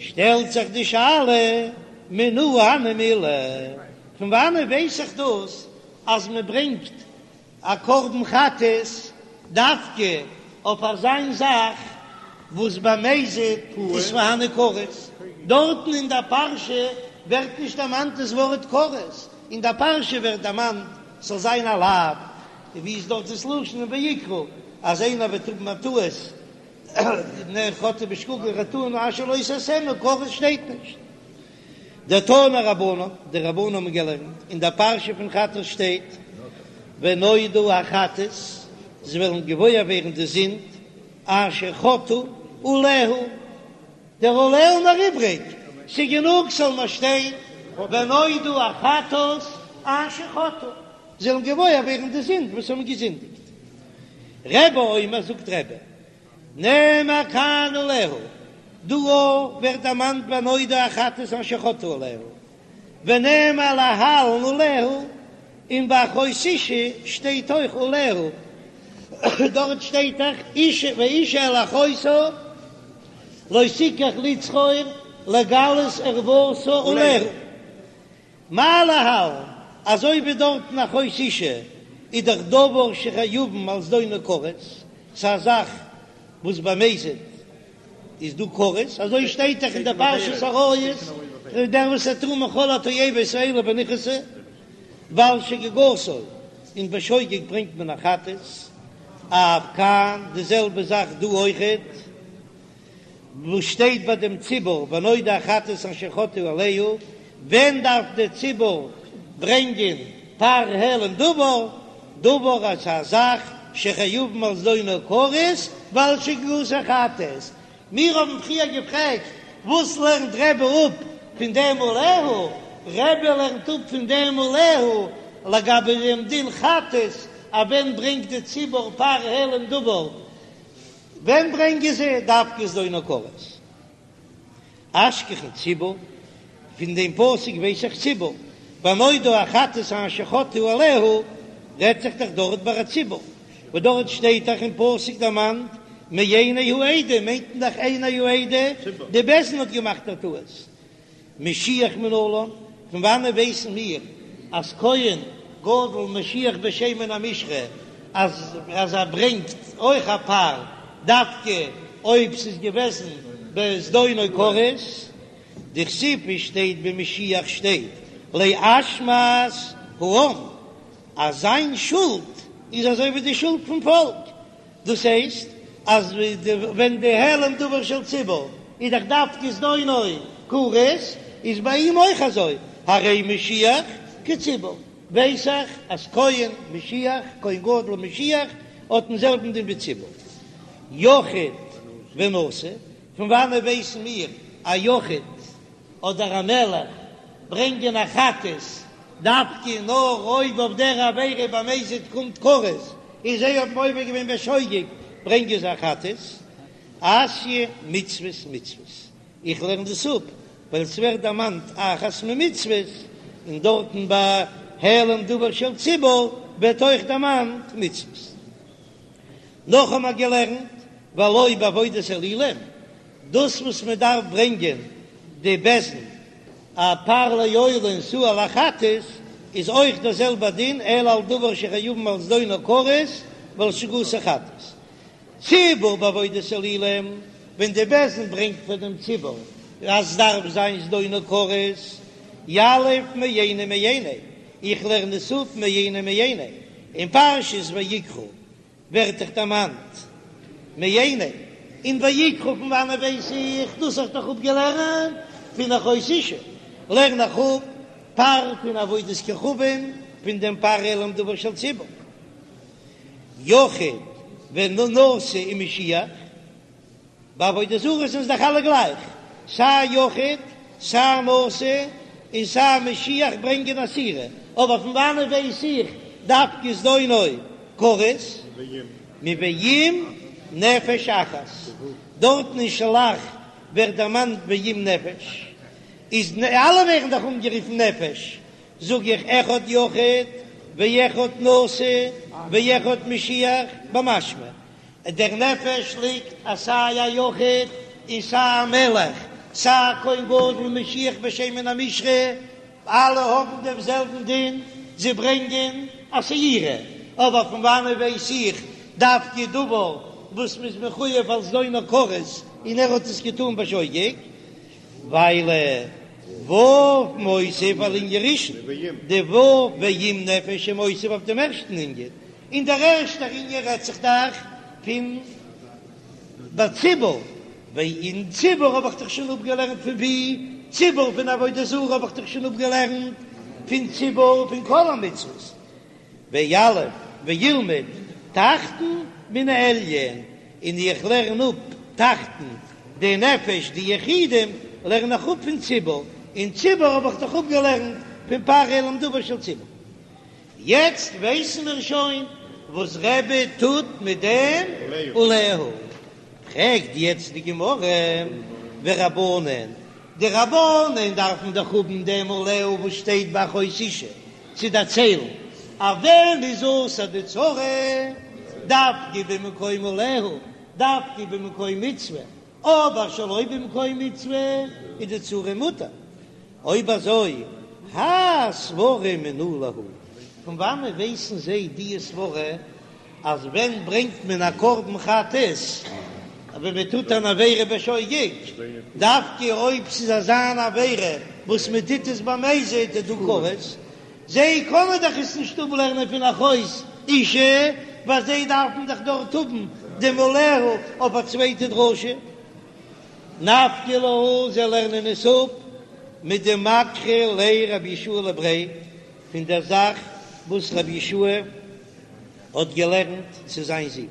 שטעלט זיך די שאלה, מנא הני מילי, פון וואנען ווייס איך דאס אז מען ברענגט א קרבן חטאת דווקא אויף אזיין זאך וואס במזיד איז פארהאן כרת? דארטן אין דער פרשה ווערט נישט דערמאנט דאס ווארט כרת, אין דער פרשה ווערט דערמאנט ס'זאל זיין א לאו, און ווי איז דארט דאס לשון אין ויקרא אז איינער וועט האבן א טעות און חטאה בשגגה חטאים אשר לא תעשינה, כרת שטייט נישט. דתנו רבנן, די רבנן האבן געלערנט, אין דער פרשה פון חטאת שטייט, ונודעה החטאת, זיי וועלן געוואויר ווערן די זינד, אשר חטאו עליה, דער עליה איז מיר איבריג, ס'איז גענוג ס'זאל נאר שטיין, ונודעה החטאת אשר חטאו, זיי וועלן געוואויר ווערן די זינד וואס האבן געזינדיגט. רבי אומר, זאגט רבי, נאמר כאן עליה, דא ווערט דערמאנט ונודעה החטאת אשר חטאו עליה, ונאמר להלן עליה, און ביי אחות אשה שטייט אויך עליה, דארט שטייט דאך אשה ואשה אל אחותה לא תקח לצרור לגלות ערותה עליה. מה להלן, אזוי ווי דארטן אחות אשה איז דאך דבר שחייבין על זדונו כרת, ס'איז א זאך וואס במזיד איז דא כרת, אזוי שטייט דאך אין די פרשת עריות, דער וואס וועט טון מכל התועבות האלה ונכרתו, ועל שגגתו, און בשוגג ברענגט מען א חטאת, אף כאן די זעלבע זאך דא אויכעט. וואס שטייט ביי דעם ציבור ונודעה החטאת אשר חטאו עליה, ווען דארף דער ציבור ברענגען פר העלם דבר, דבר אז א זאך שחייבין על זדונו כרת ועל שגגתו חטאת, מיר האבן פריער געפרעגט וואס לערנט רבי אפ פון דעם עליה, רבי לערנט אפ פון דעם עליה לגבי דעם דין חטאת אז ווען ברענגט די ציבור פר העלם דבר, ווען ברענגען זיי דווקא זדונו כרת? אשכחן ציבור, פון דעם פסוק ווייס איך ציבור, ונודעה החטאת אשר חטאו עליה, רעדט זיך דאך דארט ביי א ציבור, וואס דארט שטייט דאך אין פסוק דערמאנט מעיני העדה, מיינט מען דאך עיני העדה, די בית דין האט געמאכט א טעות, משיח מנלן, פון וואנען ווייסן מיר אז כהן גדול משיח בשמן המשחה אז אז ער ברענגט אויך א פר דווקא אויב ס'איז געוועזן בזדונו כרת? דכתיב שטייט במשיח שטייט לאשמת העם אז זיין שולד איז אזוי ווי די שולד פון פאלק, דאס הייסט אז ווען די העלם דבר של ציבור איז דאך דווקא זדונו כרת, איז ביי אים אויך אזוי, הרי משיח כציבור, ווייס איך אז כהן משיח, כהן גדול משיח, האט דעם זעלבן דין ווי ציבור. יחיד ונשיא, פון וואנעט ווייסן מיר א יחיד אדער א מלך ברענגען א חטאת דווקא נאר אויב אויף דער עבירה במזיד קומט כרת און זיי האבן עובר געווען בשוגג ברענגען זיי א חטאת. אתיא מצוות מצוות, איך לערן דאס אפ ווייל עס ווערט דערמאנט אחת ממצוות, און דארטן ביי העלם דבר של ציבור ווערט אויך דערמאנט מצוות. נאך האבן מיר געלערנט והלא בעבודת אלילים, דאס וואס מען דארף ברענגען די בית דין א פר לעולה און שעיר לחטאת איז אויך דער זעלבער דין אלא על דבר שחייבין על זדונו כרת ועל שגגתו חטאת. ציבור בעבודת אלילים, ווען די בית דין ברענגט פאר דעם ציבור אז דארף זיין זדונו כרת, יליף מעיני מעיני, איך לערן עס אפ מעיני מעיני, אין פרשת ויקרא ווערט דאך דערמאנט מעיני, און ויקרא פון וואנעט ווייס איך דאס האב איך דאך אפגעלערנט פון אחות אשה, לערן איך אפ פר פון עבודת כוכבים פון דעם פר העלם דבר של ציבור, יחיד ונשיא ומשיח. ביי עבודה זרה זענען זיי דאך אלע גלייך, סיי יחיד, סיי נשיא, און סיי משיח ברענגען א שעירה, אבער פון וואנעט ווייס איך דווקא זדונו כרת? מואם נפש אחת, דארטן אין שלח ווערט דערמאנט ואם נפש, איז אלע ווערן דאך אנגערופן נפש, זאג איך אחד יחיד ואחד נשיא ואחד משיח במשמע דער נפש ליגט אז סיי א יחיד און סיי א מלך. סיי כהן גדול משיח בשמן המשחה, אלע האבן דעם זעלבן דין, זיי ברענגען א שעירה, אבער פון וואנען ווייס איך דווקא דבר וואס מ'איז מחויב על זדונו כרת און ער האט עס געטון בשוגג? ווייל ו' מוסיף על ענין ראשון, די ו' ואם נפש איז מוסיף אויף דעם ערשטן ענין, און דער ערשטער ענין רעדט זיך דאך פון בציבור, און ציבור האב איך דאך שוין אפגעלערנט פון ווי? ציבור פון עבודה זרה האב איך דאך שוין אפגעלערנט פון ציבור פון כל המצוות, ויליף וילמד תחתון מן העליון, און איך לערן אפ תחתון די נפש די יחידים לערן איך אפ פון ציבור, און ציבור האב איך דאך אפגעלערנט פון פרעה למדבר של ציבור. יעצט ווייסן מיר שוין וואס רבי טוט מיט דעם עליה. פרעגט יעצט די גמרא, ורבנן, די רבנן דארפן דאך האבן דעם עליה וואס שטייט ביי אחות אשה צו דערציילן אז ווען איז אסור די צרה, דווקא במקום עליה, דווקא במקום מצוה, אבער שלא במקום מצוה איז די צרה מותר. אויב אזוי, האי סברא מנא להו, פון וואנען ווייסן זיי די סברא אז ווען ברענגט מען א קרבן חטאת ווען מען טוט אן עבירה בשוגג, דווקא אויב ס'איז אזא אן עבירה וואס מען טוט עס במזיד איז דא כרת, זיי קענען דאך עס נישט אפלערנען פון אחות אשה, ווייל זיי דארפן דאך דארט האבן דעם עליה אויף א צווייטע דרשה. נפקא להו, זיי לערנען עס אפ מדמקרי ליה רבי יהושע לבריה, פון דער זאך וואס רבי יהושע האט געלערנט צו זיין זון.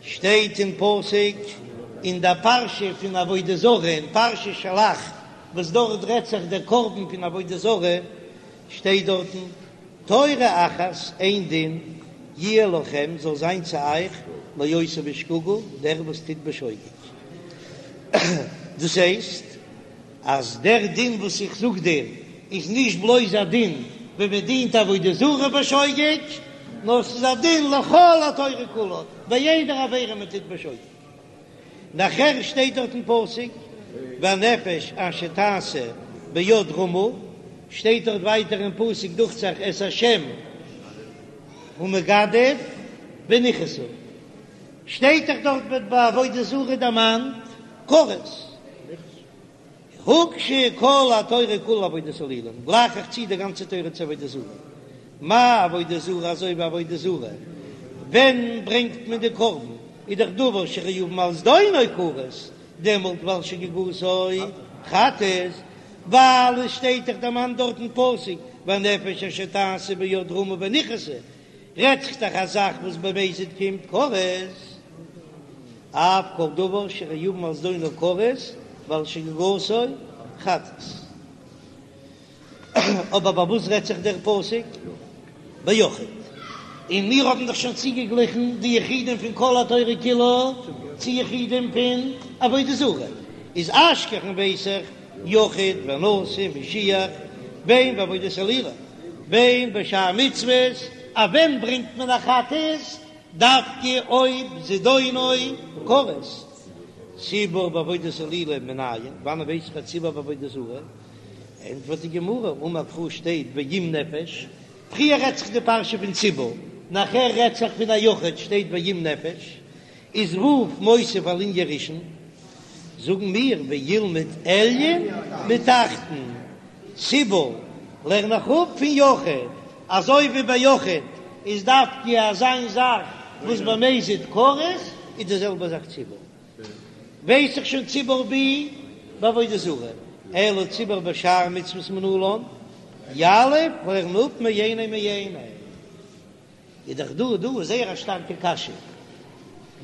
שטייט אין פסוק אין דער פרשה פון עבודה זרה אין פרשת שלח, וואס דארט רעדט זיך דער קרבן פון עבודה זרה, שטייט דארטן, תורה אחת, איין דין, יהיה לכם, זאל זיין צו אייך, לעושה בשגגה, דער וואס טוט בשוגג. דאס הייסט, אז דער דין וואס איך זאג דיר, איז נישט בלויז א דין ווען מען דינט עבודה זרה בשוגג, נאר ס'איז א דין לכל התורה כולה, ביי יעדער עבירה מען טוט בשוגג. נאכער שטייט דארט אין פסוק והנפש אשר תעשה ביד רמה, שטייט דארט ווייטער אין פסוק דוכט זיך את השם הוא מגדף ונכרתה, שטייט דאך דארט ווערט ביי עבודה זרה דערמאנט כרת. הוקשה כל התורה כולה לעבודת אלילים, גלייך איך צו די גאנצע תורה צו עבודה זרה. מה עבודה זרה אזוי ווי עבודה זרה, ווען ברענגט מען די קרבן, איז דאך דבר שחייבין על זדונו כרת, דעמאלט ועל שגגתו חטאת, ווייל עס שטייט דאך דערמאנט דארט אין פסוק והנפש אשר תעשה ביד רמה ונכרתה, רעדט זיך דאך א זאך וואס במזיד קומט כרת. אף כל דבר שחייבין על זדונו כרת ועל שגגתו חטאת. אבער ביי וואס רעדט זיך דער פסוק? ביחיד. און מיר האבן דאך שוין צוגעגליכן די יחידים פון כל התורה כולה צו יחידים פון עבודה זרה. איז אשכחן ווייס איך יחיד ונשיא משיח בין בעבודת אלילים בין בשאר מצוות, אז ווען ברענגט מען א חטאת? דווקא אויב זדונו כרת. ציבור בעבודת אלילים מנין, וואנען ווייס איך א ציבור בעבודה זרה? ענטפערט די גמרא, אמר קרא שטייט ואם נפש, פריער רעדט זיך די פרשה פון ציבור, נאכער רעדט זיך פון א יחיד, שטייט ואם נפש, איז ו' מוסיף על ענין ראשון, זאגן מיר וילמד עליון מתחתון, ציבור לערן איך אפ פון יחיד, אזוי ווי ביי יחיד איז דווקא אזא זאך וואס במזיד כרת, איז די זעלבע זאך ציבור, ווייס איך שוין ציבור בי בעבודה זרה, אלא ציבור בשאר מצוות מנלן, יליף לערן אפ מאינו מאינו. איז דאך דא דא זייער א שטארקע קשיא,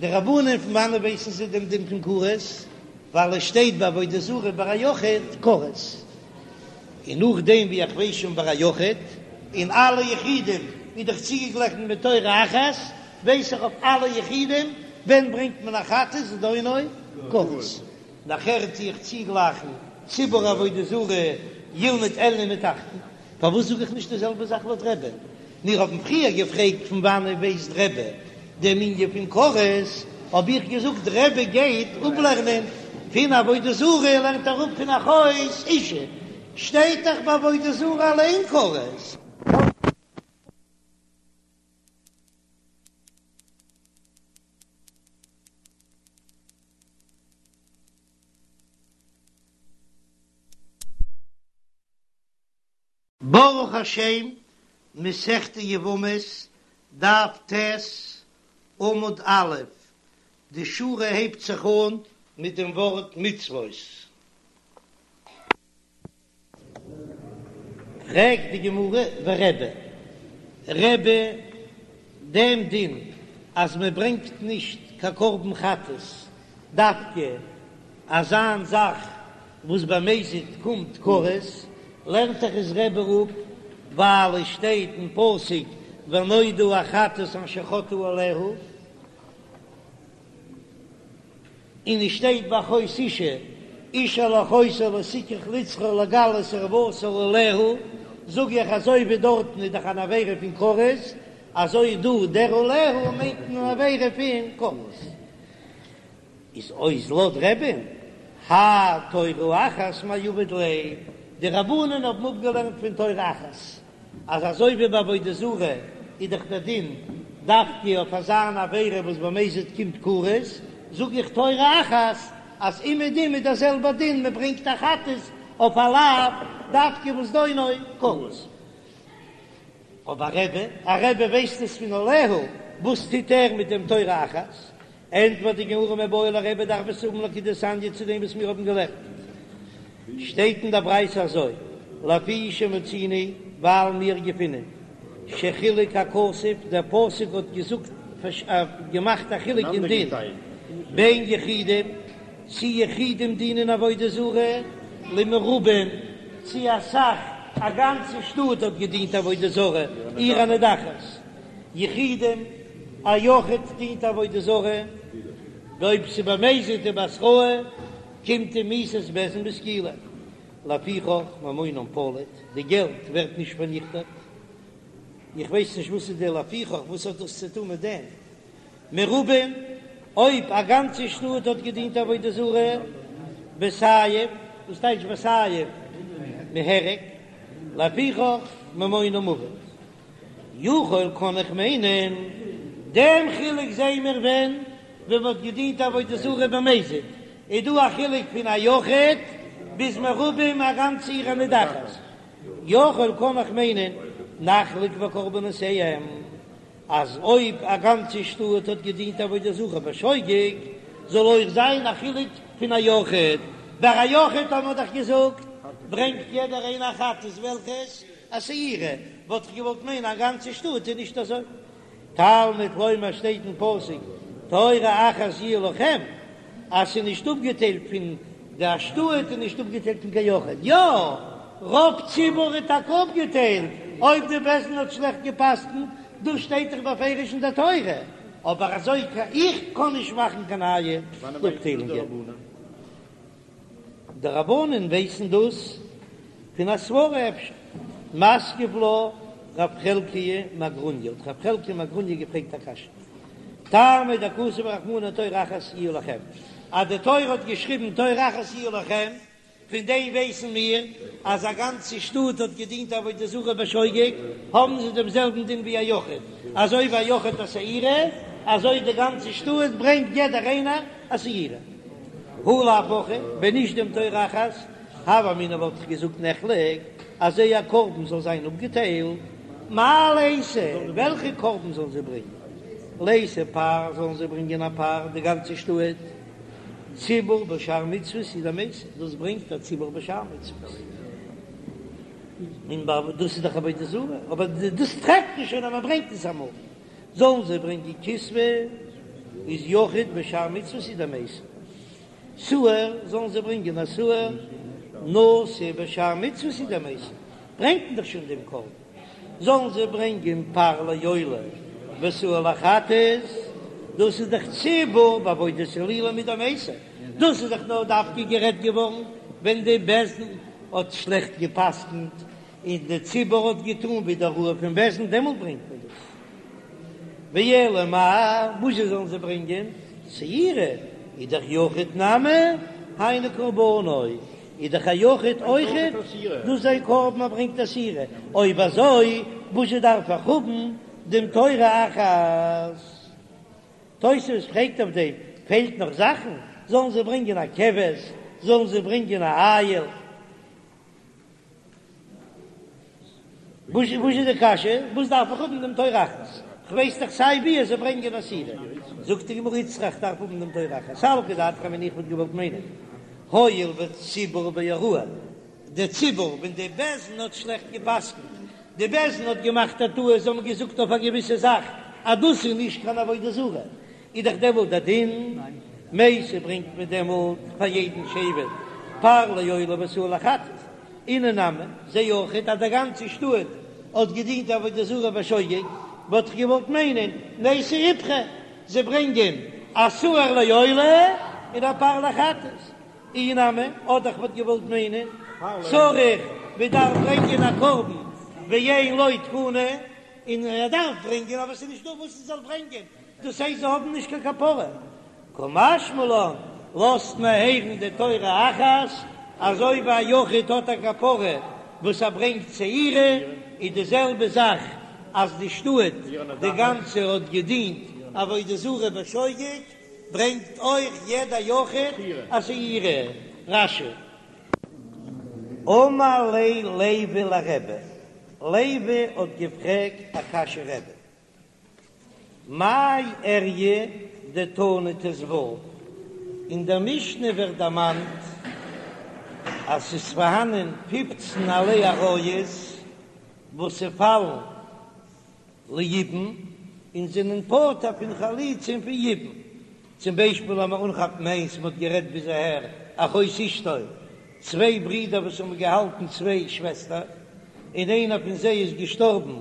די רבנן פון וואנען ווייסן זיי דעם דין פון כרת, ווייל עס שטייט ביי עבודה זרה ביי א יחיד כרת, און נאכדעם ווי איך ווייס שוין ביי א יחיד, און אלע יחידים איז דאך צוגעגליכן מיט תורה אחת, ווייס איך אויף אלע יחידים ווען ברענגט מען א חטאת זדונו כרת. נאכער טו איך צוגלייכן ציבור עבודה זרה ילמד עליון מתחתון. פארוואס זאג איך נישט די זעלבע זאך לויט רבי? מיר האבן פריער געפרעגט פון וואנען ווייסט רבי דעם ענין פון כרת, האב איך געזאגט רבי גייט אפלערנען. פון עבודה זרה לערנט ער אפ פון אחות אשה, שטייט דאך ביי עבודה זרה אליין כרת. ברוך השם, מסכת יבמות, דף ט', עמוד א', די שורה הייבט זיך אן מיט דעם ווארט מצוות. פרעגט די גמרא ורבי, רבי, דעם דין אז מען ברענגט נישט קיין קרבן חטאת דווקא אזא מין זאך וואס במזיד קומט כרת, לערנט דאך עס רבי אפ ווייל עס שטייט אין פסוק ונודעה החטאת אשר חטאו עליה, און עס שטייט ביי אחות אשה, איש אל אחותו לא תקח לצרור לגלות ערותה עליה, זאג איך אזוי ווי דארטן איז דאך אן עבירה פון כרת, אזוי דא דער עליה מיינט מען אן עבירה פון כרת. איז אויס לויט רבי'ן, האי תורה אחת מאי עביד ליה, די רבנן האבן אפגעלערנט פון תורה אחת, אז אזוי ווי ביי עבודה זרה איז דאך דער דין דווקא אויף אזא אן עבירה וואס במזיד קומט כרת, זאג איך תורה אחת אז אומעדום איז דער זעלבער דין מען ברענגט א חטאת אויף א לאו דווקא וואס דינו כרת. אבער רבי, א רבי ווייסט עס פון עליה, וואס טוט ער מיט דעם תורה אחת? ענטפערט די גמרא מיבעי ליה רבי דארף עס האבן לכדתניא צו דעם וואס מיר האבן געלערנט שטייט אין דער ברייתא אזוי לפי שמצינו ווייל מיר געפינען שחילק הכתוב דער פסוק האט געזאגט געמאכט א חילוק אין דין בין יחידים צי יחידים דינען עבודה זרה למרובים צי אסאך א גאנצע שטאט האט געדינט עבודה זרה עיר הנידחת. יחידים, א יחיד דינט עבודה זרה, ואויב ס'איז במזיד ובהתראה, קומט אים מיתת בית דין בסקילה. לפיכך ממונם פליט, די געלט ווערט נישט פארניכטעט. איך ווייס נישט וואס איז די לפיכך, וואס האט דאס צו טון מיט דעם? מרובים, אויב א גאנצע שטאט האט געדינט עבודה זרה, בסייף, וואס טייטש בסייף? מהרג, לפיכך ממונם אבד. יכול קען איך מיינען דעם חילוק זעהן מיר ווען ווען מ'האט געדינט עבודה זרה במזיד איז דא א חילוק פון א יחיד ביז מרובים א גאנצע עיר הנידחת יכול קען איך מיינען נחלוק בקרבנותיהם אז אויב א גאנצע שטאט האט געדינט עבודה זרה בשוגג זאל אויך זיין א חילוק פון א יחיד ביי א יחיד האט מען דאך געזאגט ברענגט יעדער איינער א חטאת וועלכעס א שעירה, וואלט איך געוואלט מיינען א גאנצע שטאט איז נישט אזוי. תלמוד לומר שטייט אין פסוק תורה אחת יהיה לכם, אז ס'איז נישט אפגעטיילט פון די א שטאט איז נישט אפגעטיילט פון קיין יחיד, יא רוב ציבור איז טאקע אפגעטיילט אויב די בית דין האט שלעכט גע'פסק'נט, דאס שטייט דאך בפירוש אין די תורה, אבער אזוי איך קען נישט מאכן קיין נייע אפטיילונגען. די רבנן ווייסן דאס פון א סברא אפשר. מתקיף לה רב חלקיה מגרוניא, האט רב חלקיה מגרוניא געפרעגט א קשיא, טעמא דכתב רחמנא תורה אחת יהיה לכם, אז די תורה האט געשריבן תורה אחת יהיה לכם, פון דעם ווייסן מיר אז א גאנצע שטאט האט געדינט עבודה זרה בשוגג, האבן זיי דעם זעלבן דין ווי א יחיד, אזוי ווי א יחיד א שעירה, אזוי די גאנצע שטאט ברענגט יעדער איינער א שעירה. הא לאו הכי, ווען נישט דעם תורה אחת, הוה אמינא וואלט איך געזאגט נחלק, אז זייער קרבן זאל זיין אפגעטיילט, מאי ליתו, וועלכע קרבן זאלן זיי ברענגען? ליתו פר, זאלן זיי ברענגען א פר, די גאנצע שטאט, ציבור בשאר מצוות הוא דמייתי, דאס ברענגט א ציבור בשאר מצוות, און דאס איז דאך עבודה זרה, אבער דאס טרעפט מען שוין אז מען ברענגט עס אמאל. זאלן זיי ברענגען כשבה איז יחיד בשאר מצוות הוא דמייתי, שעיר זאלן זיי ברענגען א שעיר נשיא בשאר מצוות הוא דמייתי, ברענגט מען דאך שוין דעם קרבן, זאלן זיי ברענגען פר לעולה ושעיר לחטאת, דאס איז דאך ציבור בעבודת אלילים הוא דמייתי, דאס איז דאך נאר דווקא גערעדט געווארן ווען די בית דין האט שלעכט גע'פסק'נט און די ציבור האט געטאן ווי די הוראה פון בית דין, דעמאלט ברענגט מען דאס. ואלא מאי, וואס זשע זאלן זיי ברענגען? שעירה איז דאך יחיד נמי. היינו קרבנו, איז דאך א יחיד אויכעט דאס זיין קרבן ער ברענגט א שעירה, אויב אזוי וואזשע דארף איך האבן דעם תורה אחת? תוספות פרעגט אויף דעם, פעלט נאך זאכן? זאלן זיי ברענגען א כבש? זאלן זיי ברענגען א איל? וואס איז די קשיא? וואס דארף איך האבן דעם תורה אחת? כ'ווייס דאך סיי ווי אז זיי ברענגען א שעירה. זאגט די גמרא איצטריך דארף האבן דעם תורה אחת. סלקא דעתך אמינא איך וואלט געוואלט מיינען הואיל וציבור בהוראה, די ציבור ווען די בית דין האט שלעכט גע'פסק'נט, די בית דין האט געמאכט א טעות, זיי האבן געזאגט אויף א געוויסע זאך אז דאס איז נישט קיין עבודה זרה, איז דאך דעמאלט דער דין מייתי ברענגט מען דעמאלט פאר יעדן שבט פר לעולה ושעיר לחטאת, אינהו נמי זיי אויכעט אז די גאנצע שטאט האט געדינט עבודה זרה בשוגג, וואלט איך געוואלט מיינען נייתי איפכא, זיי ברענגען א שעיר לעולה און א פר לחטאת, אי נמי, אדער איך וואלט געוואלט מיינען צריך מען דארף ברענגען א קרבן ואין לו תקנה, און ער דארף ברענגען אבער ס'איז נישטא וואס ער זאל ברענגען, דאס הייסט זיי האבן נישט קיין כפרה, קא משמע לן, לאזט מען הערן די תורה אחת, אזוי ווי א יחיד האט א כפרה וואס ער ברענגט שעירה, איז די זעלבע זאך אז די שטאט די גאנצע האט געדינט עבודה זרה בשוגג, ברענגט אויך יעדע יחיד א שעירה. רש"י. אמר ליה לוי לרבי, לוי האט געפרעגט א קשיא רבי. מאי איריא דתנא ט"ו, אין דער משנה ווערט דערמאנט אז ס'איז פארהאנען פופצן עלי עריות וואס ס'פאלן ליבום און זענען פטור פון חליצה און פון יבום, צום ביישפיל לאמיר אנכאפן איינס, מ'האט גערעדט ביז אהער, אחות אשתו, צוויי ברידער וואס האבן געהאלטן צוויי שוועסטער, און איינער פון זיי איז געשטארבן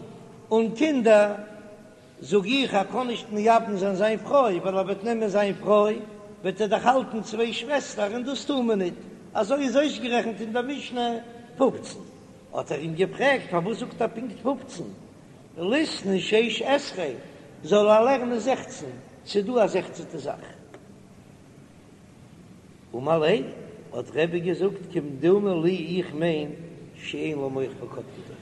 אן קינדער, זאג איך ער קען נישט מייבם זיין זיין פרוי, ווייל ער וועט נעמען זיין פרוי וועט ער דאך האלטן צוויי שוועסטער און דאס טאר מען ניט, אזוי איז אויסגערעכנט אין דער משנה פופצן. האט ער אים געפרעגט פארוואס זאגט ער פונקט פופצן, ליתני שש עשרה, זאל ער לערנען זעכצן, ס'איז דא א זעכצענטע זאך. אמר ליה, האט רבי געזאגט, כמדומה לי איך מיין שאין לו מח בקדקדו,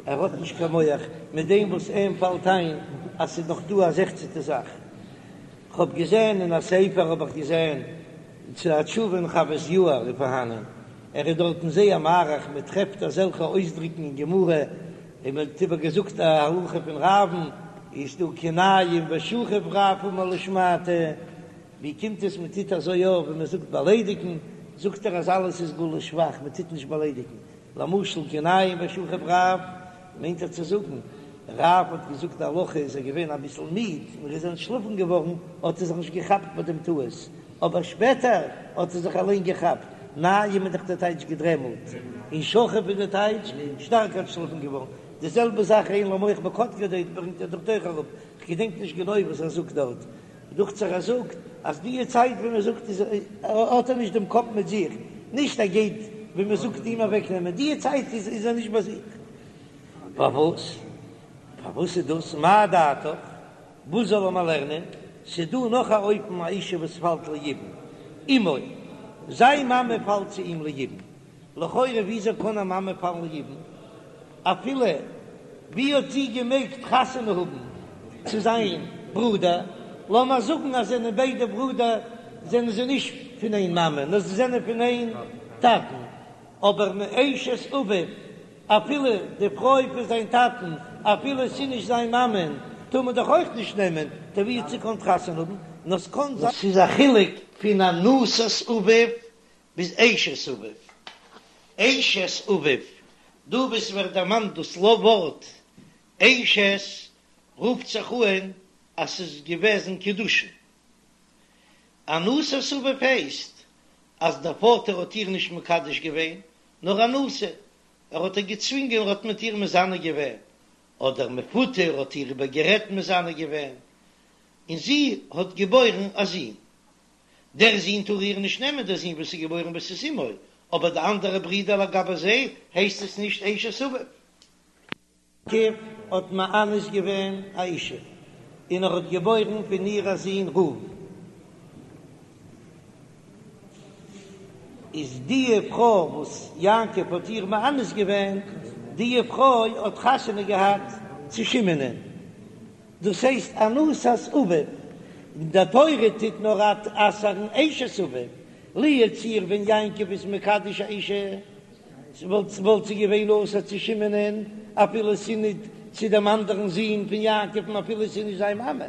ער האט נישט קיין מח מיט דעם וואס אים פאלט איין אז ס'איז נאך דא א זעכצענטע זאך. כ'האב געזען אין א ספר האב איך געזען צו א תשובה אין חוות יאיר איז פארהאנען, ער איז דארטן זייער מאריך, מען טרעפט אזעלכע אויסדריקן אין גמרא, און מען האט איבער געזאגט א הלכה פון רב'ן, איז דא כי ניים ושכיב רב אמר לשמעתיה, ווי קומט עס מען טוט אזוי יא ווען מען זאגט באליידיגן, זאגט ער אז אלעס איז גלוי שבח, מען טוט נישט באליידיגן, למשל כי ניים ושכיב רב, מיינט ער צו זאגן, רב האט געזאגט די הלכה איז ער געווען אביסל מיד און ער איז אנטשלאפן געווארן, האט ער זיך נישט געכאפט ביי דעם טעות, אבער שפעטער האט ער זיך אליין געכאפט, ניים איז דאך די טייטש געדרעמלט, און שכיב איז די טייטש שטארק אנטשלאפן געווארן, די זעלבע זאך אין לו מח בקדקדו ברענגט ער דארט אויך אראפ, כ'געדענק נישט גענוי וואס ער זאגט דארט, דוכט זיך ער זאגט אז די צייט ווען מען זאגט איז האט ער נישט דעם קאפ מיט זיך, נישט ער גייט ווען מען זאגט אים אוועק נעמען, די צייט איז איז ער נישט ביי זיך. פארוואס? פארוואס איז דאס? מה דעתך? וואס זאל ער מיר לערנען? ס'איז דא נאך א אופן א אישה וואס פאלט ליבום, אמו, זיין מאמע פאלט צו אים ליבום, לכאורה וויאזוי קען א מאמע פאלן ליבום? אפילו ווי האט זי געמעגט חתונה האבן צו זיין ברודער? לאמיר זאגן אז זענען ביידע ברודער זענען זיי נישט פון איין מאמע נאר זיי זענען פון איין טאטן, אבער מאשת אביו אפילו די פרוי פון זיין טאטן אפילו ס'איז נישט זיין מאמען טאר מען דאך אויך נישט נעמען, טא ווי האט זי געקאנט חתונה האבן? נאר ס'קאן זיין. ס'איז א חילוק פון אנוסת אביו ביז אשת אביו. אשת אביו, דא וואו ס'ווערט דערמאנט דאס לא ווארט אשת רופט זיך אהן אז ס'איז געוועזן קידושין. אנוסת אביו הייסט אז דער פאטער האט איר נישט מקדש געווען, נאר אנוסה, ער האט איר געצווינגען ער האט מיט איר מזנה געווען, אדער מפותה ער האט איר איבערגערעדט מזנה געווען, און זי האט געבוירן א זון. דער זון טאר איר נישט נעמען, דער זון וואס איז געבוירן וואס איז אמו, אבער די אנדערע ברידער לגבי זיי הייסט עס נישט אשת אביו. יעקב האט מאנס געווען א אישה, און ער האט געבוירן פון איר א זון ראובן. איז די פרוי וואס יעקב האט איר מאנס געווען, די פרוי האט חתונה געהאט צו שמעונ'ען, דאס הייסט אנוסת אביו, די תורה טוט נאר אסר'ן אשת אביו, לו יצוייר ווען יעקב איז מקדש א אישה, וואלט זי געווען אסור צו שמעונ'ען אפילו ס'איז ניט צו דעם אנדערן זון פון יעקב'ן אפילו ס'איז נישט זיין מאמע,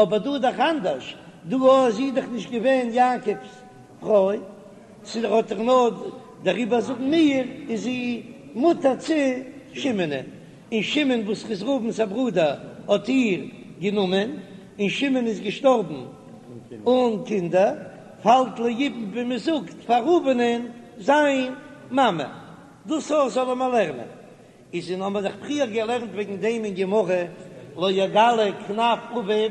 אבער דא איז דאך אנדערש, דא איז זי דאך נישט געווען יעקב'ס פרוי, ס'איז האט דאך נאר דעריבער זאגן מיר איז זי מותר צו שמעונ'ען, און שמעון וואס איז ראובן'ס א ברודער האט איר גענומען, און שמעון איז געשטארבן אן קינדער, פאלט ליבום ווי מען זאגט פאר ראובן'ען זיין מאמע. דאס אויך זאלן מיר לערנען. איז און האמיר דאך פריער געלערנט וועגן דעם אין גמרא לא יגלה כנף אביו,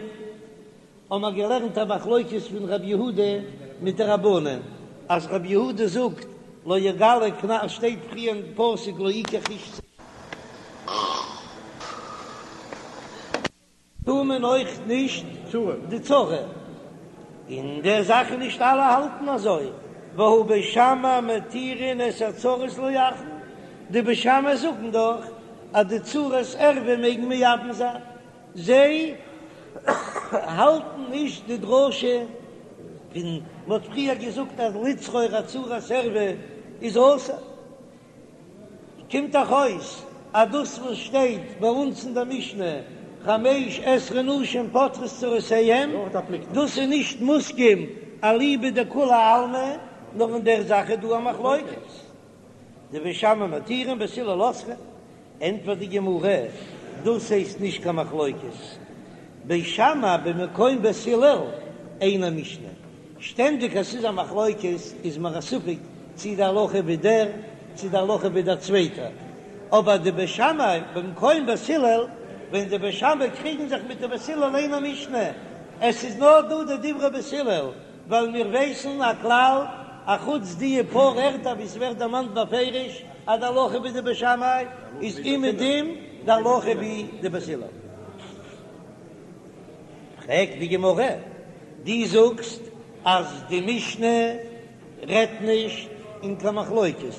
האמיר געלערנט א מחלוקת פון רב יהודה מיט די רבנן, אז רב יהודה זאגט לא יגלה כנף, שטייט פריער אין פסוק לא יקח איש. טאר מען אויך נישט די צרה, אין דער זאך איז נישט אלע האלטן אזוי, והא בית שמאי מתירין את הצרות לאחין, די בית שמאי זאגן דאך אז די צרות ערווה מעגן מייבם זיין, זיי האלטן נישט די דרשה פון מ'האט פריער געזאגט אז לצרור א צרת ערווה איז אסור. קומט דאך אויס אז דאס וואס שטייט ביי אונז אין דער משנה חמש עשרה נשים פוטרות צרותיהן, דאס איז נישט מוסכם אליבא דכולי עלמא, נאר אין דער זאך איז דא א מחלוקת. דבית שמאי מתירין בית הלל אוסרין, ענטפערט די גמרא, דאס הייסט נישט קיין מחלוקת, בית שמאי במקום בית הלל אינה משנה, שטענדיג אז ס'איז א מחלוקת איז מיר א ספק צי די הלכה ווי דער צי די הלכה ווי דער צווייטער, אבער די בית שמאי במקום בית הלל, ווען די בית שמאי קריגן זיך מיט די בית הלל אינה משנה, עס איז נאר דא די דברי בית הלל, ווייל מיר ווייסן א כלל, אחוץ די פאר ערטער ווי ס'ווערט דערמאנט בפירוש אז די הלכה ווי די בית שמאי איז אומעדום די הלכה ווי די בית הלל. פרעגט די גמרא, דו זאגסט אז די משנה רעדט נישט אין קיין מחלוקת,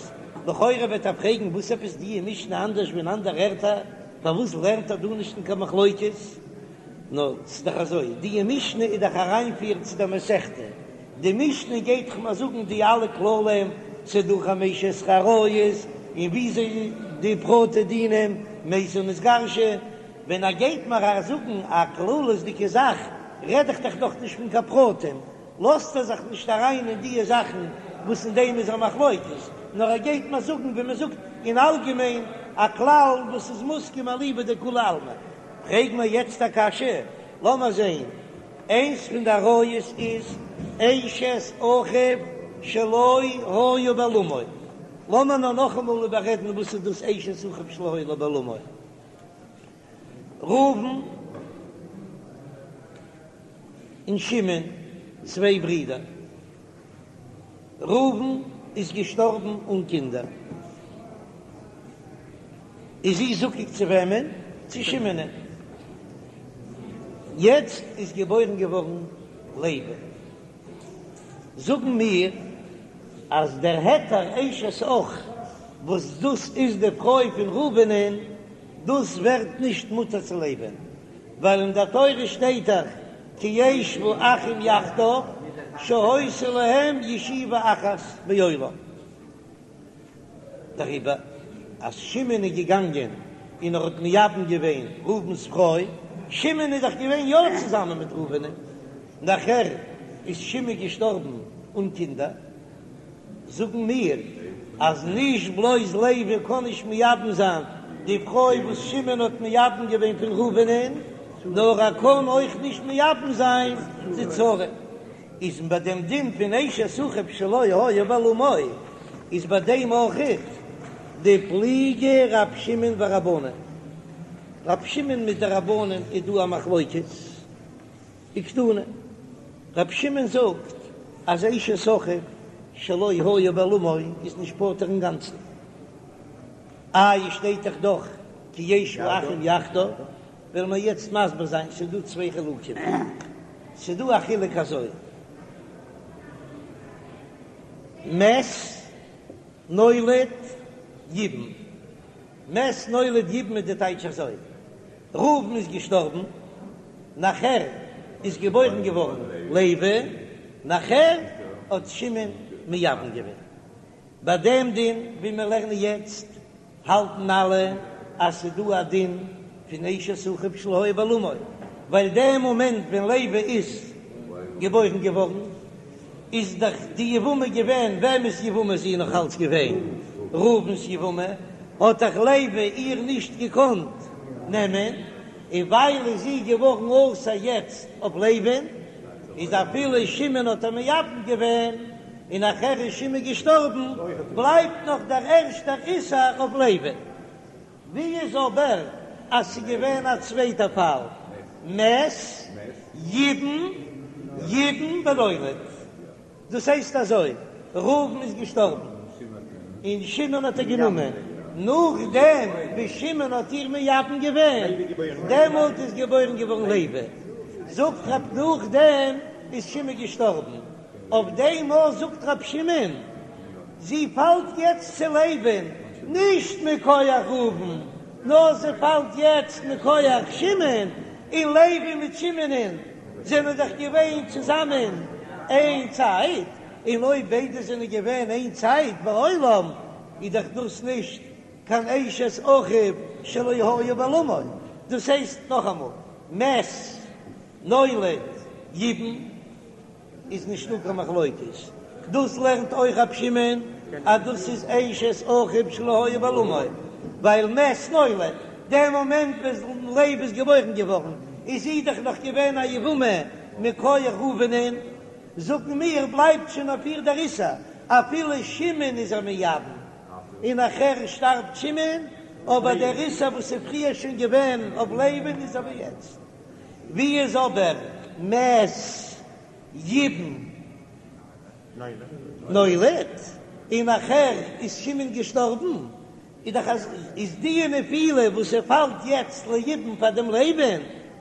לכאורה וועט ער פרעגן וואס עפעס די משנה אנדערש ווי אין אנדערע ערטער, פארוואס לערנט ער דא נישט אין קיין מחלוקת? נאר ס'איז דאך אזוי, די משנה איז דאך אריינפיר צו דער מסכתא, די משנה גייט דאך מיר זאגן די אלע כללים, ס'איז דא חמש עשרה עריות, און וויאזוי די פרטי דינים, מתה נתגרשה, ווען ער גייט מיר זאגן א כללות'דיגע זאך, רעד איך דאך נאך נישט פון קיין פרטים, לאזט ער זיך נישט אריין אין דיע זאכן וואס אין דעם איז א מחלוקת, נאר ער גייט מיר זאגן ווי מען זאגט אין אלגעמיין א כלל וואס איז מוסכם אליבא דכולי עלמא. פרעג מיר יעצט א קשיא, לאמיר זען, איינס פון די עריות איז אשת אחיו שלא היה בעולמו, לאמיר נאר נאכאמאל איבעררעדן וואס איז דאס אשת אחיו שלא היה בעולמו. ראובן און שמעון, צוויי ברידער. ראובן איז געשטארבן אן קינדער. איז זי זקוק צו וועמען? צו שמעונ'ען. יעצט איז געבוירן געווארן לוי. זאגן מיר אז דער היתר אשת אח וואס דאס איז די פרוי פון ראובנ'ען, דאס ווערט נישט מותר צו לוי'ן, ווייל אין דער תורה שטייט דאך כי ישבו אחים יחדיו שהיתה להם ישיבה אחת בעולם. דעריבער אז שמעון איז געגאנגען און ער האט מייבם געווען ראובן'ס פרוי, שמעון איז דאך געווען יא צוזאמען מיט ראובן'ען, נאכער איז שמעון געשטארבן אן קינדער, זאגן מיר אז נישט בלויז לוי קען נישט מייבם זיין די פרוי וואס שמעון האט מייבם געווען פון ראובן'ען, נאר ער קען אויך נישט מייבם זיין די צרה. איז ביי דעם דין פון אשת אחיו שלא היה בעולמו איז ביי דעם אויכעט דפליגי רב שמעון ורבנן, רב שמעון מיט די רבנן איז דא א מחלוקת, וקתני, רב שמעון זאגט אז אשת אחיו שלא היה בעולמו איז נישט פטור אינגאנצן, איי שטייט דאך דאך כי ישבו אחים יחדיו, וועלן מיר יעצט מסביר זיין, ס'איז דא צוויי חילוקים, ס'איז דא א חילוק אזוי. מת נולד יבם, מת נולד יבם איז די טייטש אזוי, ראובן איז געשטארבן, נאכער איז געבוירן געווארן לוי, נאכער האט שמעון מייבם געווען. ביי דעם דין ווי מיר לערנען יעצט האלטן אלע אז ס'איז דא א דין פון אשת אחיו שלא היה בעולמו, ווייל דעם מאמענט ווען לוי איז געבוירן געווארן איז דאך די יבמה געווען, וועמענס יבמה איז זי נאך אלץ געווען? ראובן'ס יבמה, האט דאך לוי איר נישט געקאנט נעמען, און ווייל איז זי געווארן אסור יעצט אויף לוי'ן, איז אפילו שמעון האט איר מייבם געווען, און נאכער איז שמעון געשטארבן, בלייבט נאך דער ערשטער איסור אויף לוי'ן. ווי איז אבער אז ס'איז געווען א צווייטע פאל, מת ייבם ייבם ונולד, דאס הייסט אזוי, ראובן איז געשטארבן און שמעון האט איר גענומען, נאכדעם ווי שמעון האט איר מייבם געווען, דעמאלט איז געבוירן געווארן לוי, זאגט רב נאכדעם איז שמעון געשטארבן, אויף דעם אויך זאגט רב שמעון, זי פאלט יעצט צו לוי'ן, נישט מכח ראובן, נאר זי פאלט יעצט מכח שמעון, און לוי מיט שמעונ'ען זענען דאך געווען צוזאמען איין צייט, און אויב ביידע זענען געווען איין צייט בעולם, איז דאך דאס נישט קיין אשת אחיו שלא היה בעולמו, דאס הייסט נאכאמאל, מת נולד ייבם. איז נישטא קיין מחלוקת, דאס לערנט אויך רב שמעון אז דאס איז אשת אחיו שלא היה בעולמו, ווייל מת נולד, דער מאמענט ווען לוי איז געבוירן געווארן איז זי דאך נאך געווען א יבמה מכח ראובנ'ען, זאגן מיר בלייבט שוין אויף איר דער איסור אפילו שמעון איז איר מייבם, און נאכער שטארבט שמעון, אבער דער איסור וואס איז פריער שוין געווען אויף לוי'ן איז אבער יעצט. ווי איז אבער מת ייבם נולד און נאכער איז שמעון געשטארבן, איז דאך אז איז די נפילה וואס ער פאלט יעצט ליבום פאר דעם לוי'ן,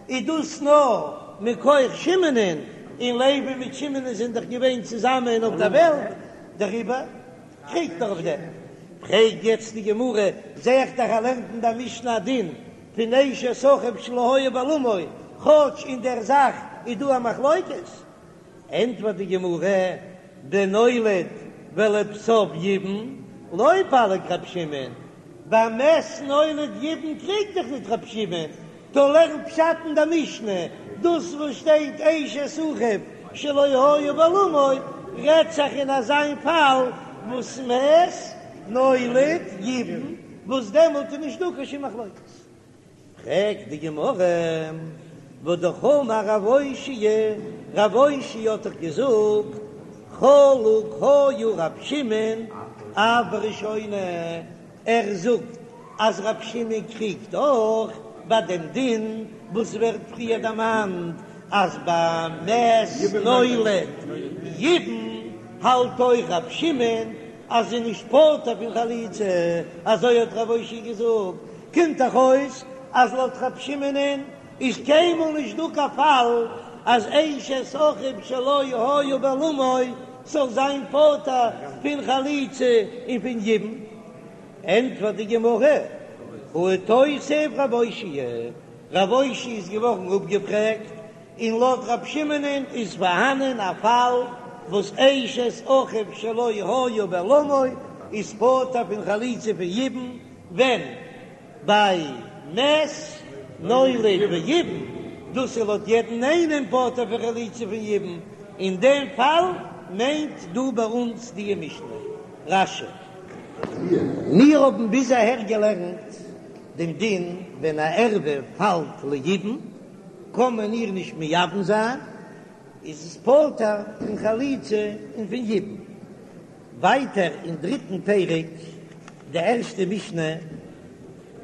איז דאס נאר מכח שמעונ'ען, און לוי מיט שמעונ'ען זענען דאך געווען צוזאמען אויף דער וועלט, דעריבער קריגט ער אויף דעם. פרעגט יעצט די גמרא, זע איך דאך ער לערנט אין דער משנה א דין פון אשת אחיו שלא היה בעולמו, כאטש אין דער זאך איז דא א מחלוקת, ענטפערט די גמרא, בנולד ולבסוף ייבם, לא פליג רב שמעון, ביי מת נולד ייבם קריגט דאך ניט רב שמעון, טא לערן פשט אין דער משנה, דאס וואס שטייט אשת אחיו שלא היה בעולמו, רעדט זיך אין אזיין פאל וואס מת נולד ייבם. וואס דעמאלט איז נישט דא קיין שום מחלוקת. פרעגט די גמרא, והא אמר רב אושעיא, רב אושעיא האט דאך געזאגט, חלוק היה רב שמעון אף בראשונה, ער זאגט אז רב שמעון קריגט אויך ביי דעם דין וואס ווערט פריער דערמאנט אז ביי מת נולד ייבם האלט אויך רב שמעון אז זי איז נישט פטור פון חליצה, אזוי האט רב אושעיא געזאגט, קומט דאך אויס אז לויט רב שמעונ'ען איז קיינמאל נישט דא קיין פאל אז אשת אחיו שלא היה בעולמו זאל זיין פטור פון חליצה און פון יבום. ענטפערט די גמרא, הא איתותב רב אושעיא, רב אושעיא איז געווארן אפגעפרעגט און לויט רב שמעונ'ען איז פארהאנען א פאל וואס אשת אחיו שלא היה בעולמו איז פטור פון חליצה פון יבום, ווען ביי מת נולד ויבם, דאס איז לויט יעדן איינעם פטור פון חליצה פון יבום, אין דעם פאל מיינט דא ביי אונז די משנה. רש"י. מיר האבן ביז אהער געלערנט דעם דין ווען א ערווה פאלט ליבום. קען מען איר נישט מייבם זיין, איז עס פטור פון חליצה און פון יבום. ווייטער אין דריטן פרק, די ערשטע משנה,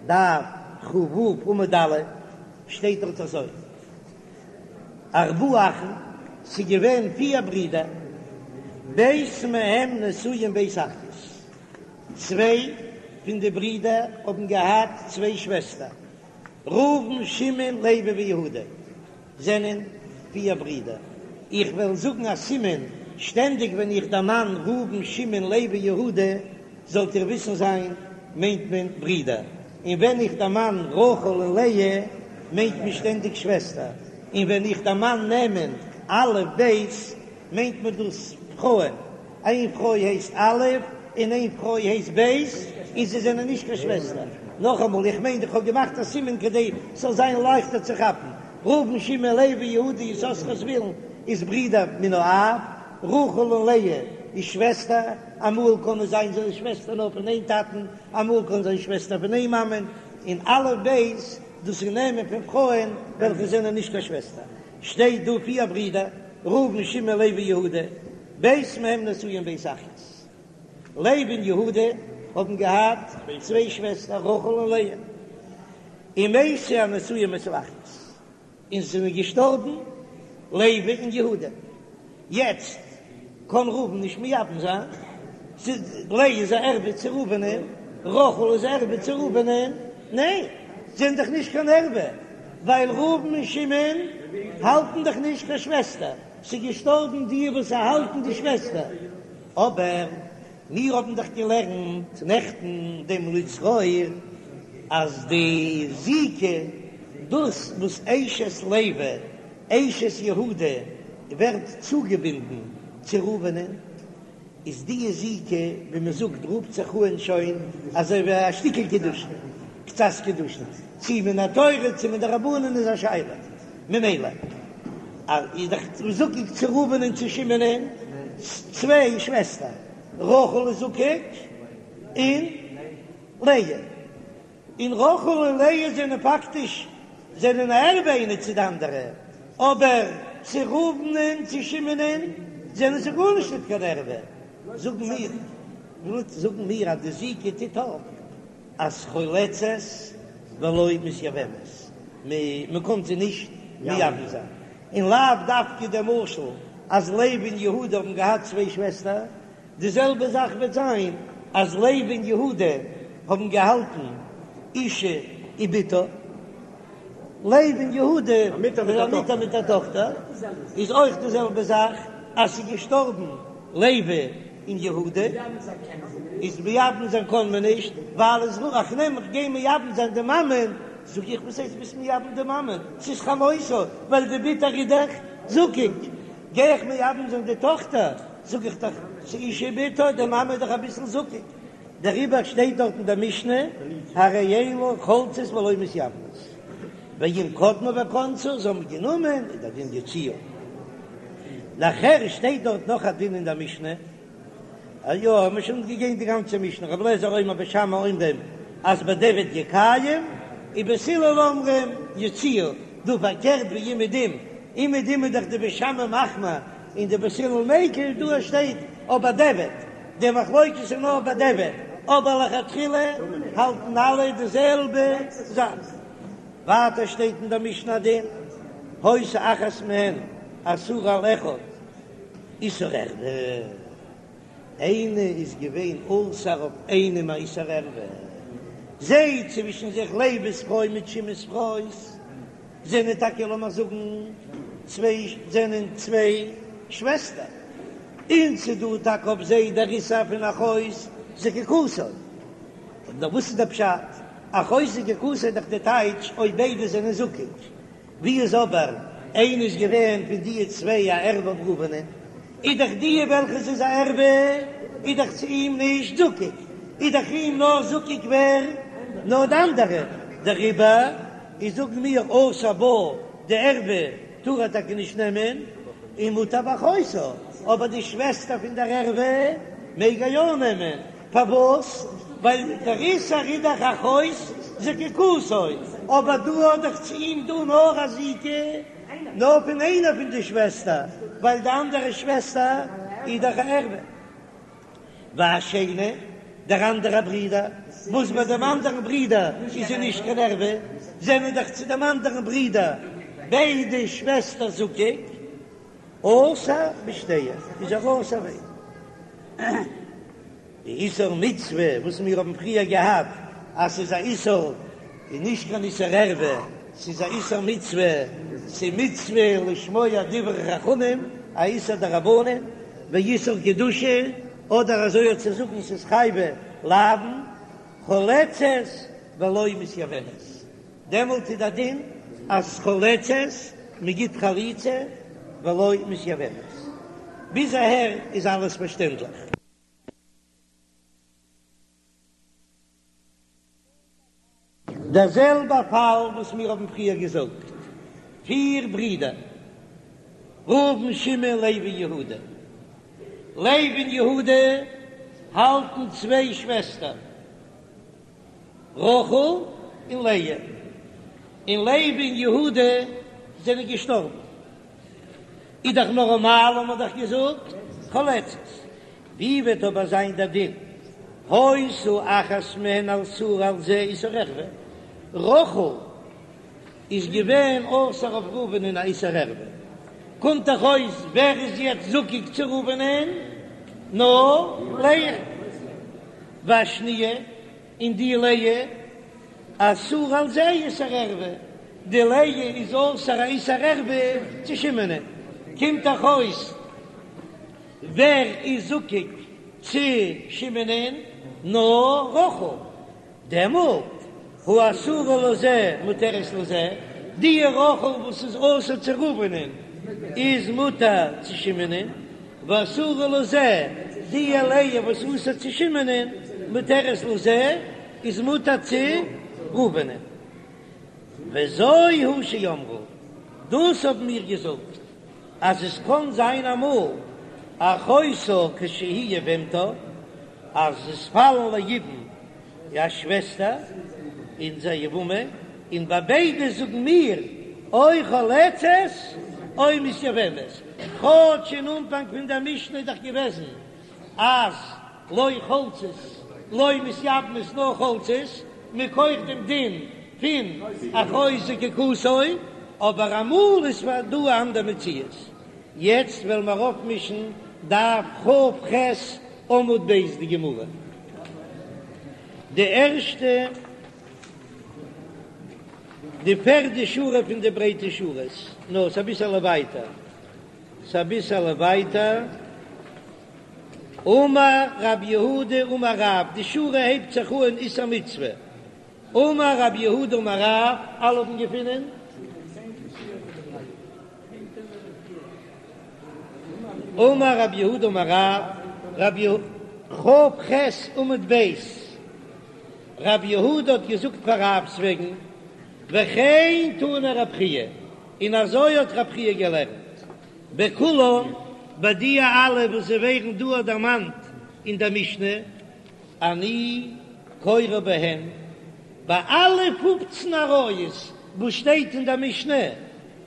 דף כ"ו עמוד א', שטייט דארט אזוי, ארבעה אחים, ס'איז געווען פיר ברידער, ב' מהם נשואים ב' אחיות, צוויי פון די ברידער האבן געהאט צוויי שוועסטער, ראובן, שמעון, לוי ויהודה זענען פיר ברידער. איך וועל זאגן א סימן. שטענדיג ווען איך דערמאן ראובן שמעון לוי יהודה, זאלט איר וויסן זיין, מיינט מען ברידער, און ווען איך דערמאן רחל און לאה, מיינט מען שטענדיג שוועסטער, און ווען איך דערמאן נעמען א' ב', מיינט מען דאס פרויען, איין פרוי הייסט א' און איין פרוי הייסט ב', און זיי זענען נישט קיין שוועסטער. נאכאמאל, איך מיין איך האב געמאכט א סימן כדי ס'זאל זיין לייכטער צו כאפן, ראובן שמעון לוי יהודה יששכר זבולון איז ברידער מן האב, רחל און לאה איז שוועסטער, אמאל קען עס זיין זענען שוועסטער נאר פון איין טאטן, אמאל קען זיין שוועסטער פון איין מאמען, און א' ב' דאס איז נעמען פון פרויען וועלכע זענען נישט קיין שוועסטער. שטייט דא פיר ברידער, ראובן שמעון לוי יהודה, ב' מהם נשואים ב' אחיות. לוי און יהודה האבן געהאט צוויי שוועסטער רחל און לאה, ומתו הנשואים אצל האחיות, און זיי זענען געשטארבן לוי און יהודה, יעצט קען ראובן נישט מייבם זיין, לאה איז א ערווה צו ראובנ'ען, רחל איז א ערווה צו ראובנ'ען, ניין, זיי זענען דאך נישט קיין ערווה, ווייל ראובן און שמעון האלטן דאך נישט קיין שוועסטער, ס'איז געשטארבן די וואס האלטן די שוועסטער, אבער מיר האבן דאך געלערנט נעכטן דעם לצרור אז די זיקה, דאס וואס אשת לוי אשת יהודה ווערט צוגעבינדן צו ראובנ'ען, איז די זיקה ווי מען זאגט רופט זיך אן שוין אזוי ווי א שטיקל קידושין, קצת קידושין, צי מן התורה צי מדרבנן איז א שאלה, ממילא איז דאך זקוק צו ראובן און צו שמעונ'ען צוויי שוועסטער, רחל איז זקוק און לאה. און רחל און לאה זענען פאקטיש זענען א ערווה איינע צו די אנדערע, אבער צו ראובן און צו שמעונ'ען זענען זיי גארנישט ניט קיין ערווה. זאגן מיר, זאגן מיר אז די זיקה טוט אויף אז חולצות ולא מתייבמות, מען קען זיי נישט מייבם זיין, און לאו דווקא דער משל אז לוי און יהודה האבן געהאט צוויי שוועסטער, די זעלבע זאך וועט זיין אז לוי און יהודה האבן געהאלטן אשה ובתה, לוי און יהודה א מוטער מיט א טאכטער, איז אויך די זעלבע זאך אז ס'איז געשטארבן לוי און יהודה, איז מייבם זיין קען מען נישט, ווייל איז רוח נעם איך גיי מייבם זיין די מאמען, זאג איך וואס הייסט ביסט מייבם די מאמען, ס'איז חמותה, ווייל די בתה איז דאך זקוק, גיי איך מייבם זיין די טאכטער, זאג איך דאך, ס'איז אשה ובתה, די מאמע איז דאך אביסל זקוק, דעריבער שטייט דארט אין דער משנה, הרי אלו חולצות ולא מתייבמות, ואם קדמו וכנסו, זיי האבן גענומען, איז דער דין יוציאו. נאכער שטייט דארט נאך א דין אין דער משנה, א יא, האבן מיר שוין געגעבן די גאנצע משנה, רבי אליעזר אומר בית שמאי אומרים אז בדיעבד יקיים, און בית הלל אומרים יוציאו, דא פארקערט ווי אומעדום, אומעדום איז דאך די בית שמאי מחמיר און די בית הלל מיקל, דא שטייט אויף בדיעבד, די מחלוקת איז נאר בדיעבד, אבער לכתחילה האלטן אלע די זעלבע זאך. ווייטער שטייט אין דער משנה א דין, היתה אחת מהן אסורה על אחד איסור ערווה, איינע איז געווען אסור אויף איינעם א איסור ערווה, זיי צווישן זיך לוי'ס פרוי מיט שמעון'ס פרוי זענען טאקע לאמיר זאגן צוויי זענען צוויי שוועסטער, און ס'דא טאקע אויף זיי דער איסור פון אחות זקוקתו, נאר וואס איז דער פשט? אחות זקוקתו איז דאך די טייטש אויב ביידע זענען זקוק, ווי איז אבער איינע איז געווען פון די צוויי א ערווה אויף ראובנ'ען, איז דאך די וועלכע ס'איז א ערווה איז דאך צו אים נישט זקוק, איז דאך אים נאר זקוק ווער? נאר די אנדערע, דעריבער איז זאגן מיר אסור בה די ערווה טאר ער טאקע נישט נעמען, און מותר באחותה, אבער די שוועסטער פון דער ערווה מעג ער יא נעמען, פארוואס? ווייל דער איסור איז דאך אחות זקוקתו, אבער דא האט דאך צו אים דא נאר א זיקה נאר פון איינער פון די שוועסטער, ווייל די אנדערע שוועסטער איז דאך א ערווה. והשני, דער אנדערע ברודער, וואס ביי דעם אנדערן ברודער איז זי נישט קיין ערווה, זענען דאך צו דעם אנדערן ברודער ביידע שוועסטער זקוק, אסור בשתיהן, איז ער אסור ביידע. די איסור מצוה וואס מיר האבן פריער געהאט אז ס'איז א איסור איז נישט קיין איסור ערווה, ס'איז א איסור מצוה, ס'איז מצוה לשמוע דברי חכמים, א איסור דרבנן. ואיסור קדושה, אדער אזוי האט צו זאגן ס'איז חייבי לאוין, חולצת ולא מתייבמת, דעמאלט איז דער דין אז חולצת, מ'גיט חליצה, ולא מתייבמת. ביז אהער איז אלעס פארשטענדליך. דער זעלבער פאל וואס מיר האבן פריער געזאגט, פיר ברידער, ראובן שמעון לוי יהודה, לוי און יהודה האלטן צוויי שוועסטער, רחל און לאה, און לוי און יהודה זענען געשטארבן, איז דאך נארמאל האט מען דאך געזאגט חולצת, ווי וועט אבער זיין דער דין היתה אחת מהן אסורה על זה איסור ערווה, רחל איז געווען אסור אויף ראובנ'ען א איסור ערווה, קומט דאך אויס ווער איז יעצט זקוק צו ראובנ'ען? נאר לאה, והשניה און די לאה אסורה על זה איסור ערווה, די לאה איז אסור א איסור ערווה צו שמעונ'ען, קומט דאך אויס ווער איז זקוק צו שמעונ'ען? נאר רחל. דעמאלט האסורה לזה מותרת לזה, די רחל וואס איז אסור צו ראובנ'ען איז מותר צו שמעונ'ען, והאסורה לזה, די לאה וואס איז אסור צו שמעונ'ען מותרת לזה, איז מותר צו ראובנ'ען. וזו היא שאמרו, דאס האבן מיר געזאגט. אז עס קען זיין אמאל אחותה כשהיא יבמתה אז עס פאלן ליבום א שוועסטער און זי איז א יבמה, און ביי ביידע זאגן מיר או חולצת או מתייבמת, כאטש אין אנפאנג פון דער משנה איז דאך געוועזן אז לא חולצות לא מתייבמות נאר חולצות, מכח דעם דין פון אחות זקוקתו, אבער אמאל איז פאר דא א אנדער מציאות. יעצט וועלן מיר אויפמישן דף כ"ח עמוד ב' די גמרא, די ערשטע די פערדע שורה פון די ברייטע שורות, נאר ס'אביסעלע ווייטער, ס'אביסעלע ווייטער. אמר רב יהודה אמר רב, די שורה הייבט זיך אן איסור מצוה, אמר רב יהודה אמר רב, אלע האבן געפונען? אמר רב יהודה אמר רב, רב יה כ"ח עמוד ב', רב יהודה האט געזאגט פאר רב'ס וועגן, וכן תנא רב חייא, און אזוי האט רב חייא געלערנט. בכולן, ביי די אלע וואס זיי ווערן דא דערמאנט אין דער משנה, אני קורא בהן, ביי אלע פופצן עריות וואס שטייט אין דער משנה,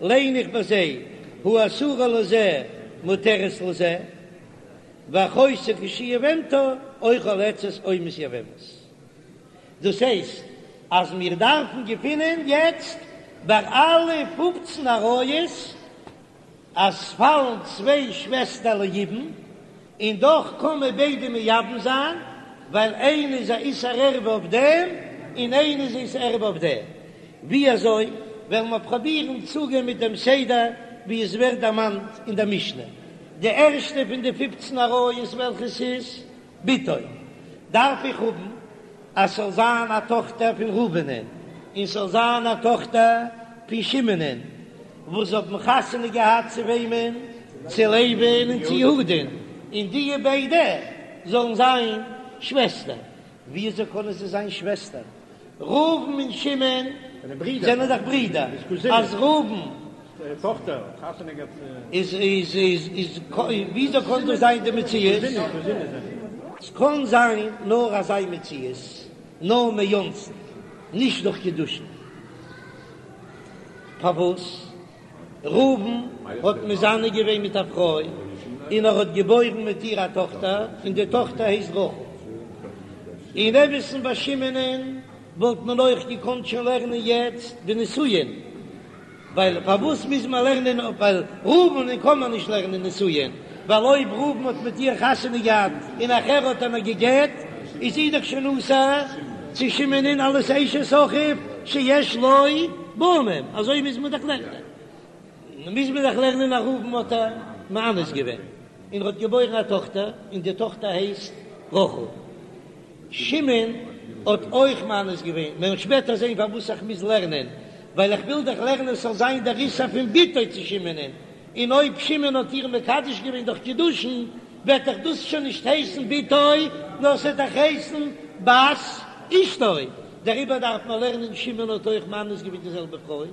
ליין איך ביי זיי, האסורה לזה מותרת לזה, ואחותה כשהיא יבמתה, או חולצת או מתייבמת. דאס הייסט אז מיר דארפן געפינען יעצט ביי אלע פופצן עריות אז ס'פאלן צוויי שוועסטער ליבום, און דאך קען מען ביידע מייבם זיין, ווייל איינע איז א איסור ערווה אויף דעם און איינע איז איסור ערווה אויף דעם. ווי אזוי וועלן מיר פראבירן צוגיין מיט דעם סדר ווי עס ווערט דערמאנט אין דער משנה? די ערשטע פון די פופצן עריות וועלכעס איז בתו, דארף איך האבן אז ס'זאל זיין א טאכטער פון ראובנ'ען און ס'זאל זיין א טאכטער פון שמעונ'ען, וואס האבן חתונה געהאט צו וועמען? צו לוי'ן און צו יהודה'ן, און די ביידע זאלן זיין שוועסטער. וויאזוי קענען זיי זיין שוועסטער? ראובן און שמעון זענען דאך ברידער, אז ראובן איז איז איז איז וויאזוי קען דאס זיין די מציאות? ס'קען זיין נאר אזא מציאות, נאר מאונסין, נישט דורך קידושין. פארוואס? ראובן האט מזנה געווען מיט א פרוי און ער האט געבוירן מיט איר א טאכטער און די טאכטער הייסט רחל. אין אמת'ן ביי שמעונ'ען וואלט מען אויך געקאנט שוין לערנען יעצט די נישואין, ווייל פארוואס מוז מען לערנען ווייל ראובן'ען קען מען נישט לערנען נישואין, ווייל אויב ראובן האט מיט איר חתונה געהאט און נאכער האט ער איר גע'גט איז זי דאך שוין אסור צו שמעונ'ען אלס אשת אחיו שיש לו בנים, אזוי מוז מען דאך לערנען, מוז מען דאך לערנען אז ראובן האט איר מאנס געווען. און ער האט געבוירן א טאכטער, און די טאכטער הייסט רחל. שמעון האט אויך מאנס געווען, מיר וועלן שפעטער זען פארוואס איך מוז לערנען, ווייל איך וויל דאך לערנען עס זאל זיין דער איסור פון בתו צו שמעונ'ען, און אויב שמעון האט איר מקדש געווען דורך קידושין, וועט דאך דאס שוין נישט הייסן בתו, נאר ס'וועט דאך הייסן בת אשתו, דעריבער דארף מען לערנען שמעון האט אויך מאנס געווען די זעלבע פרוי,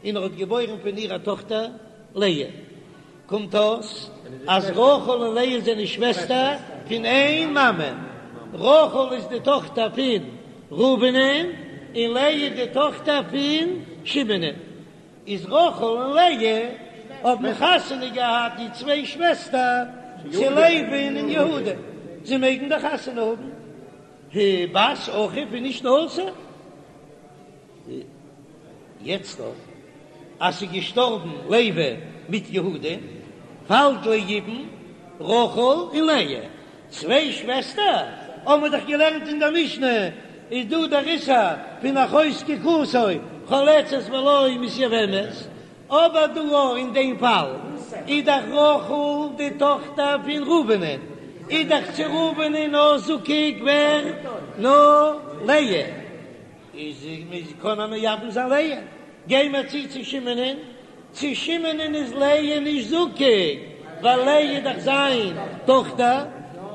און ער האט געבוירן פון איר א טאכטער לאה. קומט אויס אז רחל און לאה זענען שוועסטער פון איין מאמע, רחל איז די טאכטער פון ראובנ'ען און לאה איז די טאכטער פון שמעונ'ען. איז רחל און לאה האבן חתונה געהאט די צוויי שוועסטער צו לוי'ן און יהודה, זיי מעגן דאך חתונה האבן, בת אחיו איז נישט אסור. יעצט דאך אז ס'איז געשטארבן לוי מיט יהודה, פאלט ליבום רחל און לאה, צוויי שוועסטער, האבן מיר דאך געלערנט אין דער משנה, איז דא דער איסור פון אחות זקוקתו חולצת ולא מתייבמת, אבער דא אויך אין דעם פאל איז דאך רחל די טאכטער פון ראובנ'ען, איז דאך צו ראובנ'ען נאר זקוק ווער? נאר לאה. איז מ'איז קען ער מייבם זיין לאה, גיי מיר צו צו שמעונ'ען, צו שמעונ'ען איז לאה נישט זקוק, ווייל לאה איז דאך זיין טאכטער,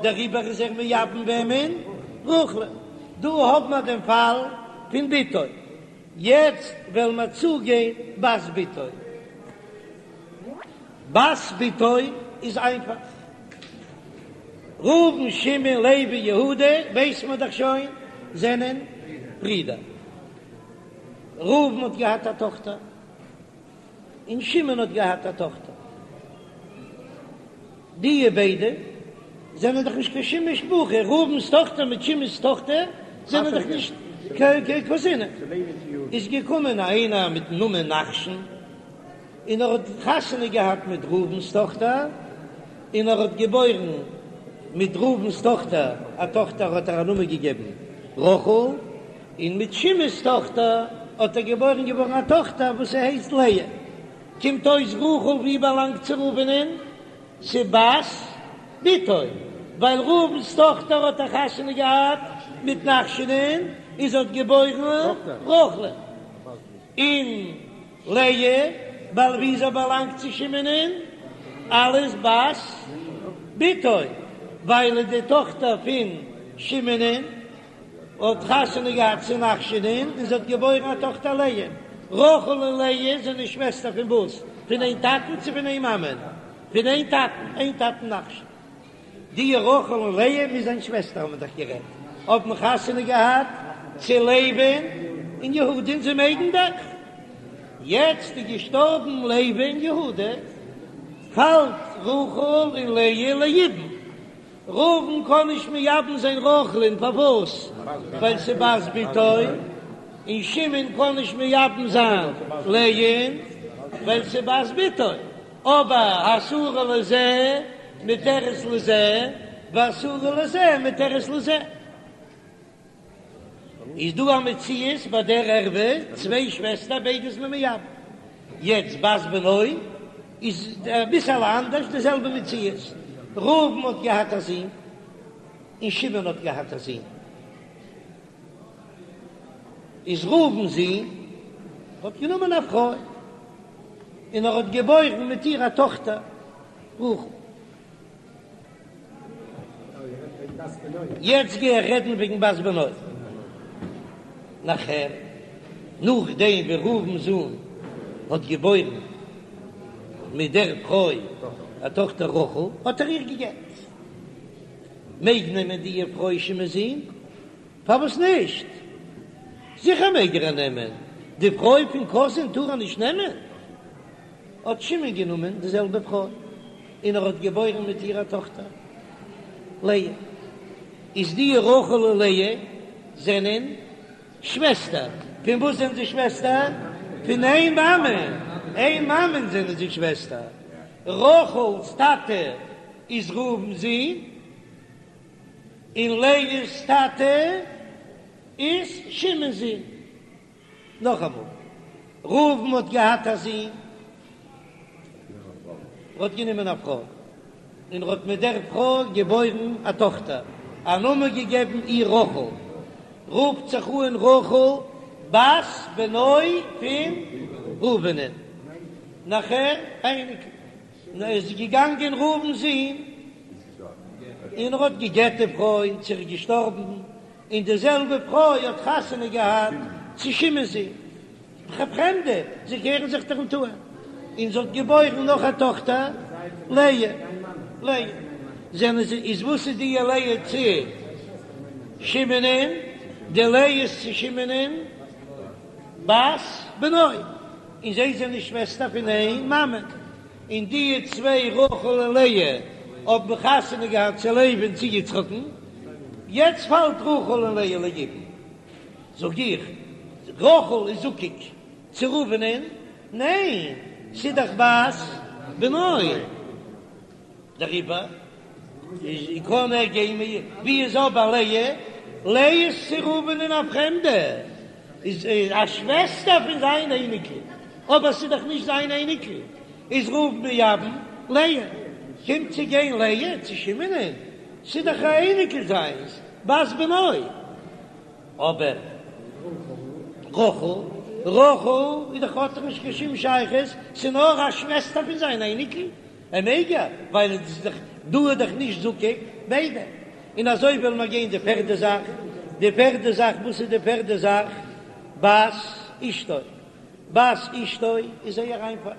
דעריבער איז ער מייבם וועמען? רחל'ן. דא האבן מיר דעם פאל פון בתו, יעצט וועלן מיר צוגיין בת בתו. בת בתו איז איינפאך. ראובן שמעון לוי יהודה ווייס מען דאך שוין זענען ברידער. ראובן האט געהאט א טאכטער און שמעון האט געהאט א טאכטער. די ביידע זענען דאך נישט קיין שום משפחה, ראובן'ס טאכטער מיט שמעון'ס טאכטער זענען דאך נישט קיין קוזינען. איז געקומען איינער מיטן נאמען נחשון. און ער האט חתונה געהאט מיט ראובן'ס טאכטער, און ער האט געבוירן מיט ראובן'ס טאכטער א טאכטער האט ער א נאמען געגעבן רחל, און מיט שמעון'ס טאכטער האט ער געבוירן געווארן א טאכטער וואס זי הייסט לאה. קומט אויס רחל ווי באלאנגט צו ראובן'ען? צו בת בתו, ווייל ראובן'ס טאכטער האט ער חתונה געהאט מיט נחשונ'ען און זי האט געבוירן רחל'ען, און לאה, ווייל ווי זי באלאנגט צו שמעונ'ען, אלס בת בתו, ווייל די טאכטער פון שמעונ'ען האט חתונה געהאט צו נחשונ'ען און זי האט געבוירן א טאכטער לאה. רחל און לאה זענען שוועסטער פון וואס? פון איין טאטן צו פון איין מאמען? פון איין טאטן, איין טאטן נחשון. די רחל און לאה מוז זיין שוועסטער האבן דאך גערעדט, האבן חתונה געהאט צו לוי'ן און יהודה'ן, זיי מעגן דאך. יעצט איז געשטארבן לוי און יהודה, פאלט רחל און לאה ליבום. ראובן קען נישט מייבם זיין רחל'ן, פארוואס? ווייל ס'איז בת בתו, און שמעון קען נישט מייבם זיין לאה'ן ווייל ס'איז בת בתו. אבער האסורה לזה מותרת לזה והאסורה לזה מותרת לזה. איז דא א מציאות ביי דער ערווה צוויי שוועסטער ביידע איז מען מייבם. יעצט בת בנו איז אביסעלע אנדערש די זעלבע מציאות. ראובן האט געהאט א זון און שמעון האט געהאט א זון. איז ראובן'ס זון האט גענומען א פרוי און ער האט געבוירן מיט איר א טאכטער רחל. יעצט גיי איך רעדן וועגן בת בנו. נאכער, נאכדעם ווי ראובן'ס זון האט געבוירן מיט דער פרוי א טאכטער רחל, האט ער איר גע'גט. מעג נעמען די פרוי שמעון'ס זון? פארוואס נישט? זיכער מעג ער נעמען, די פרוי פון קאזין טאר ער נישט נעמען? האט שמעון גענומען די זעלבע פרוי און ער האט געבוירן מיט איר א טאכטער לאה, איז די רחל און לאה זענען שוועסטער, פון וואס זענען זיי שוועסטער? פון איין מאמע, איין מאמען זענען זיי שוועסטער, רחל'ס טאטע איז ראובן'ס זון. און לאה'ס טאטע איז שמעון'ס זון. נאכאמאל, ראובן האט געהאט א זון, ער האט גענומען א פרוי. און ער האט מיט דער פרוי געבוירן א טאכטער, א נאמען געגעבן איר רחל, רופט זיך אן רחל בת בנו פון ראובנ'ען, נאכער אייניקל, און ער איז געגאנגען ראובן'ס זון, און ער האט גע'גט די פרוי און זי איז געשטארבן, און די זעלבע פרוי האט חתונה געהאט צו שמעון'ס זון. פרעמדע, זיי קערן זיך דאך ניט אן. און זי האט געבוירן נאך א טאכטער, לאה. לאה. זענען זיי, איז וואס איז די לאה צו שמעונ'ען? די לאה איז צו שמעונ'ען בת בנו. און זיי זענען שוועסטער פון איין מאמע. און די צוויי רחל און לאה האבן חתונה געהאט צו לוי און צו יצחק'ן. יעצט פאלט רחל און לאה ליבום. זאג איך, רחל איז זקוק צו ראובנ'ען? ניין, ס'איז דאך בת בנו. דעריבער איז קען ער גיין מיט. ווי איז אבער לאה? לאה איז צו ראובנ'ען א פרעמדע, איז א שוועסטער פון זיין אייניקל, אבער ס'איז דאך נישט זיין אייניקל, איז ראובן מייבם לאה. קומט צו גיין לאה צו שמעונ'ען, ס'איז דאך א אייניקל זיינס, בת בנו. אבער רחל, רחל איז דאך האט דאך נישט קיין שום שייכות, ס'איז נאר א שוועסטער פון זיין אייניקל, ער מעג יא, ווייל עס איז דאך דא איז דאך נישט זקוק ביידע. און אזוי וועלן מיר גיין די פערדע זאך, די פערדע זאך, וואס איז די פערדע זאך? בת אשתו, בת אשתו איז זייער איינפאך,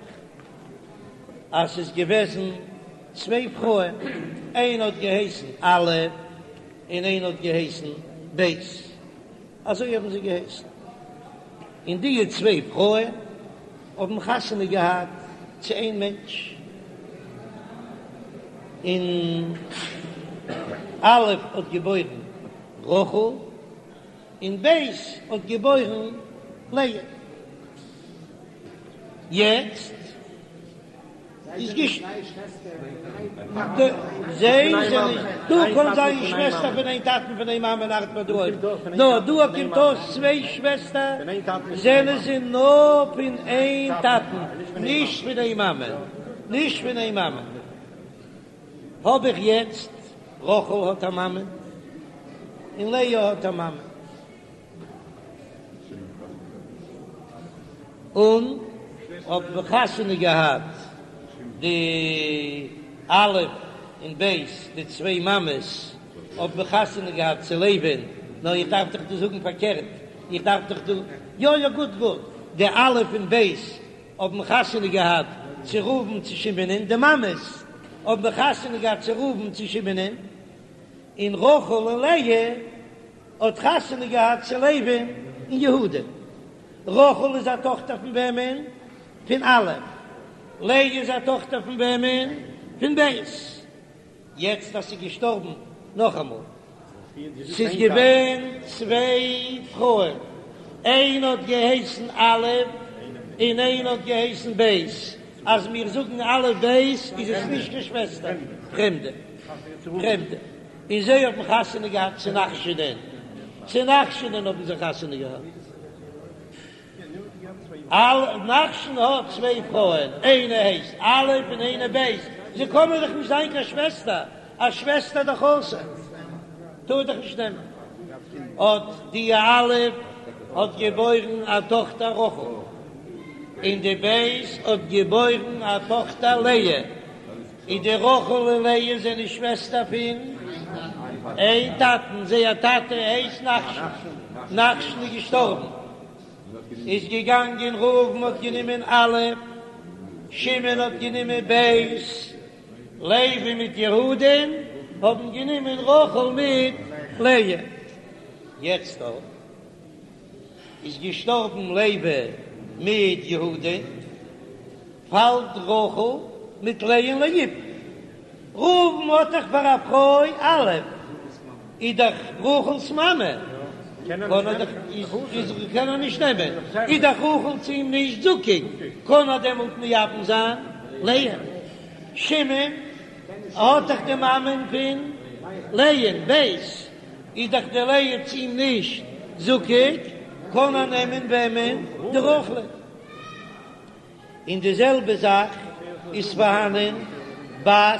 אז ס'איז געוועזן צוויי פרויען, איינע האט געהייסן א', און איינע האט געהייסן ב', אזוי האבן זיי געהייסן, און די צוויי פרויען האבן חתונה געהאט צו איין מענטש, און א' האט געבוירן רחל, און ב' האט געבוירן לאה. יעצט. איז גישט זיי זענען דא קען זיין שוועסטער פון איין טאטן פון איין מאמען ארט מען דא אויך נאר דא קומט אויס צוויי שוועסטער זענען זיי נאר פון איין טאטן נישט פון איין מאמע נישט פון איין מאמע האב איך יעצט רחל האט א מאמע און לאה האט א מאמע. און האבן חתונה געהאט די א' און ב' די צוויי מאמעס האבן חתונה געהאט צו לוי'ן, נאר איך דארף דאך דא זאגן פארקערט, איך דארף דאך דא, יא יא גוט גוט, די א' און ב' האבן חתונה געהאט צו ראובן צו שמעונ'ען, די מאמעס האבן חתונה געהאט צו ראובן צו שמעונ'ען, און רחל און לאה האט חתונה געהאט צו לוי'ן און יהודה. רחל איז א טאכטער פון וועמען? פון א'. לאה איז א טאכטער פון וועמען? פון ב'. יעצט אז ס'איז געשטארבן, נאכאמאל, ס'איז געווען צוויי פרויען, איינע האט געהייסן א' און איינע האט געהייסן ב', אז מיר זאגן א' ב' איז עס נישט קיין שוועסטער, פרעמדע, פרעמדע. און זיי האבן חתונה געהאט צו נחשונען, צו נחשונען האבן זיי חתונה געהאט. אל, נחשון האט צוויי פרויען, איינע הייסט א' און איינע ב', זיי קענען דאך נישט זיין קיין שוועסטער, א שוועסטער דאך אסור, טאר דאך נישט נעמען. האט די א' האט געבוירן א טאכטער רחל, און די ב' האט געבוירן א טאכטער לאה. און די רחל און לאה זענען שוועסטער פון איין טאטן, זייער טאטע הייסט נחשון, נחשון איז געשטארבן, איז געגאנגען ראובן האט גענומען א', שמעון האט גענומען ב', לוי מיט יהודה'ן האבן גענומען רחל מיט לאה, יעצט אויך איז געשטארבן לוי מיט יהודה. פאלט רחל מיט לאה'ן ליבום. ראובן האט דאך פאר א פרוי א', איז דאך רחל'ס מאמע, קען ער דאך איז קען ער נישט נעמען, איז דאך רחל צו אים נישט זקוק, קען ער דעמאלט מייבם זיין לאה. שמעון האט דאך די מאמען פון לאה'ן, ב' איז דאך די לאה צו אים נישט זקוק, קען ער נעמען וועמען? די רחל'ן. און די זעלבע זאך איז פארהאנען בת.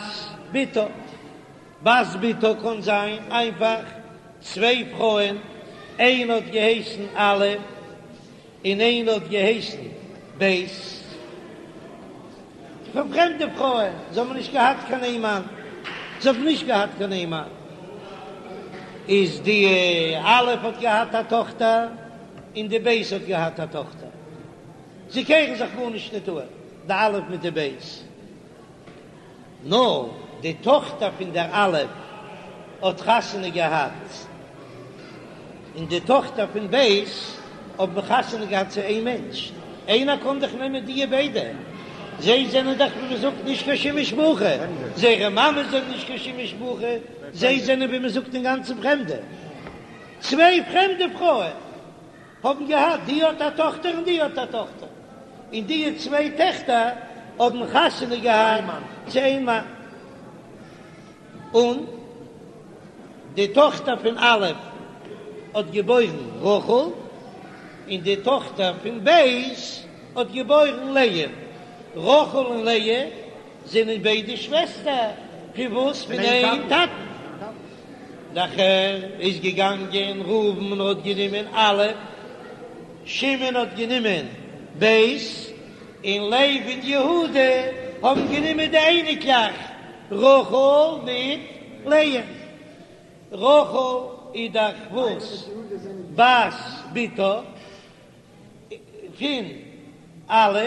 בתה. בת בתה קען זיין איינפאך צוויי פרויען, איינע האט געהייסן א' און איינע האט געהייסן ב', פון פרעמדע פרויען, זיי האבן נישט געהאט קיין איין מאן, זיי האבן נישט געהאט קיין איין מאן, איז די א' האט געהאט א טאכטער און די ב' האט געהאט א טאכטער, זיי קערן זיך גארנישט ניט אן, די א' מיט די ב'. נאר די טאכטער פון דער א' האט חתונה געהאט, און די טאכטער פון ב' האבן חתונה געהאט צו איין מענטש, איינער קען דאך נעמען דיע ביידע, זיי זענען דאך ווי מ'זאגט נישט קיין שום משפחה, זייערע מאמעס זענען נישט קיין שום משפחה, זיי זענען ווי מ'זאגט אינגאנצן פרעמדע, צוויי פרעמדע פרויען. האבן געהאט, די האט א טאכטער און די האט א טאכטער, און די צוויי טעכטער האבן חתונה געהאט צו איין מאן, און די טאכטער פון א' האט געבוירן רחל, און די טאכטער פון ב' האט געבוירן לאה, רחל און לאה זענען ביידע שוועסטער, פון וואס? פון איין טאטן. נאכער איז געגאנגען ראובן און האט גענומען א', שמעון האט גענומען ב', און לוי און יהודה האבן גענומען די אייניקלעך רחל מיט לאה. רחל איז דאך וואס? בת בתה פון א',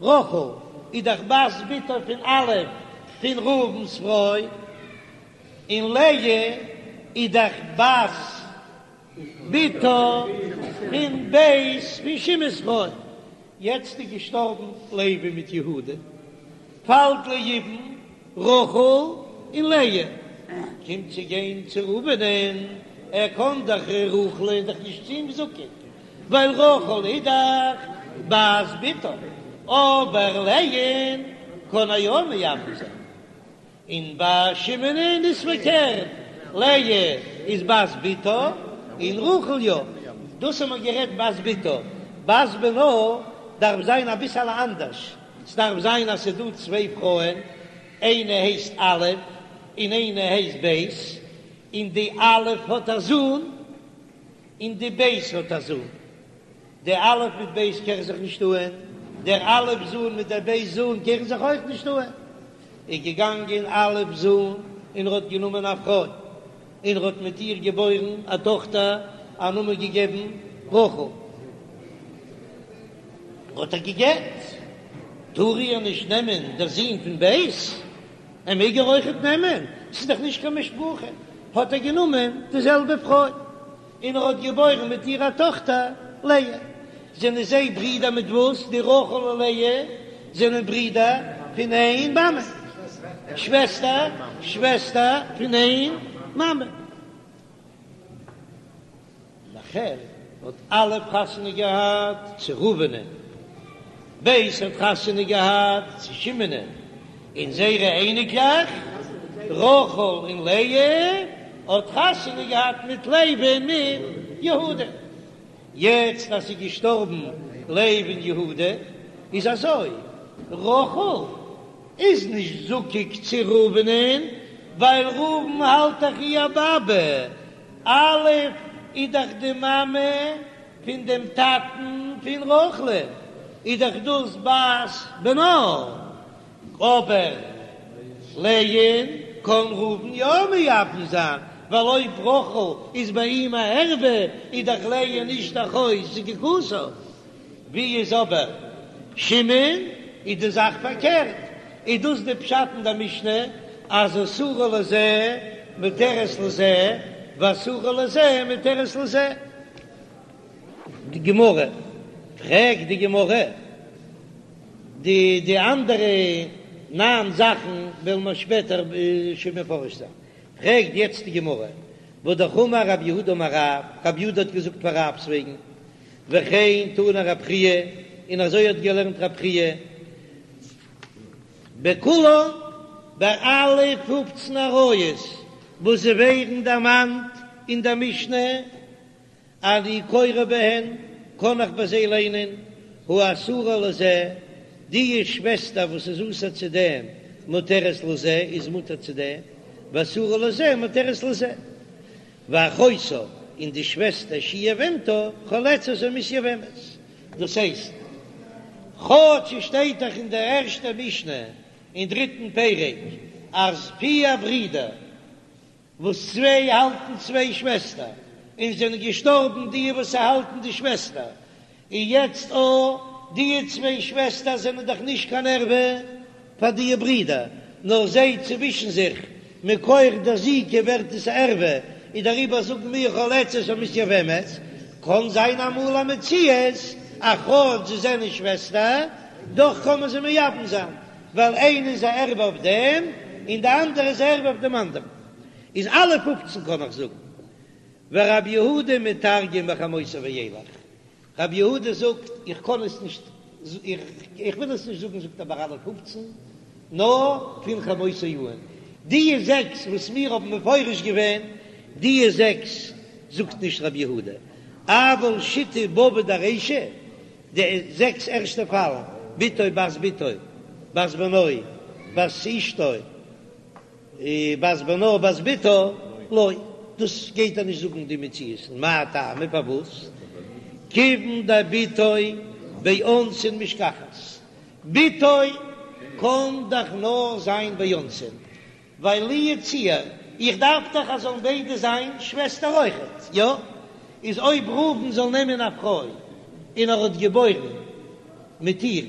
רחל איז דאך בת בתה פון א' פון ראובן'ס פרוי. און לאה איז דאך בת בתה פון ב' פון שמעון'ס פרוי. יעצט איז געשטארבן לוי מיט יהודה, פאלט ליבום רחל און לאה, קומט צו גיין צו ראובנ'ען, ער קען דאך רחל איז דאך נישט צו אים זקוק, ווייל רחל איז דאך בת בתה, אבער לאה'ן קען ער יא מייבם זיין. און ביי שמעונ'ען איז פארקערט, לאה איז בת בתה און רחל יא. דאס האבן מיר גערעדט בת בתה, בת בנה דארף זיין אביסעלע אנדערש, ס'דארף זיין אז ס'איז דא צוויי פרויען, איינע הייסט א' און איינע הייסט ב', און די א' האט א זון און די ב' האט א זון, די א' מיט ב' קערן זיך נישט אהן, דער א' זון מיט דער ב' זון קערן זיך אויך נישט אהן. איז געגאנגען א' זון און ער האט גענומען א פרוי און ער האט מיט איר געבוירן א טאכטער, א נאמען געגעבן רחל. האט ער גע'גט, טאר איר נישט נעמען דער זון פון ב'? ער מעג איר אויכעט נעמען, ס'איז דאך נישט קיין משפחה. האט ער גענומען די זעלבע פרוי. און ער האט געבוירן מיט איר א טאכטער לאה. זענען זיי ברידער מיט וואס? די רחל און לאה זענען ברידער פון איין מאמע, שוועסטער, שוועסטער פון איין מאמע. נאכער האט א' חתונה געהאט צו ראובנ'ען. ב' האט חתונה געהאט צו שמעונ'ען, און זייערע אייניקלעך רחל און לאה האט חתונה געהאט מיט לוי און מיט יהודה. יעצט אז ס'איז געשטארבן לוי און יהודה איז אזוי, רחל איז נישט זקוק צו ראובנ'ען ווייל ראובן האלט דאך איר באבע, א' איז דאך די מאמע פון דעם טאטן פון רחל'ן איז דאך דאס בת בנה, אבער לאה'ן קען ראובן יא מייבם זיין, ווייל אויב רחל איז ביי אים א ערווה איז דאך לאה נישט אחות זקוקתו. ווי איז אבער שמעון איז די זאך פארקערט, איז דאס די פשט אין די משנה אז אסורה לזה מותרת לזה ואסורה לזה מותרת לזה. די גמרא, פרעגט די גמרא, די די אנדערע ניין זאכן וועלן מיר שפעטער שוין מפרש זיין, פרעגט יעצט די גמרא, והאמר רב יהודה אמר רב, רב יהודה האט געזאגט פאר רב'ס וועגן, וכן תנא רב חייא, און אזוי האט געלערנט רב חייא, בכולן, ביי אלע פופצן עריות וואס זיי ווערן דערמאנט אין דער משנה, אני קורא בהן, קען איך ביי זיי ליינען, האסורה לזה, די שוועסטער וואס איז אסור צו דעם. מותרת לזה איז מותר צו דעם, ואסורה לזה מותרת לזה. ואחותה און די שוועסטער שהיא יבמתו חולצת או מתייבמת. דאס הייסט, כאטש עס שטייט דאך אין דער ערשטער משנה אין דריטן פרק אז פיר ברידער וואס צוויי האלטן צוויי שוועסטער און זענען געשטארבן די וואס האלטן די שוועסטער, און יעצט או די צוויי שוועסטער זענען דאך נישט קיין ערווה פאר די ברידער, נאר זיי צווישן זיך מכח דער זיקה ווערט עס א ערווה, און דעריבער זאגן מיר חולצת או מתייבמת, קען זיין אמאל א מציאות אז כאטש זיי זענען שוועסטער, דאך קען מען זיי מייבם זיין, ווייל איינע איז א ערווה אויף דעם און די אנדערע איז א ערווה אויף דעם אנדערן, איז אלע פופצן קען איך זאגן. ורב יהודה מתרגם מחמותו ואילך, רב יהודה זאגט איך קען עס נישט, איך וויל עס נישט זאגן זאגט ער ביי אלע פופצן, נאר פון חמותו אן, די זעקס וואס מיר האבן מפרש געווען, די זעקס זאגט נישט רב יהודה, אבל שיתא בבי דרישא, די זעקס ערשטע פאלן, בתו בת בתו, בת בנו, בת אשתו, בת בנה בת בתה, לא, דאס גייט ער נישט זאגן די מציאות, מאי טעמא פארוואס? כיוון דבתו באונסין משכחת, בתו קען דאך נאר זיין באונסין, ווייל לו יצוייר, איך דארף דאך אז זאלן ביידע זיין שוועסטער אויכעט, יא? איז אויב ראובן זאל נעמען א פרוי און ער האט געבוירן מיט איר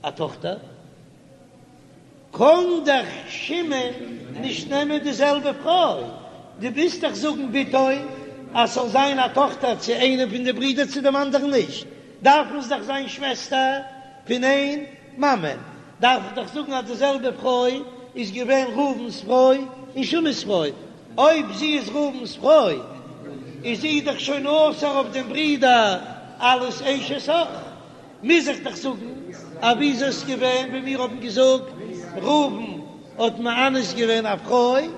א טאכטער, קען דאך שמעון נישט נעמען די זעלבע פרוי, דו ווילסט דאך זאגן בתו אז ס'זאל זיין א טאכטער צו איינעם פון די ברידער צו דעם אנדערן נישט, דארפן עס דאך זיין שוועסטער פון איין מאמע, דארף איך דאך זאגן אז די זעלבע פרוי איז געווען ראובן'ס פרוי און שמעון'ס פרוי, אויב זי איז ראובן'ס פרוי איז זי דאך שוין אסור אויף דעם ברודער אלס אשת אח. מוז איך דאך זאגן אז ווי איז עס געווען ווי מיר האבן געזאגט ראובן האט מאנס געווען א פרוי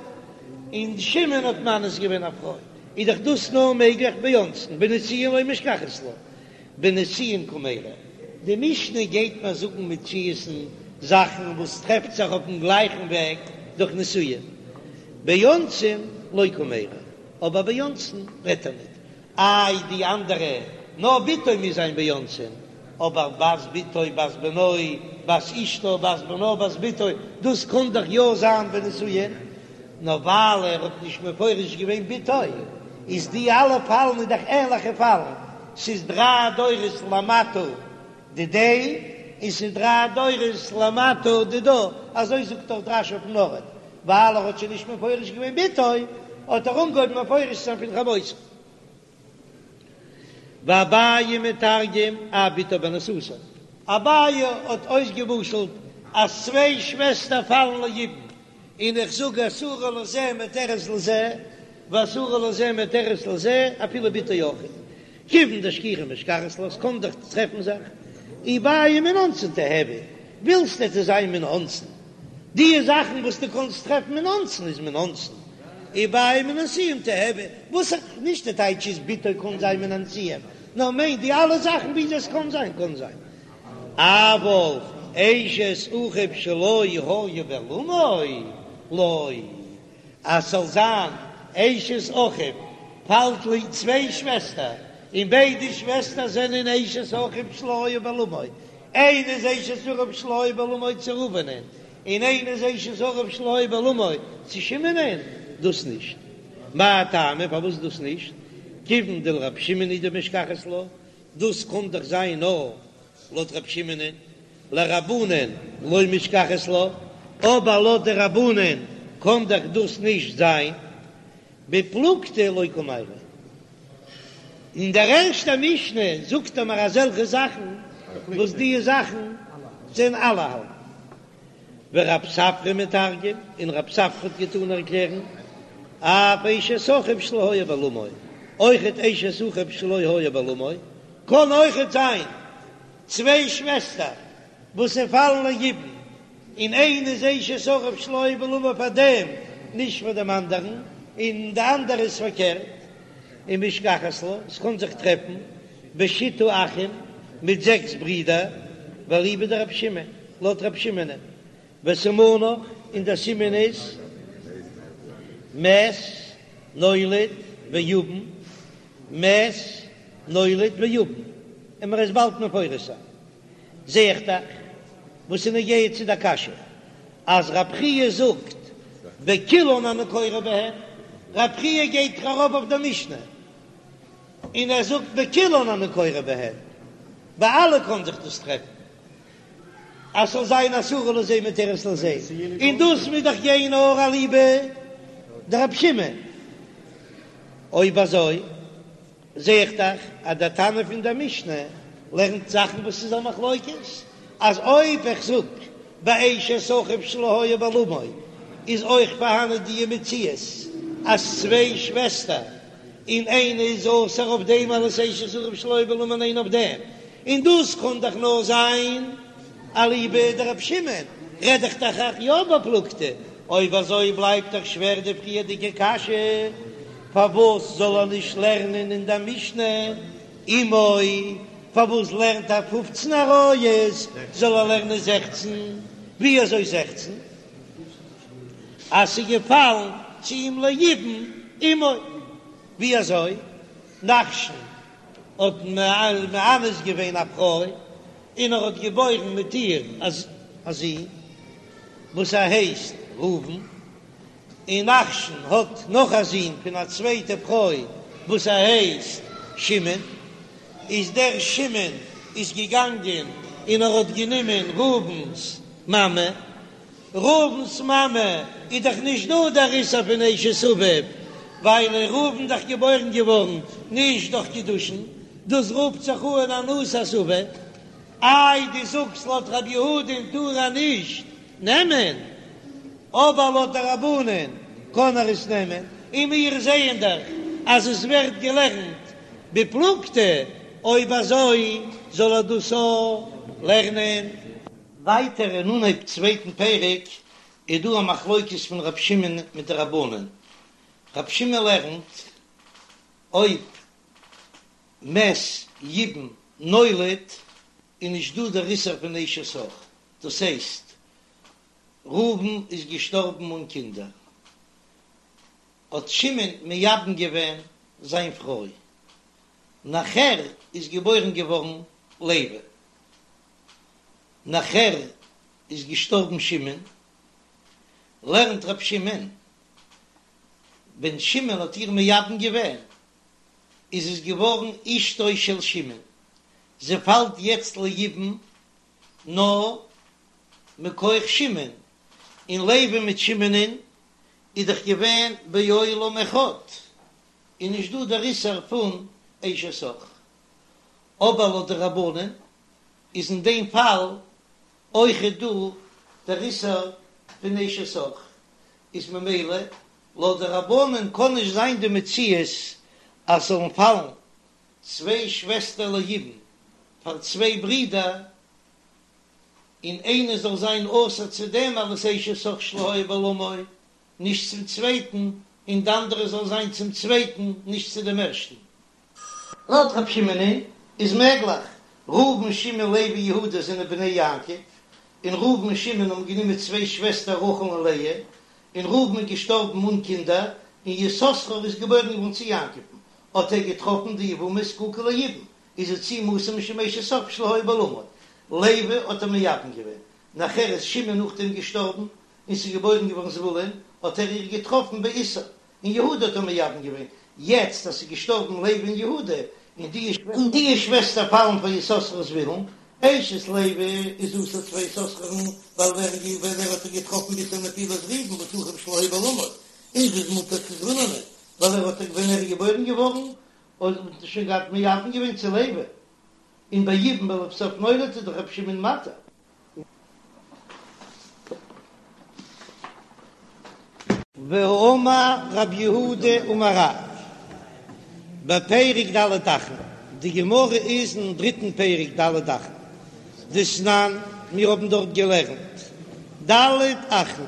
און שמעון האט מאנס געווען א פרוי, איז דאך דאס נאר מעגליך באונסין, בנישואין לא משכחת לה, בנישואין קמיירי. די משנה גייט מיר זאגן מציאות'ן זאכן וואס טרעפט זיך אויפן גלייכן וועג דורך נישואין, באונסין לא קמיירי, אבער באונסין רעדט ער ניט, איי די אנדערע, נאר בתו מוז זיין באונסין, אבער בת בתו בת בנו בת אשתו בת בנה בת בתו, דאס קען דאך יא זיין בנישואין, נאר ווייל ער האט נישט מפרש געווען בתו, איז די אלע פאלן איז דאך ענליכע פאלן, ס'איז דריי דורות למטה דידיה, און ס'איז דריי דורות למטה דידה, אזוי זאגט דאך רש"י אויפן ארט, ווייל ער האט שוין נישט מפרש געווען בתו, האט ער אנגעהויבן מפרש זיין פון חמותו. ואביי מתרגם אף בתו באנוסתו, אביי האט אויסגעמשל'ט אז צוויי שוועסטער פאלן ליבום, און איך זאג אסורה לזה מותרת לזה, ואסורה לזה מותרת לזה, אפילו בתו אויכעט. כיוון דשכיחא משכחת לה, ס'קען דאך טרעפן זיך, אי בעי מן אונסין תיהוי, ווילסט עס זאל זיין מן אונסין, די זאכן וואס דו קאנסט טרעפן מן אונסין איז מן אונסין, אי בעי מן הנישואין תיהוי, וואס איך, נישט די טייטש איז בתו קאן זיין מן הנישואין, נאר מיינט די אלע זאכן ווי עס קאן זיין קאן זיין, אבל אשת אחיו שלא היה בעולמו לא. אז ס'זאל זיין אשת אחיו פאלט ליבום צוויי שוועסטער, און ביידע שוועסטער זענען אשת אחיו שלא היה בעולמו, איינע איז אשת אחיו שלא היה בעולמו צו ראובנ'ען, און איינע איז אשת אחיו שלא היה בעולמו צו שמעונ'ען, דאס נישט. מאי טעמא פארוואס דאס נישט? כיוון דלרבי שמעון הוא דמשכחת לה, דאס קען דאך זיין נאר לויט רבי שמעונ'ען, לרבנן לא משכחת לה, אבער לויט די רבנן קען דאך דאס נישט זיין, בפלוגתא לא קמיירי. אין דער ערשטער משנה זאגט ער מיר אזעלכע זאכן וואס די זאכן זענען אלע האלטן. ורב ספרא מתרגם, און רב ספרא האט געטאן ערקלערן, אף אשת אחיו שלא היה בעולמו, אויכעט אשת אחיו שלא היה בעולמו, קען אויכעט זיין צוויי שוועסטער וואס זיי פאלן ליבום, און איינע איז אשת אחיו שלא היה בעולמו פאר דעם, נישט פאר דעם אנדערן, און די אנדערע איז פארקערט, ומשכחת לה, עס קען זיך טרעפן בשיתא אחין מיט זעקס ברידער, ואליבא דרבי שמעון, לויט רבי שמעונ'ען. וסימנך, און דער סימן איז מת נולד ויבם, מת נולד ויבם, און מ'וועט עס באלד מפרש זיין. זע איך דאך וואס איז נוגע צו דער קשיא אז רב חייא זאגט בכולן אני קורא בהן, רב חייא גייט דאך ארויף אויף דער משנה און ער זאגט בכולן אני קורא בהן, ביי אלע קען זיך דאס טרעפן אז ס'זאל זיין אסורה לזה מותרת לזה, און דאס מוז דאך גיין נאר אליבא דרבי שמעון, אויב אזוי זע איך דאך אז דער תנא פון דער משנה לערנט זאכן וואס איז א מחלוקת, אז אויב איך זאג ביי אשת אחיו שלא היה בעולמו איז אויך פארהאנען די מציאות אז צוויי שוועסטער און איינע איז אסור אויף דעם אלס אשת אחיו שלא היה בעולמו און איינע אויף דעם, און דאס קען דאך נאר זיין אליבא דרבי שמעון, רעד איך דאך אויך יא בפלוגתא, אויב אזוי בלייבט דאך שווער די פריערדיגע קשיא, פארוואס זאל ער נישט לערנען אין דער משנה אמו, פארוואס לערנט ער פופצן עריות, זאל ער לערנען זעכצן, ווי אזוי זעכצן? אז ס'איז געפאלן צו אים ליבום אמו, ווי אזוי? נחשון האט מאנס געווען א פרוי און ער האט געבוירן מיט איר א זון וואס ער הייסט ראובן, און נחשון האט נאך א זון פון א צווייטע פרוי וואס ער הייסט שמעון, איז דער שמעון איז געגאנגען און ער האט גענומען ראובן'ס מאמע, ראובן'ס מאמע איז דאך נישט דא דער איסור פון אשת אביו, ווייל איז ראובן דאך געבוירן געווארן נישט דורך קידושין, דאס רופט זיך אן אנוסת אביו. איי דו זאגסט לויט רבי יהודה'ן טאר ער נישט נעמען, אבער לויט די רבנן קען ער עס נעמען, און מיר זעען דאך אז עס ווערט געלערנט בפלוגתא, אויב אזוי זאל ער דאס אויך לערנען. ווייטער אין אנהייב צווייטן פרק איז דא א מחלוקת פון רב שמעון מיט די רבנן, רב שמעון לערנט אויב מת יבם נולד איז נישט דא דער איסור פון אשת אח, דאס הייסט ראובן איז געשטארבן אן קינדער האט שמעון מייבם געווען זיין פרוי, נאכער איז געבוירן געווארן לוי. נאכער איז געשטארבן שמעון, לערנט ר' שמעון, ווען שמעון האט איר מייבם געווען, איז עס געווארן אשתו של שמעון, זי פאלט יעצט ליבום נאר מכח שמעון, און לוי מיט שמעונ'ען איז דאך געווען בעולם אחד, איז נישט דא דער איסור פון אשת אח. אבער לויט די רבנן איז אין דעם פאל אויכעט דא דער איסור פון אשת אח, איז ממילא לויט די רבנן קען נישט זיין די מציאות אז ס'זאלן פאלן צוויי שוועסטער ליבום פאר צוויי ברידער און איינע זאל זיין אסור צו דעם אלס אשת אח שלא היה בעולמו נישט צום צווייטן און די אנדערע זאל זיין צום צווייטן נישט צו דעם ערשטן. לויט רב שמעונ'ען איז מעגליך, ראובן שמעון לוי יהודה זענען בני יעקב, און ראובן און שמעון האבן גענומען צוויי שוועסטער רחל און לאה, און ראובן איז געשטארבן אן קינדער, און יששכר איז געבוירן געווארן צו יעקב'ן, האט ער געטראפן די יבמה זקוקה ליבום, איז זי צו אים אסור משום אשת אח שלא היה בעולמו, לוי האט ער מייבם געווען, נאכער איז שמעון נאכדעם געשטארבן, און ס'איז געבוירן געווארן זבולון, האט ער איר געטראפן באיסור, און יהודה האט ער מייבם געווען, יעצט אז ס'איז געשטארבן לוי און יהודה, און די און די שוועסטער פאלן פאר יששכר וזבולון, אשת לוי איז אסור צו יששכר'ן, ווייל ווען ווען ער האט איר געטראפן באיסור נפילת ראובן וואס אחיו שלא היה בעולמו, און זי איז מותר צו זבולונ'ען, ווייל ער האט איר ווען ער איז געבוירן געווארן, האט ער שוין געהאט מייבם געווען צו לוי, און ביי יבום ולבסוף נולד איז דאך רבי שמעון מתיר. והאמר רב יהודה אמר רב, בפרק ד' אחין, די גמרא איז אין דריטן פרק ד' אחין, דתנן, מיר האבן דארט געלערנט ד' אחין,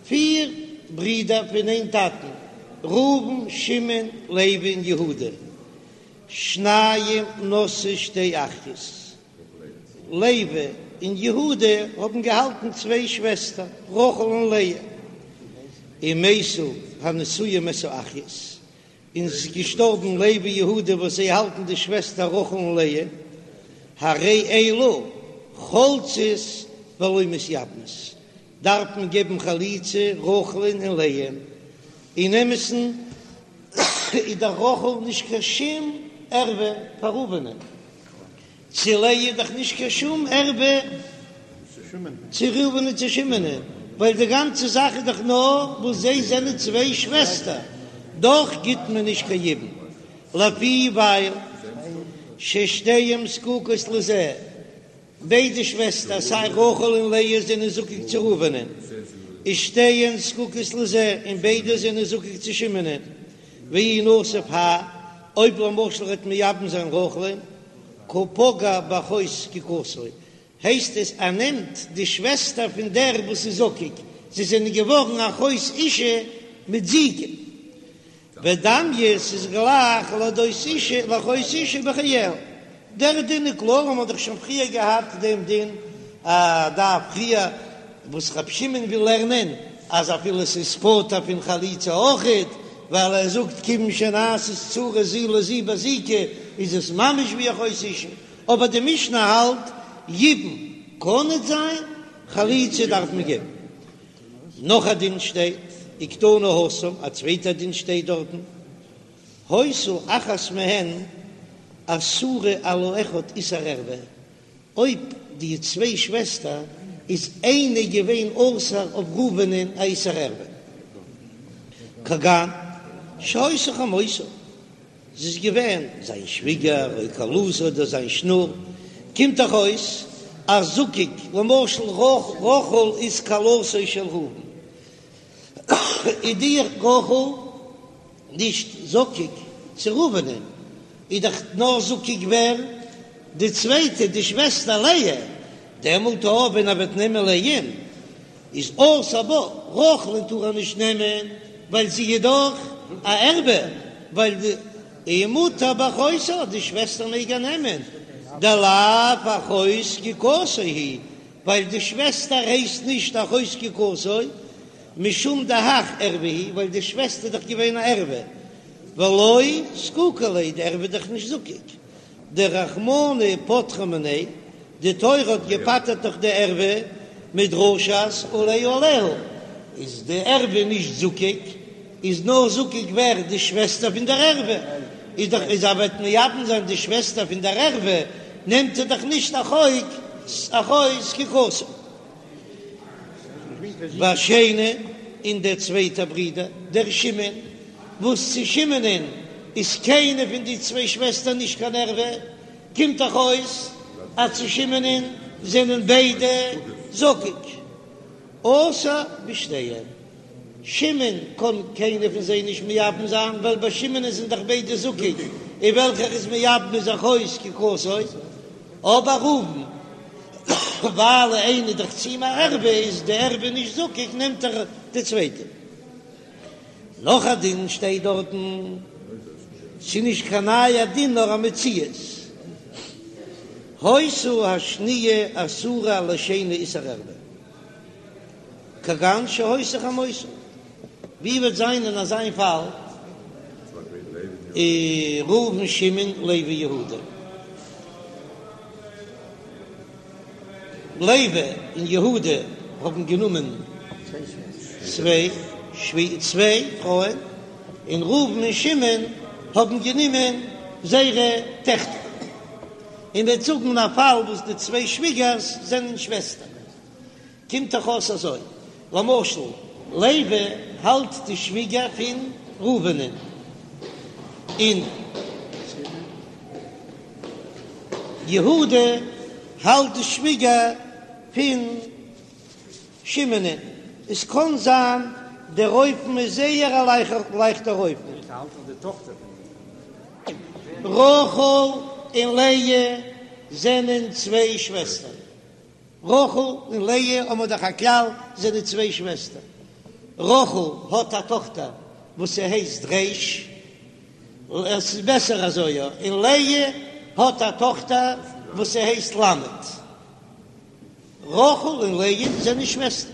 פיר ברידער פון איין טאטן, ראובן, שמעון, לוי און יהודה, שניים נשאו שתי אחיות. לוי. און יהודה האבן געהאלטן צוויי שוועסטער, רחל און לאה, ומתו הנשואים את האחיות, און ס'איז געשטארבן לוי יהודה וואס זיי האלטן די שוועסטער רחל און לאה, הרי אלו חולצות ולא מתייבמות, דארף מען געבן חליצה רחל'ן און לאה'ן, אין אמת'ן איז דאך רחל נישט קיין שום ערווה פאר ראובנ'ען. צו לאה איז דאך נישט קיין שום ערווה צו ראובן און צו שמעונ'ען, ווייל די גאנצע זאך איז דאך נאר וואס זיי זענען צוויי שוועסטער, דאך גיט מען נישט קיין יבום, לפי ווייל ששתיהן זקוקות לזה, ביידע שוועסטער סיי רחל און לאה זענען זקוק צו ראובנ'ען, ושתיהן זקוקות לזה, און ביידע זענען זקוק צו שמעונ'ען, ואי נסיב האי, אויב למשל ער וועט מייבם זיין רחל'ן, קא פגע באחות זקוקתו, הייסט עס ער נעמט די שוועסטער פון דער וואס איז זקוק, זיי זענען געווארן אחות אשה מיט זיקה. ודמיא ס'איז גלייך לאחות אשה לאחות אשה בחייה. דער דין איז קלאר, מ'האט דאך שוין פריער געהאט דעם דין א דף פריער, וואס רב שמעון וויל לערנען אז אפילו ס'איז פטור פון חליצה אויכעט, ווייל ער זאגט כיוון שנעשית צרה זו לזו בזיקה איז עס ממש ווי אחות אשה, אבער די משנה האלט יבום קען ניט זיין, חליצה דארף מען געבן. נאך א דין שטייט, וקתני התם, א צווייטע דין שטייט דארטן, היתה אחת מהן אסורה על האחד איסור ערווה, אויב די צוויי שוועסטער איז איינע געווען אסור אויף ראובנ'ען א איסור ערווה, כגון שהיתה חמותו, זי איז געווען זיין שוויגער או כלתו אדער זיין שנור, קומט דאך אויס אז זקוק, למשל רחל איז כלתו של ראובן, איז די רחל נישט זקוק צו ראובנ'ען, איז דאך נאר זקוק ווער? די צווייטע, די שוועסטער לאה, דעמאלט אויב ווען ער וועט נעמען לאה'ן איז אסור בה, רחל'ן טאר ער נישט נעמען ווייל זי איז דאך א ערווה, ווייל די ומותר באחותה, די שוועסטער מעג ער נעמען, דלאו אחות זקוקתו היא, ווייל די שוועסטער הייסט נישט אחות זקוקתו, משום דהך ערווה היא, ווייל די שוועסטער איז דאך געווען א ערווה, ולא זקוקה ליה, די ערווה איז דאך נישט זקוק, דרחמנא פטרה מיניה, די תורה האט געפטר'ט דאך די ערווה מדרשת עליה עליה, איז די ערווה נישט זקוק, איז נאר זקוק ווער? די שוועסטער פון דער ערווה, איז דאך אז ער וועט מייבם זיין די שוועסטער פון דער ערווה, נעמט ער דאך נישט אחות אחות זקוקתו. והשני, און דער צווייטער ברודער, דער שמעון, וואס צו שמעונ'ען איז קיינע פון די צוויי שוועסטער נישט קיין ערווה, קומט דאך אויס אז צו שמעונ'ען זענען ביידע זקוק. אסור בשתיהן. שמעון קען קיינע פון זיי נישט מייבם זיין, ווייל ביי שמעונ'ען זענען דאך ביידע זקוק, און וועלכער איז מייבם איז אחות זקוקתו. אבער ראובן, ווייל איינע איז דאך צו אים א ערווה, איז די ערווה נישט זקוק, נעמט ער די צווייטע. נאך א דין שטייט דארטן, ס'איז נישט קיין נייע דין נאר א מציאות, היתה השניה אסורה על השני איסור ערווה, כגון שהיתה חמותו, ווי וועט זיין אין אזיין פאל ראובן שמעון לוי יהודה, לוי און יהודה האבן גענומען צוויי צוויי פרויען, און ראובן און שמעון האבן גענומען זייערע טעכטער, און מ'וועט זאגן א פאל וואס די צוויי שוויגערס זענען שוועסטער. קומט דאך אויס אזוי, למשל לוי האלט די שוויגער פון ראובנ'ן, און יהודה האלט די שוויגער פון שמעונ'ן, עס קען זיין דער אופן איז זייער א לייכטער אופן. רחל און לאה זענען צוויי שוועסטער. רחל און לאה האבן דאך א כלל, זענען צוויי שוועסטער. רחל האט א טאכטער וואס ס'הייסט ריש, עס איז בעסער אזוי יא, און לאה האט א טאכטער וואס ס'הייסט למד. רחל און לאה זענען שוועסטער.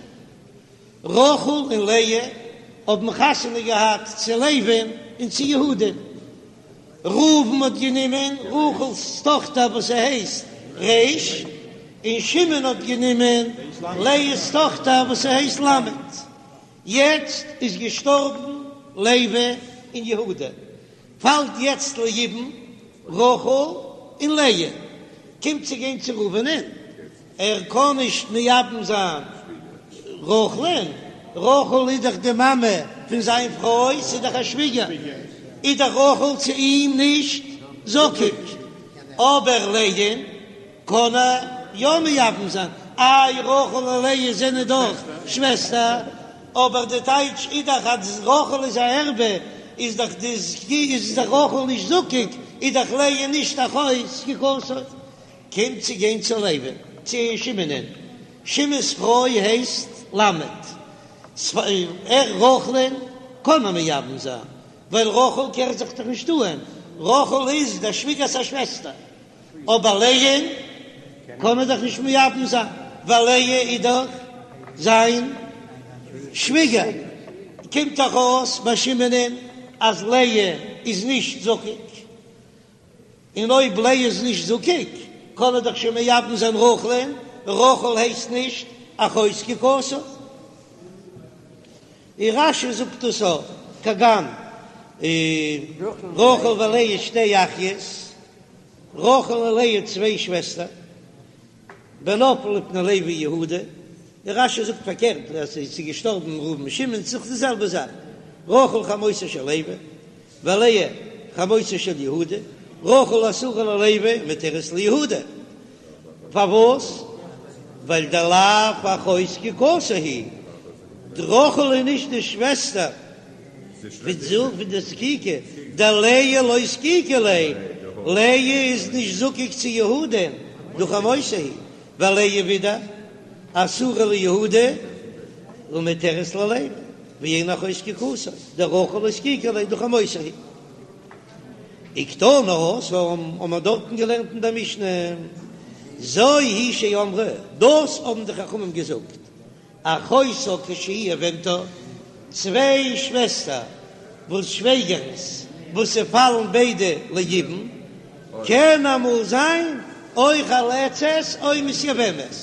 רחל און לאה האבן חתונה געהאט צו לוי'ן און צו יהודה'ן. ראובן האט גענומען רחל'ס טאכטער וואס ס'הייסט ריש, און שמעון האט גענומען לאה'ס טאכטער וואס ס'הייסט למד. יעצט איז געשטארבן לוי און יהודה, פאלט יעצט ליבום רחל און לאה, קומט צו גיין צו ראובנ'ען, ער קען נישט מייבם זיין רחל'ן, רחל איז דאך די מאמע פון זיין פרוי, ס'איז דאך א שוויגער, איז דאך רחל צו אים נישט זקוק, אבער לאה'ן קען ער יא מייבם זיין, איי רחל און לאה זענען דאך שוועסטער, אבער די טייטש איז דאך אז רחל איז א ערווה, איז דאך די איז דאך רחל נישט זקוק, איז דאך לאה נישט אחות זקוקתו. קומט צו גיין צו לוי'ן, צו שמעונ'ען, שמעון'ס פרוי הייסט למד, ער רחל'ן קען מען מייבם זיין, ווייל רחל קערט זיך דאך נישט אהן, רחל איז דער שוויגער'ס א שוועסטער, אבער לאה'ן קען מען דאך נישט מייבם זיין, ווייל לאה איז דאך זיין שוויגער, קומט דאך אויס ביי שמעונ'ען אז לאה איז נישט זקוק. און אויב לאה איז נישט זקוק, קען ער דאך שוין מייבם זיין רחל'ן, רחל הייסט נישט אחות זקוקתו. און רש"י זאגט דאס אויך, כגון רחל ולאה שתי אחיות, רחל און לאה צוויי שוועסטער, ונפלו לפני לוי ויהודה, און רש"י זאגט פארקערט אז ס'איז געשטארבן ראובן און שמעון, ס'איז דאך די זעלבע זאך, רחל חמותו של לוי, ולאה חמותו של יהודה, רחל אסורה ללוי ומותרת ליהודה, פארוואס? ווייל דלאו אחות זקוקתו היא, די רחל איז נישט די שוועסטער פון די זקוקה, דלאה לא זקוקה ליה, לאה איז נישט זקוק צו יהודה'ן, דהא חמותו היא, ולאה ווידער אסורה ליהודה ומותרת ללוי, ואין אחות זקוקתו, דרחל לא זקוקה ליה דהא חמותו היא. וקתני התם האבן מיר דארטן געלערנט אין דער משנה, זו היא שאמרו, דאס האבן די חכמים געזאגט, אחותה כשהיא יבמתה, צוויי שוועסטער וואס שוועגערנס וואס ס'פאלן ביידע ליבום, קען אמאל זיין או חולצת או מתייבמת,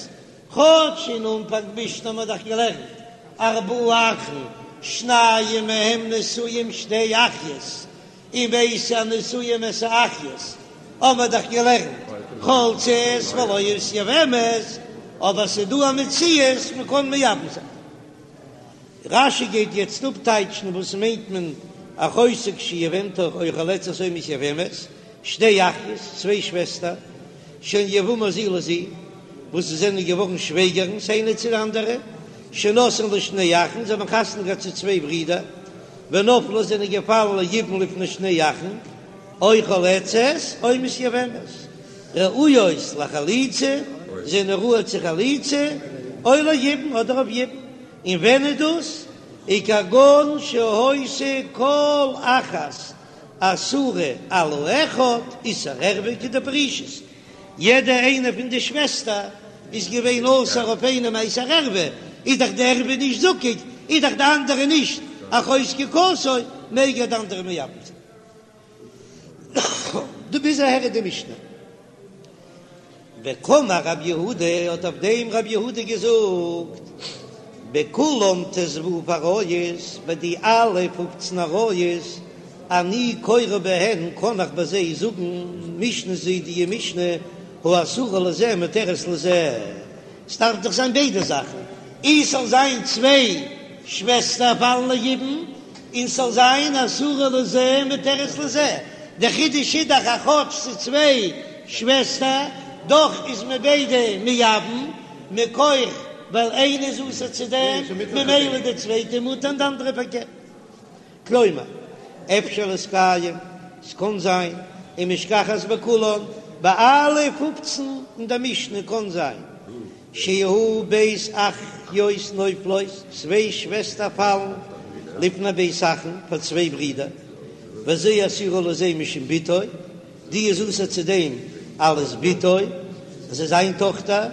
כאטש אין אנפאנג משנה האט מען דאך געלערנט ארבעה אחין שניים מהם נשואים שתי אחיות, ומתו הנשואים את האחיות האבן מיר דאך געלערנט חולצות ולא מתייבמות, אבער ס'דא א מציאות מ'קען מייבם זיין. רש"י גייט יעצט אפטייטשן וואס מיינט מען אחותה כשהיא יבמתה או חולצת או מתייבמת, שתי אחיות, צוויי שוועסטער, שהן יבמות זו לזו, וואס זיי זענען געווארן שוועגערנס איינע צו די אנדערע, שנשאן לשני אחין, זיי האבן חתונה געהאט צו צוויי ברידער, ונפלו זענען געפאלן ליבום לפני שני אחין, או חולצות או מתייבמות, ראויות לחליצה, זענען ראוי צו חליצה, או ליבום אדער אויף יבום, און ווען איז דאס? וכגון שהיתה כל אחת אסורה על האחד איסור ערווה כדפרישית, יעדע איינע פון די שוועסטער איז געווען אסור אויף איינעם א איסור ערווה, איז דאך די ערווה נישט זקוק, איז דאך די אנדערע נישט אחות זקוקתו, מעג ער די אנדערע מייבם זיין. דא ביז אהער איז די משנה. וקאמר רב יהודה, האט אויף דעם רב יהודה געזאגט, בכולן ט"ו עריות, ביי די אלע פופצן עריות, אני קורא בהן, קען איך ביי זיי זאגן משנה זו די משנה, האסורה לזה מותרת לזה, ס'דארף דאך זיין ביידע זאכן, אי ס'זאל זיין צוויי שוועסטער פאלן ליבום, און ס'זאל זיין אסורה לזה מותרת לזה, די חידוש איז דאך אז כאטש ס'איז צוויי שוועסטער, דאך איז מען ביידע מייבם, מכח ווייל איינע איז אסור צו דעם, ממילא די צווייטע מותר און די אנדערע פארקערט. כלומר, אפשר להתקיים, ס'קאן זיין, ומשכחת בכולן, ביי אלע פופצן אין די משנה קאן זיין, שיהו ב' אחיות נופלות, צוויי שוועסטער פאלן לפני ב' אחין פאר צוויי ברידער, וזו אסורה לזה משום בתו, די איז אסור צו דעם אלס בתו, עס איז זיין טאכטער.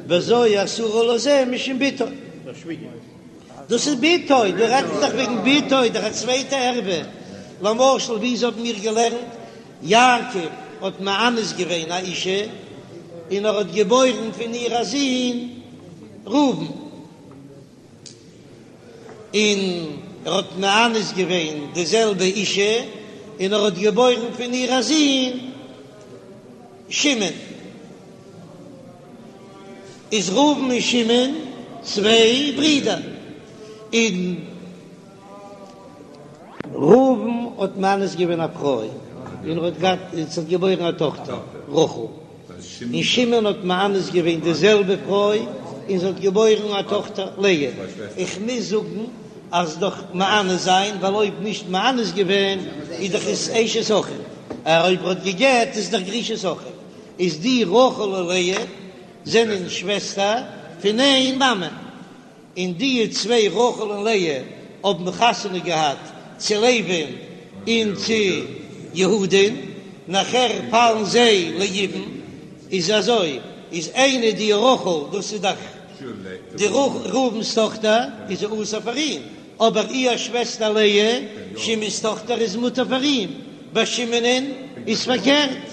וזו אסורה לזה משום בתו. דאס איז בתו, דא רעדט מען דאך וועגן בתו, דאך א צווייטע ערווה. למשל ווי האבן מיר געלערנט, יעקב האט מאנס געווען א אישה און ער האט געבוירן פון איר א זון ראובן. און ער האט מאנס געווען די זעלבע אישה, און ער האט געבוירן פון איר א זון שמעון. איז ראובן און שמעון צוויי ברידער, און ראובן האט מאנס געווען א פרוי, און ער האט געהאט, און זי האט געבוירן א טאכטער רחל. און שמעון האט מאנס געווען די זעלבע פרוי און זי האט געבוירן א טאכטער לאה, איך מוז זאגן אז דאך מאנס זיין ווייל אויב נישט מאנס געווען איז דאך עס אשת אחיו, אויב ער האט גע'גט איז דאך גרושת אחיו, איז די רחל און לאה זענען שוועסטער פון איין מאמע. און די צוויי רחל און לאה האבן חתונה געהאט צו לוי'ן און צו יהודה'ן, נאכער פאלן זיי ליבום, איז אזוי, איז איינע די רחל, דאס איז דאך די ראובן'ס טאכטער, איז זי אסור פאר אים, אבער איר שוועסטער לאה, שמעון'ס טאכטער, איז מותר פאר אים, ביי שמעון'ען איז פארקערט.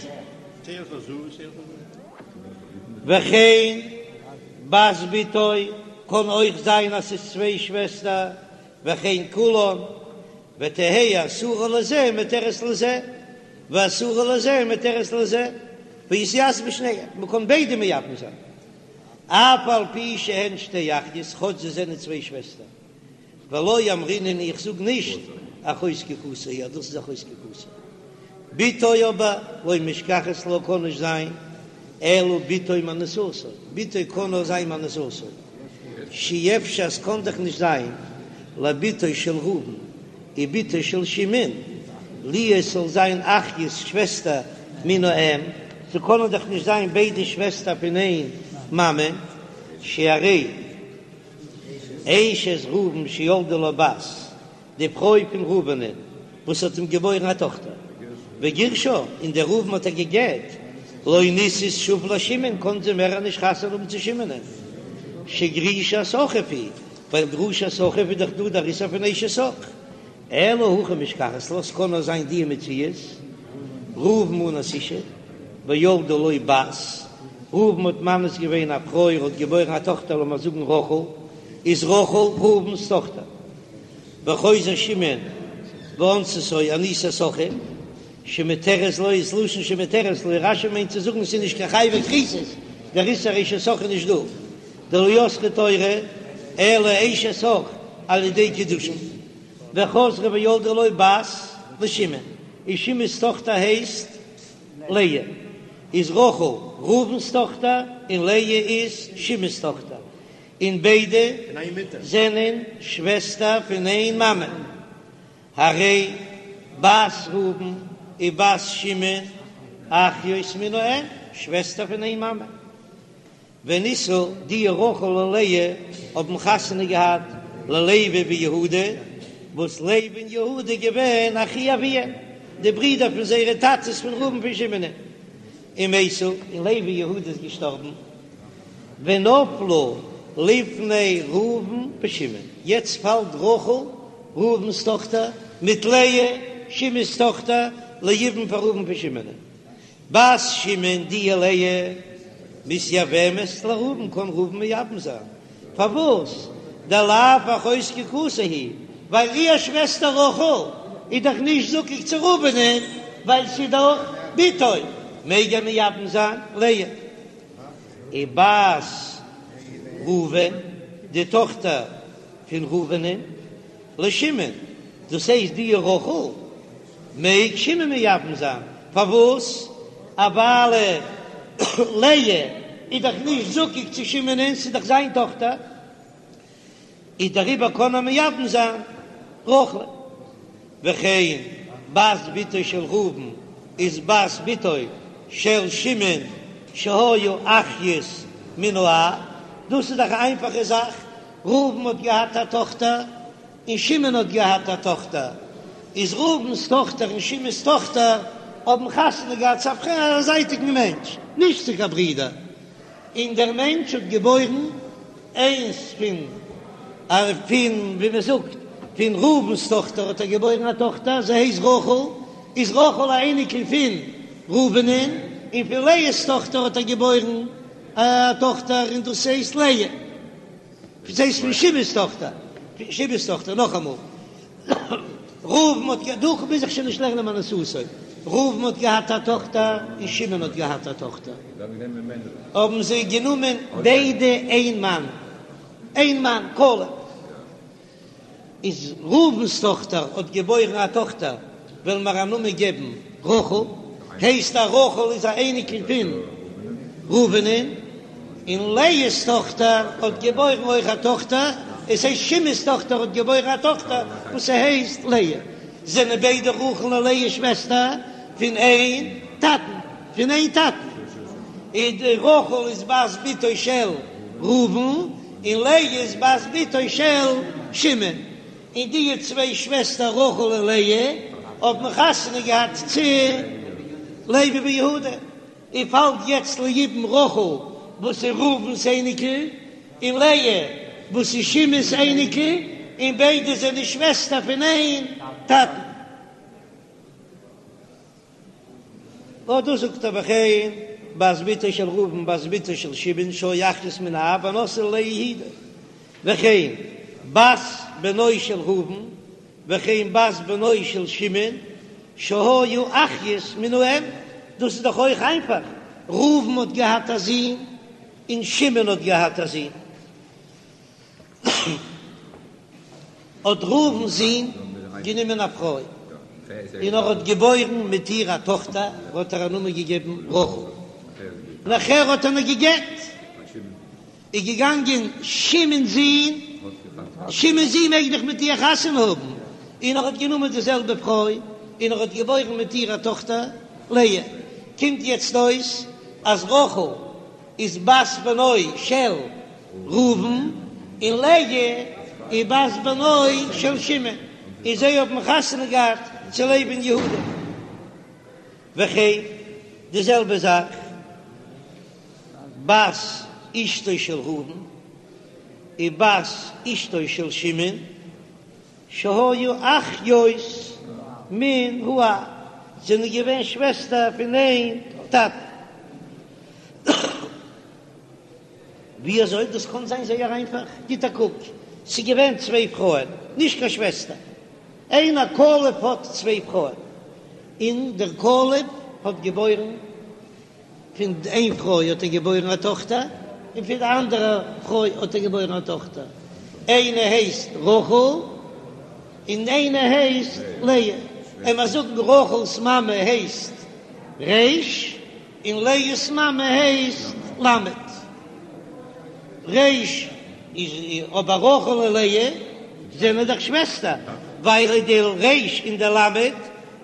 וכן בת בתו קען אויך זיין אז ס'איז צוויי שוועסטער, וכן כולן, ותהא אסורה לזה ומותרת לזה, ואסורה לזה ומותרת לזה, ויתייבמו שניהם, מ'קען ביידע מייבם זיין, אף על פי שהן שתי אחיות, כאטש זיי זענען צוויי שוועסטער. ולא אמרינן איך זאג נישט אחות זקוקתו היא אז דאס איז אחות זקוקתו. בתו אבער לא משכחת לה קען נישט זיין אלא בתו מאנוסתו, בתו קען נאר זיין מאנוסתו, שאי אפשר ס'קען דאך נישט זיין לבתו של ראובן ובתו של שמעון להיות ס'זאל זיין אחיות שוועסטער מן האם, ס'קענען דאך נישט זיין ביידע שוועסטער פון איין מאמע, שהרי אשת ראובן שילדה לו בת, די פרוי פון ראובנ'ען וואס האט אים געבוירן א טאכטער, וגירשה, און דער ראובן האט איר גע'גט, לא נישאת שוב לשמעון, קען זי מער נישט חתונה האבן צו שמעונ'ען, שגרושת אחיו היא, ווייל גרושת אחיו איז דאך דא דער איסור פון אשת אח. אלא הכי משכחת לה, ס'קען נאר זיין די מציאות, ראובן אנס אשה, וילדה לו בת, ראובן האט מאנס געווען א פרוי, ער האט געבוירן א טאכטער לאמיר זאגן רחל, איז רחל ראובן'ס טאכטער, וחוזר שמעון ואונסתו אנוסת אחיו, שמותרת לו איז לשון שמותרת לו, רש"י מיינט צו זאגן ס'איז נישט קיין חייבי כריתות, דער איסור אשת אח איז נישט דא, דלא אסרה תורה אלא אשת אח על ידי קידושין. וחזרה וילדה לו בת לשמעון, און שמעון'ס טאכטער הייסט לאה, איז רחל ראובן'ס טאכטער און לאה איז שמעון'ס טאכטער, און ביידע זענען שוועסטער פון איין מאמע, הרי בת ראובן ובת שמעון אחיות מן האם, שוועסטער פון איין מאמע. ונישאו, די רחל און לאה האבן חתונה געהאט ללוי ויהודה, וואס לוי און יהודה געווען אחי אביהם, די ברידער פון זייערע טאטעס פון ראובן פון שמעון, ומתו, און לוי און יהודה איז געשטארבן, ונפלו לפני ראובן ושמעון, יעצט פאלט רחל, ראובן'ס טאכטער, מיט לאה, שמעון'ס טאכטער, ליבום פאר ראובן פון שמעון. בת שמעון די לאה מתייבמת לראובן קען ראובן מייבם זיין, פארוואס דלאו אחות זקוקתו היא, ווייל איר שוועסטער רחל איז דאך נישט זקוק צו ראובנ'ען ווייל ס'איז דאך בתו, מעג ער מייבם זיין לאה. ובת ראובן די טאכטער פון ראובנ'ען לשמעון, דאס הייסט די רחל מעג שמעון מייבם זיין, פארוואס? א ווייל לאה איז דאך נישט זקוק צו שמעונ'ען, ס'איז דאך זיין טאכטער, איז דעריבער קען ער מייבם זיין רחל. וכן בת בתו של ראובן איז בת בתו של שמעון שהיו אחיות מן האב, דאס איז דאך א איינפאכע זאך, ראובן האט געהאט א טאכטער און שמעון האט געהאט א טאכטער, איז ראובן'ס טאכטער און שמעון'ס טאכטער האבן חתונה געהאט צו א זייטיגן מענטש, נישט צו קיין ברידער. און דער מענטש האט געבוירן איינס פון פון ווי מען זאגט פון ראובן'ס טאכטער האט ער געבוירן א טאכטער זי הייסט רחל, איז רחל א אייניקל פון ראובנ'ן, און פון לאה'ס טאכטער האט ער געבוירן א טאכטער און דאס הייסט לאה. דאס הייסט פון שמעון'ס טאכטער, פון שמעון'ס טאכטער, נאכאמאל, ראובן האט גע, דא מוז איך שוין נישט לערנען מאנוסתו, ראובן האט געהאט א טאכטער און שמעון האט געהאט א טאכטער, האבן זיי גענומען ביידע איין מאן, איין מאן, כלב. איז ראובן'ס טאכטער האט געבוירן א טאכטער, וועלן מיר א נאמען געבן רחל, הייסט אז רחל איז א אייניקל פון ראובנ'ן, און לאה'ס טאכטער האט געבוירן אויך א טאכטער, עס הייסט שמעון'ס טאכטער האט געבוירן א טאכטער וואס ס'הייסט לאה, זענען ביידע רחל און לאה שוועסטער פון איין טאטן, פון איין טאטן, און רחל איז בת בתו של ראובן, און לאה איז בת בתו של שמעון, און די צוויי שוועסטער רחל און לאה האבן חתונה געהאט צו לוי ויהודה, און פאלט יעצט ליבום רחל וואס איז ראובן'ס אייניקל, און לאה וואס איז שמעון'ס אייניקל, און ביידע זענען שוועסטער פון איין טאטן. נאר דאס זאגט ער וכן בת בתו של ראובן בת בתו של שמעון שהיו אחיות מן האב ונשאו ללאה יהודה וכן בת בנו של ראובן וכן בת בנו של שמעון שהיו אחיות מן האם, דאס איז דאך אויך איינפאך, ראובן האט געהאט א זון און שמעון האט געהאט א זון. האט ראובן'ס זון גענומען א פרוי, און ער האט געבוירן מיט איר א טאכטער, האט ער א נאמען געגעבן רחל. נאכער האט ער איר גע'גט, איז געגאנגען שמעון'ס זון, שמעון'ס זון מעג דאך מיט איר חתונה האבן, און ער האט גענומען די זעלבע פרוי, און ער האט געבוירן מיט איר א טאכטער לאה. קומט יעצט אויס אז רחל איז בת בנו של ראובן און לאה איז בת בנו של שמעון, און זיי האבן חתונה געהאט צו לוי און יהודה. וכן די זעלבע זאך בת אשתו של ראובן און בת אשתו של שמעון שהיו אחיות מן האב, זענען געווען שוועסטער פון איין טאטן. ווי אזוי דאס קען זיין זייער איינפאך, גיט א קוק, ס'איז געווען צוויי פרויען, נישט קיין שוועסטער, איינער כלב האט צוויי פרויען, און דער כלב האט געבוירן, פון איין פרוי האט ער געבוירן א טאכטער, און פון די אנדערע פרוי האט ער געבוירן א טאכטער, איינע הייסט רחל און איינע הייסט לאה, עמער זאגן רחל'ס מאמע הייסט ר' און לאה'ס מאמע הייסט למד. ר' איז אבער רחל און לאה זענען דאך שוועסטער, ווייל די ר' און די למד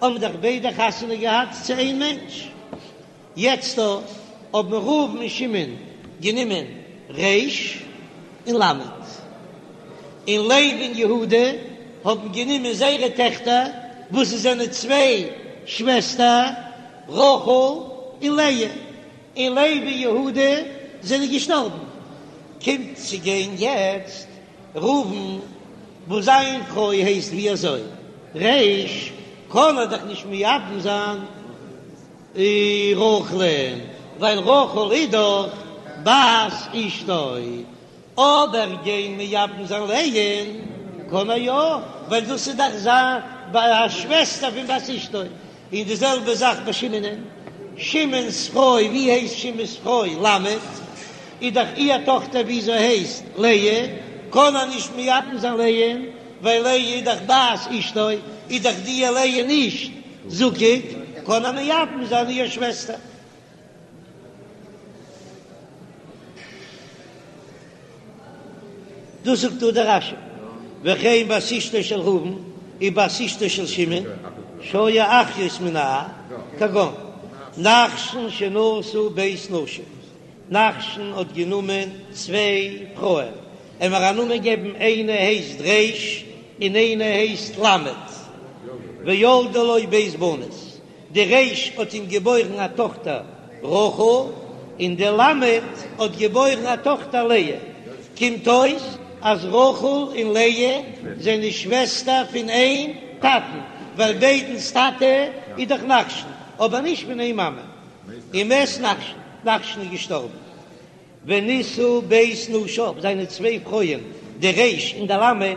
האבן דאך ביידע חתונה געהאט צו איין מענטש. יעצט דא האבן ראובן און שמעון גענומען ר' און למד, און לוי און יהודה האבן גענומען זייערע טעכטער וואס זיי זענען צוויי שוועסטער, רחל און לאה, און לוי און יהודה זענען געשטארבן, קומט צו גיין יעצט ראובן וואס זיין פרוי הייסט ווי אזוי ר', קען ער דאך נישט מייבם זיין רחל'ן, ווייל רחל איז דאך בת אשתו, אבער גיין מייבם זיין לאה'ן קען ער יא, ווייל דאס איז דאך זיין א שוועסטער פון בת אשתו, און די זעלבע זאך ביי שמעונ'ען, שמעון'ס פרוי, ווי הייסט שמעון'ס פרוי? למד, איז דאך איר טאכטער וויאזוי הייסט לאה, קען ער נישט מייבם זיין לאה'ן, ווייל לאה איז דאך בת אשתו, איז דאך די לאה נישט זקוק, קען ער מייבם זיין איר שוועסטער. דאס זאגט דא דער רש"י, וכן בת אשתו של ראובן ובת אשתו של שמעון שהיו אחיות מן האב, כגון נחשון שנשא ב' נשים, נחשון האט גענומען צוויי פרויען, עמער א נאמען געבן איינע הייסט ר' און איינע הייסט ל', וילדה לו ב' בנות, די ר' האט אים געבוירן א טאכטער רחל, און. און די למד האט געבוירן א טאכטער לאה, קומט אויס אז רחל און לאה זענען שוועסטער פון איין טאטן, ווייל ביידנס טאטע איז דאך נחשון, אבער נישט פון איין מאמע. ומת נחשון, נחשון איז געשטארבן. ונישאו ב' נשיו, זיינע צוויי פרויען, די ר' און די ל',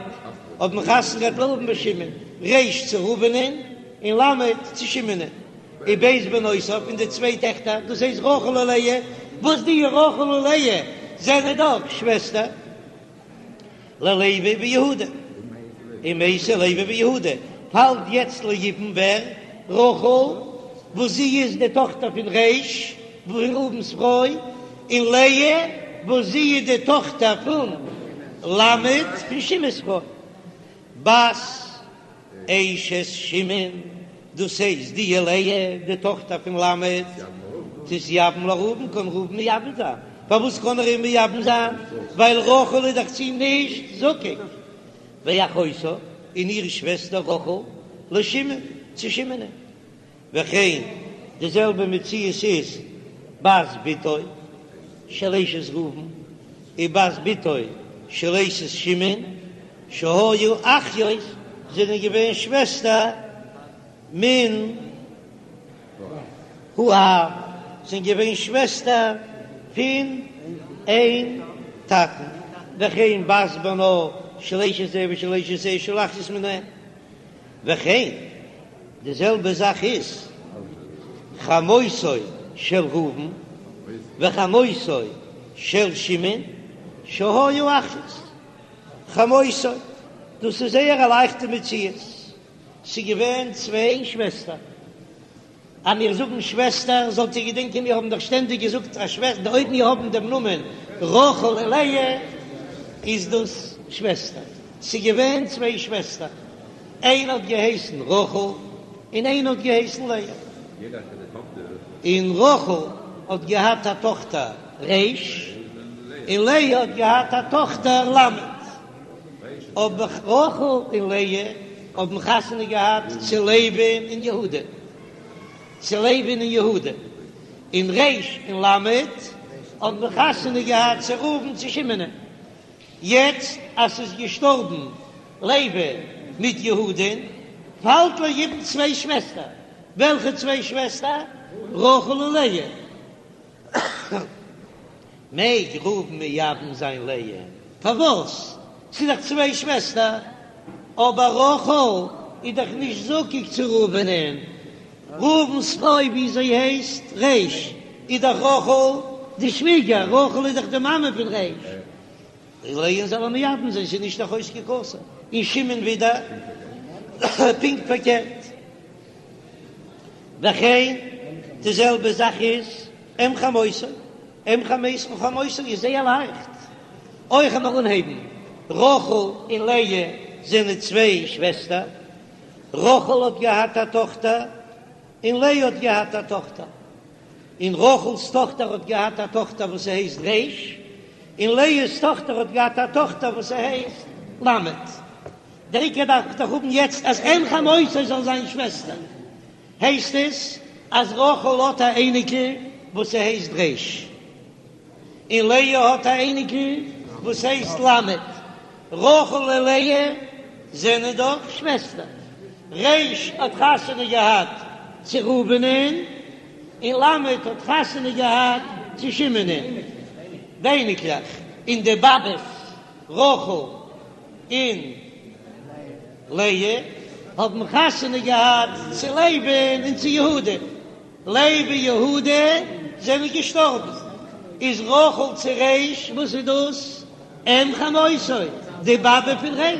האבן חתונה געהאט לראובן ושמעון, ר' צו ראובנ'ען און ל' צו שמעונ'ען, וב' בנותיו, און די צוויי טעכטער, דאס הייסט רחל און לאה, וואס די רחל און לאה זענען דאך שוועסטער. ללוי ויהודה, ומתו לוי ויהודה, פאלט יעצט ליבום ווער? רחל וואס זי איז די טאכטער פון ר' פון ראובן'ס פרוי, און לאה וואס זי איז די טאכטער פון למד פון שמעון'ס פרוי. בת אשת שמעון, דאס הייסט די לאה די טאכטער פון למד, תתייבם לראובן, קען ראובן מייבם זיין, פארוואס קען ער איר מייבם זיין? ווייל רחל איז דאך צו אים נישט זקוק, ואחותה, און איר שוועסטער רחל, לשמעון, צו שמעונ'ען. וכן, די זעלבע מציאות איז בת בתו של אשת ראובן ובת בתו של אשת שמעון שהיו אחיות זענען געווען שוועסטער מן האב זענען געווען שוועסטער פון איין טאטן, וכן בת בנו של אשת זה ושל אשת זה שהיו אחיות מן האם. וכן, די זעלבע זאך איז חמותו של ראובן וחמותו של שמעון שהיו אחיות חמותו, דאס איז זייער א לייכטע מציאות, ס'איז געווען צוויי שוועסטער. אז מיר זאגן שוועסטער, זאלט איר געדענקען מיר האבן דאך שטענדיג געזאגט א שוועסטער, אויב מיר האבן דעם נאמען רחל און לאה, איז דאס שוועסטער. ס'איז געווען צוויי שוועסטער, איינע האט געהייסן רחל און איינע האט געהייסן לאה. און רחל האט געהאט א טאכטער ר', און לאה האט געהאט א טאכטער ל'. אבער רחל און לאה האבן חתונה געהאט צו לוי'ן און יהודה, צו לוי'ן און יהודה, און ר' און ל' האבן חתונה געהאט צו ראובן צו שמעונ'ען. יעצט אז ס'איז געשטארבן לוי מיט יהודה'ן, פאלט ליבום צוויי שוועסטער, וועלכע צוויי שוועסטער? רחל און לאה. מעג ראובן מייבם זיין לאה? פארוואס? ס'איז דאך צוויי שוועסטער. אבער רחל איז דאך נישט זקוק צו ראובנ'ען. ראובן'ס פרוי ווי זי הייסט ר' איז דאך רחל די שוויגער, רחל איז דאך די מאמע פון ר'. לאה'ן זאל ער מייבם זיין, ס'איז נישט אחות זקוקתו. און שמעון ווידער פונקט פארקערט. וכן די זעלבע זאך איז אם חמותו, אם חמותו, חמותו איז זייער לייכט, אויך לאמיר אנהייבן, רחל און לאה זענען צוויי שוועסטער, רחל האט געהאט א טאכטער און לאה האט געהאט א טאכטער, און רחל'ס טאכטער האט געהאט א טאכטער וואס ס'הייסט ר', און לאה'ס טאכטער האט געהאט א טאכטער וואס ס'הייסט ל'. דער עיקר דארף איך דאך האבן יעצט אז אם חמותו זאל זיין שוועסטער, הייסט עס אז רחל האט א אייניקל וואס ס'הייסט ר', און לאה האט א אייניקל וואס הייסט ל', רחל און לאה זענען דאך שוועסטער, ר' האט חתונה געהאט צו ראובנ'ען און ל' האט חתונה געהאט צו שמעונ'ען, די אייניקלעך און די באבעס רחל און לאה האבן חתונה געהאט צו לוי'ן און צו יהודה, לוי און יהודה זענען געשטארבן, איז רחל צו ר', וואס איז דאס? אם חמותו, די באבע פון ר',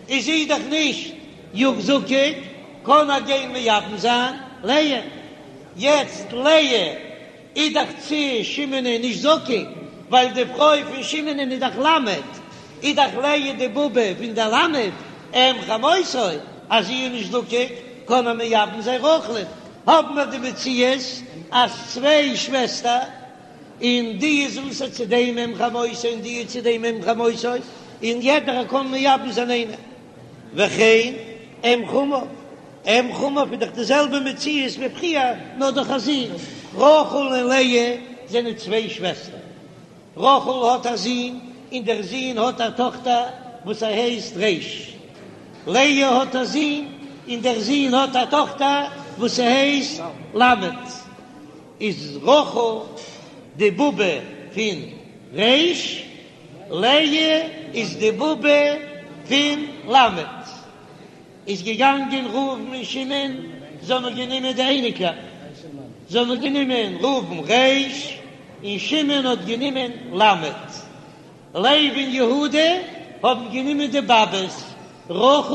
איז זי דאך נישט זקוק, קען ער גיין מייבם זיין לאה, יעצט לאה איז דאך צו שמעונ'ען נישט זקוק, ווייל די פרוי פון שמעונ'ען איז דאך למד, איז דאך לאה די באבע פון דער למד, אם חמותו, אז זי איז נישט זקוק, קען ער מייבם זיין רחל'ן, האבן מיר די מציאות אז צוויי שוועסטער, און די איז אסור צו דעם אם חמותו און די איז צו דעם אם חמותו, און יעדער קען מייבם זיין איינער. וכן אם חמיו, אם חמיו איז דאך די זעלבע מציאות ווי פריער, נאר דורך א זון. רחל און לאה. זענען צוויי שוועסטער. רחל האט א זון און דער זון האט א טאכטער וואס ער הייסט ר'. לאה האט א זון און דער זון האט א טאכטער וואס ס'הייסט ל'. איז רחל די באבע פון ר', לאה איז די באבע פון ל'. איז געגאנגען ראובן און שמעון, זיי האבן גענומען די אייניקלעך, זיי האבן גענומען ראובן ר' און שמעון האט גענומען ל'. לוי און יהודה האבן גענומען די באבעס רחל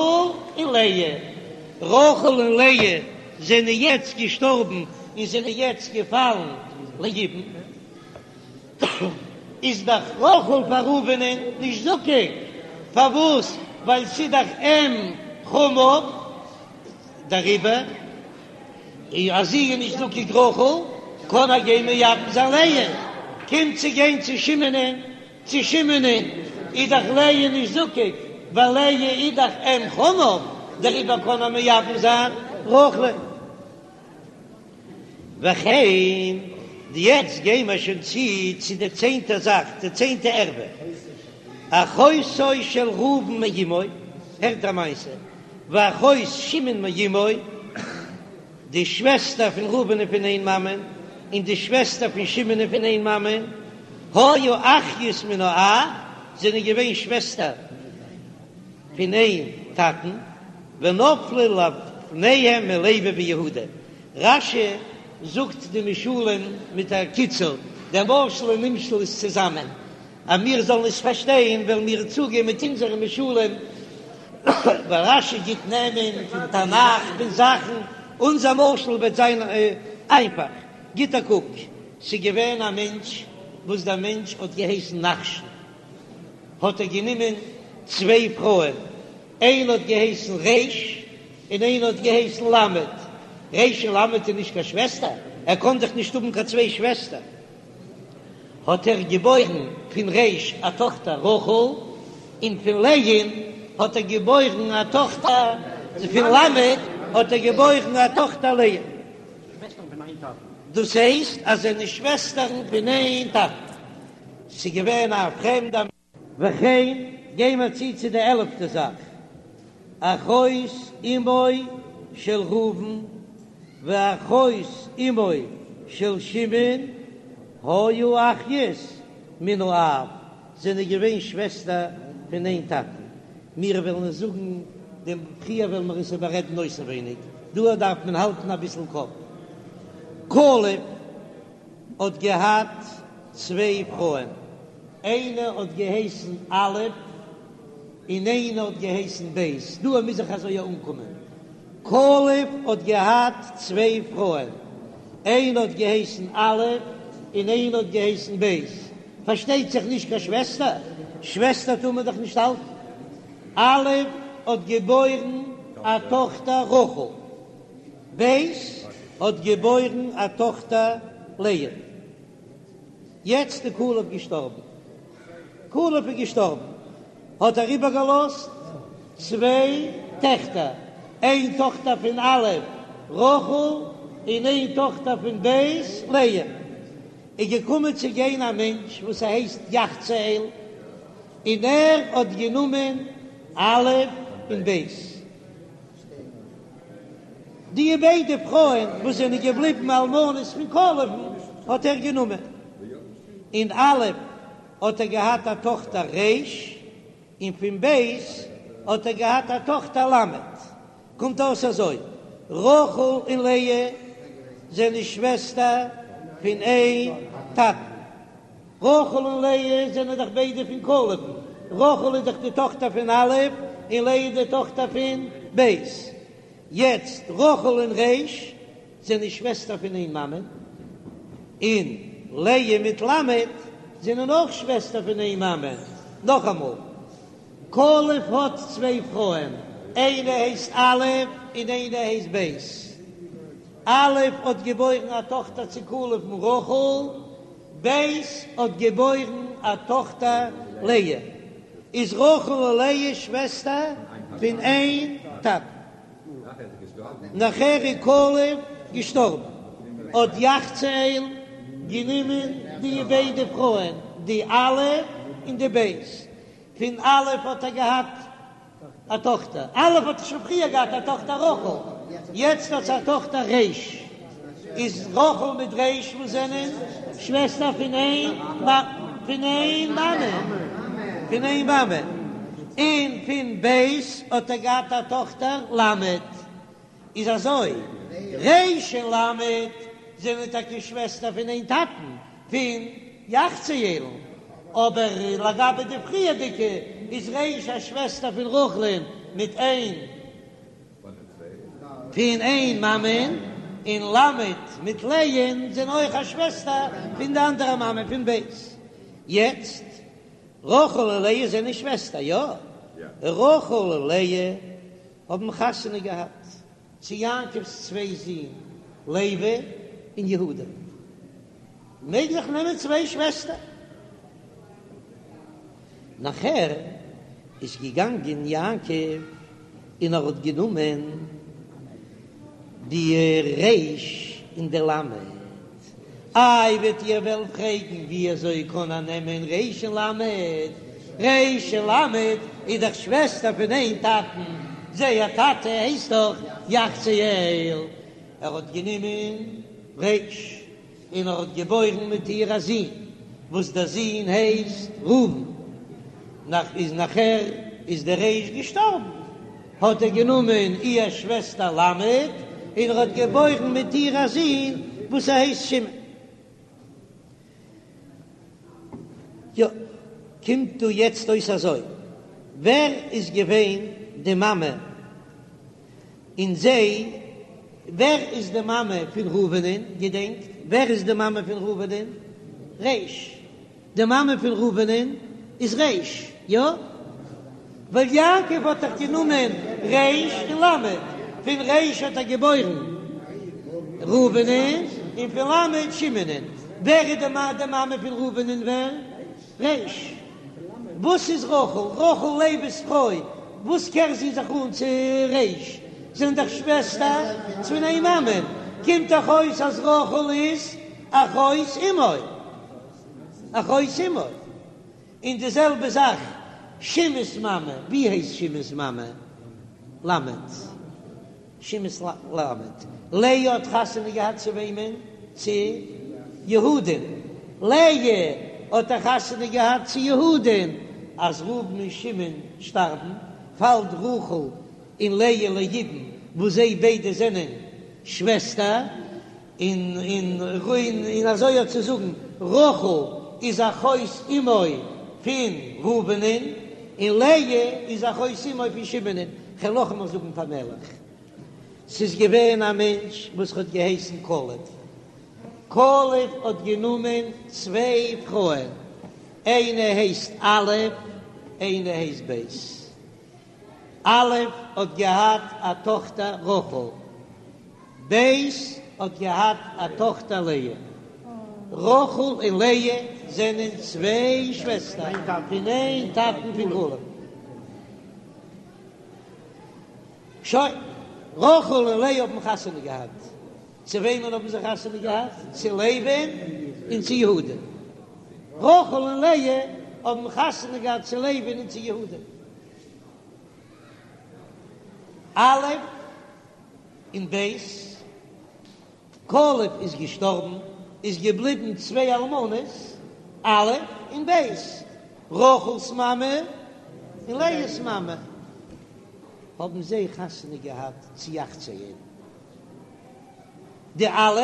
און לאה. רחל און לאה זענען יעצט געשטארבן און זענען יעצט געפאלן ליבום. איז דאך רחל פאר ראובנ'ען נישט זקוק, פארוואס? ווייל ס'איז דאך אם חמיו, דעריבער אז זי איז נישט זקוק רחל, קען ער גיין מייבם זיין לאה, קומט צו גיין צו שמעונ'ען, צו שמעונ'ען איז דאך לאה נישט זקוק, ווייל לאה איז דאך אם חמיו, דעריבער קען ער מייבם זיין רחל'ען. וכן, יעצט גייען מיר שוין צו צו די צענטע זאך, די צענטע ערווה, אחותו של ראובן מאמו, הערט א מעשה, ואחות שמעון מאמו, די שוועסטער פון ראובן פון איין מאמען, און די שוועסטער פון שמעון פון איין מאמען, היו אחיות מן האב, זענען געווען שוועסטער פון איין טאטן, ונפלו לפניהם מלוי ויהודה. רש"י זאגט די משלים מיט א קיצור, דער משל און נמשל איז צוזאמען, אז מיר זאלן עס פארשטיין וועלן מיר צוגיין מיט אונזערע משלים, ווייל רש"י גיט נעמען פון תנך פון זאכן, אונזער משל וועט זיין איינפאך. גיט א קוק, ס'איז געווען א מענטש וואס דער מענטש האט געהייסן נחשון, האט ער גענומען צוויי פרויען, איינע האט געהייסן ר' און איינע האט געהייסן ל'. ר' און ל' איז נישט קיין שוועסטער, ער קען דאך נישט האבן קיין צוויי שוועסטער. האט ער געבוירן פון ר' א טאכטער רחל, און פון לאה'ן האט ער געבוירן א טאכטער, פון ל' האט ער געבוירן א טאכטער לאה. דאס הייסט אז זיי זענען שוועסטערן פון איין טאטן. ס'איז געווען א פרעמדע. וכן, גיי מיר צו צו די עלפטע זאך, אחות אמו של ראובן ואחות אמו של שמעון היו אחיות מן האב, זענען געווען שוועסטער פון איין טאטן. מיר וועלן עס זאגן דעם פריער וועלן מיר עס איבעררעדן אויסנווייניג, דא דארף מען האלטן אביסל קאפ. כלב האט געהאט צוויי פרויען, איינע האט געהייסן א' און איינע האט געהייסן ב', דא מוז איך אזוי אנקומען, כלב האט געהאט צוויי פרויען, איינע האט געהייסן א' און איינע האט געהייסן ב', פארשטייט זיך נישט קיין שוועסטער, שוועסטער טאר מען דאך נישט האלטן, א' האט געבוירן א טאכטער רחל. ב' האט געבוירן א טאכטער לאה. יעצט איז כלב געשטארבן. כלב איז געשטארבן האט ער איבערגעלאזט צוויי טעכטער, איין טאכטער פון א' רחל און איין טאכטער פון ב' לאה. איז געקומען צו גיין א מענטש וואס ער הייסט יחצאל און ער האט גענומען א' און ב'. די ביידע פרויען וואס זענען געבליבן אלמנות פון כלב'ן האט ער גענומען. און א' האט ער געהאט א טאכטער ר', און פון ב' האט ער געהאט א טאכטער ל'. קומט אויס אזוי, רחל און לאה זענען שוועסטער פון איין טאטן. רחל און לאה זענען דאך ביידע פון כלב'ן, רחל איז דאך די טאכטער פון א' און לאה איז די טאכטער פון ב'. יעצט רחל און ר' זענען שוועסטער פון איין מאמע, און לאה מיט ל' זענען אויך שוועסטער פון איין מאמע. נאכאמאל, כלב האט צוויי פרויען, איינע הייסט א' און איינע הייסט ב'. א' האט געבוירן א טאכטער צו כלב'ן רחל, ב' האט געבוירן א טאכטער לאה, איז רחל און לאה שוועסטער פון איין טאטן. נאכער איז כלב געשטארבן, האט יחצאל. גענומען די ביידע פרויען, די א' און די ב'. פון א' האט ער געהאט א טאכטער, א' האט שוין פריער געהאט א טאכטער רחל, יעצט האט זי א טאכטער ר', איז רחל מיט ר' וואס זענען שוועסטער פון איין פון איין מאמע, פון איין מאמע, און פון ב' האט ער געהאט א טאכטער ל'. איז אזוי, ר' און ל' זענען טאקע שוועסטער פון איין טאטן, פון יחצאל'ן, אבער לגבי די פריערדיגע איז ר' א שוועסטער פון רחל'ן מיט איין פון איין מאמען, און ל' מיט לאה'ן זענען אויך א שוועסטער פון די אנדערע מאמע פון ב'. יעצט, רחל און לאה זענען שוועסטער, יא? רחל און לאה האבן חתונה געהאט צו יעקב'ס צוויי זין לוי און יהודה, מעג איך נעמען צוויי שוועסטער? נאכער איז געגאנגען יעקב און ער האט גענומען די ר' און די ל'. איי וועט איר וועלן פרעגן ווי אזוי קען ער נעמען ר' און ל'? ר' און ל' איז דאך שוועסטער פון איין טאטן, זייער טאטע הייסט דאך יחצאל. ער האט גענומען ר' און ער האט געבוירן מיט איר א זון וואס דער זון הייסט ראובן. נאך איז נאכער איז דער ר' געשטארבן, האט ער גענומען איר שוועסטער ל' און ער האט געבוירן מיט איר א זון וואס ער הייסט שמעון. יא, קומט דא יעצט אויס אזוי, ווער איז געווען די מאמע און זיי, ווער איז די מאמע פון ראובנ'ען, געדענקט, ווער איז די מאמע פון ראובנ'ען? ר'. די מאמע פון ראובנ'ען איז ר', יא? ווייל יעקב האט דאך גענומען ר' און ל', פון ר' האט ער געבוירן ראובנ'ען, און פון ל' שמעונ'ען. ווער איז די מאמע פון ראובנ'ען ווער? ר'. וואס איז רחל? רחל לוי'ס פרוי, וואס קער זי זיך אן צו ר'? זענען דאך שוועסטער פון איין מאמע, קומט דאך אויס אז רחל איז אחות אמו. אחות אמו. און די זעלבע זאך שמעון'ס מאמע, ווי הייסט שמעון'ס מאמע? למד. שמעון'ס למד. לאה האט חתונה געהאט צו וועמען? צו יהודה'ן. לאה האט א חתונה געהאט צו יהודה'ן. אז ראובן און שמעון שטארבן, פאלט רחל און לאה ליבום, וואס זיי ביידע זענען שוועסטער. און און און אזוי אויך צו זאגן, רחל איז אחות אמו פון ראובנ'ען, און לאה איז אחות אמו פון שמעונ'ען. כ'וועל נאכאמאל זאגן פאמעלעך, ס'איז געווען א מענטש וואס האט געהייסן כלב. כלב האט גענומען צוויי פרויען, איינע הייסט א', איינע הייסט ב'. א' האט געהאט א טאכטער רחל. ב' האט געהאט א טאכטער לאה. רחל און לאה זענען צוויי שוועסטער פון איין טאטן פון כלב. שוין, רחל און לאה האבן חתונה געהאט. צו וועמען האבן זיי חתונה געהאט? צו לוי'ן און צו יהודה. רחל און לאה האבן חתונה געהאט צו לוי'ן און צו יהודה. א' און ב', כלב איז געשטארבן, איז געבליבן צוויי אלמנות, א' און ב', רחל'ס מאמע און לאה'ס מאמע, האבן זיי חתונה געהאט צו יחצאל, די א'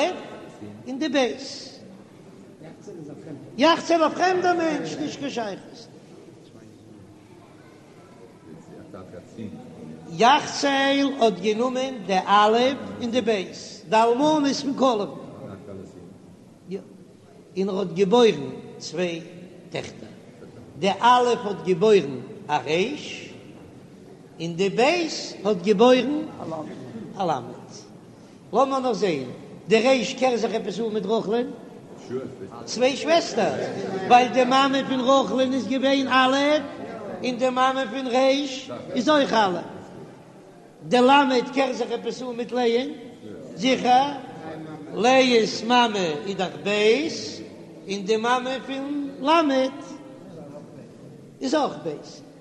און די ב'. יחצאל א פרעמדער מענטש, נישט קיין שייכות. יחצאל האט גענומען די א' און די ב', די אלמנות פון כלב, און ער האט געבוירן צוויי טעכטער, די א' האט געבוירן א ר', און די ב' האט געבוירן א ל'. לאמיר נאר זעהן, די ר' קער זיך עפעס אן מיט רחל'ן? צוויי שוועסטער, ווייל די מאמע פון רחל'ן איז געווען א', און די מאמע פון ר' איז אויך א'. די ל' קער זיך עפעס אן מיט לאה'ן? זיכער. לאה'ס מאמע איז דאך ב', און די מאמע פון ל' איז אויך ב'.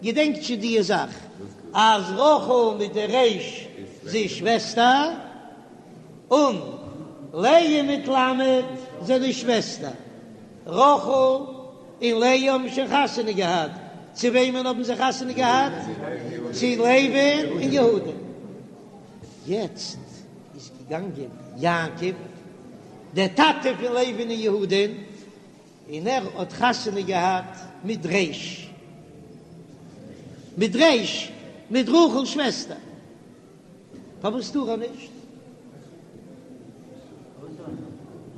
געדענקט שוין די זאך אז רחל מיט די ר' זענען שוועסטער, און לאה מיט ל' זענען שוועסטער. רחל און לאה האבן שוין חתונה געהאט. צו וועמען האבן זיי חתונה געהאט? צו לוי'ן און יהודה. יעצט איז געגאנגען יעקב, דער טאטע פון לוי'ן און יהודה'ן, און ער האט חתונה געהאט מיט ר', מיט ר', מיט רחל'ס שוועסטער. פארוואס טאר ער נישט?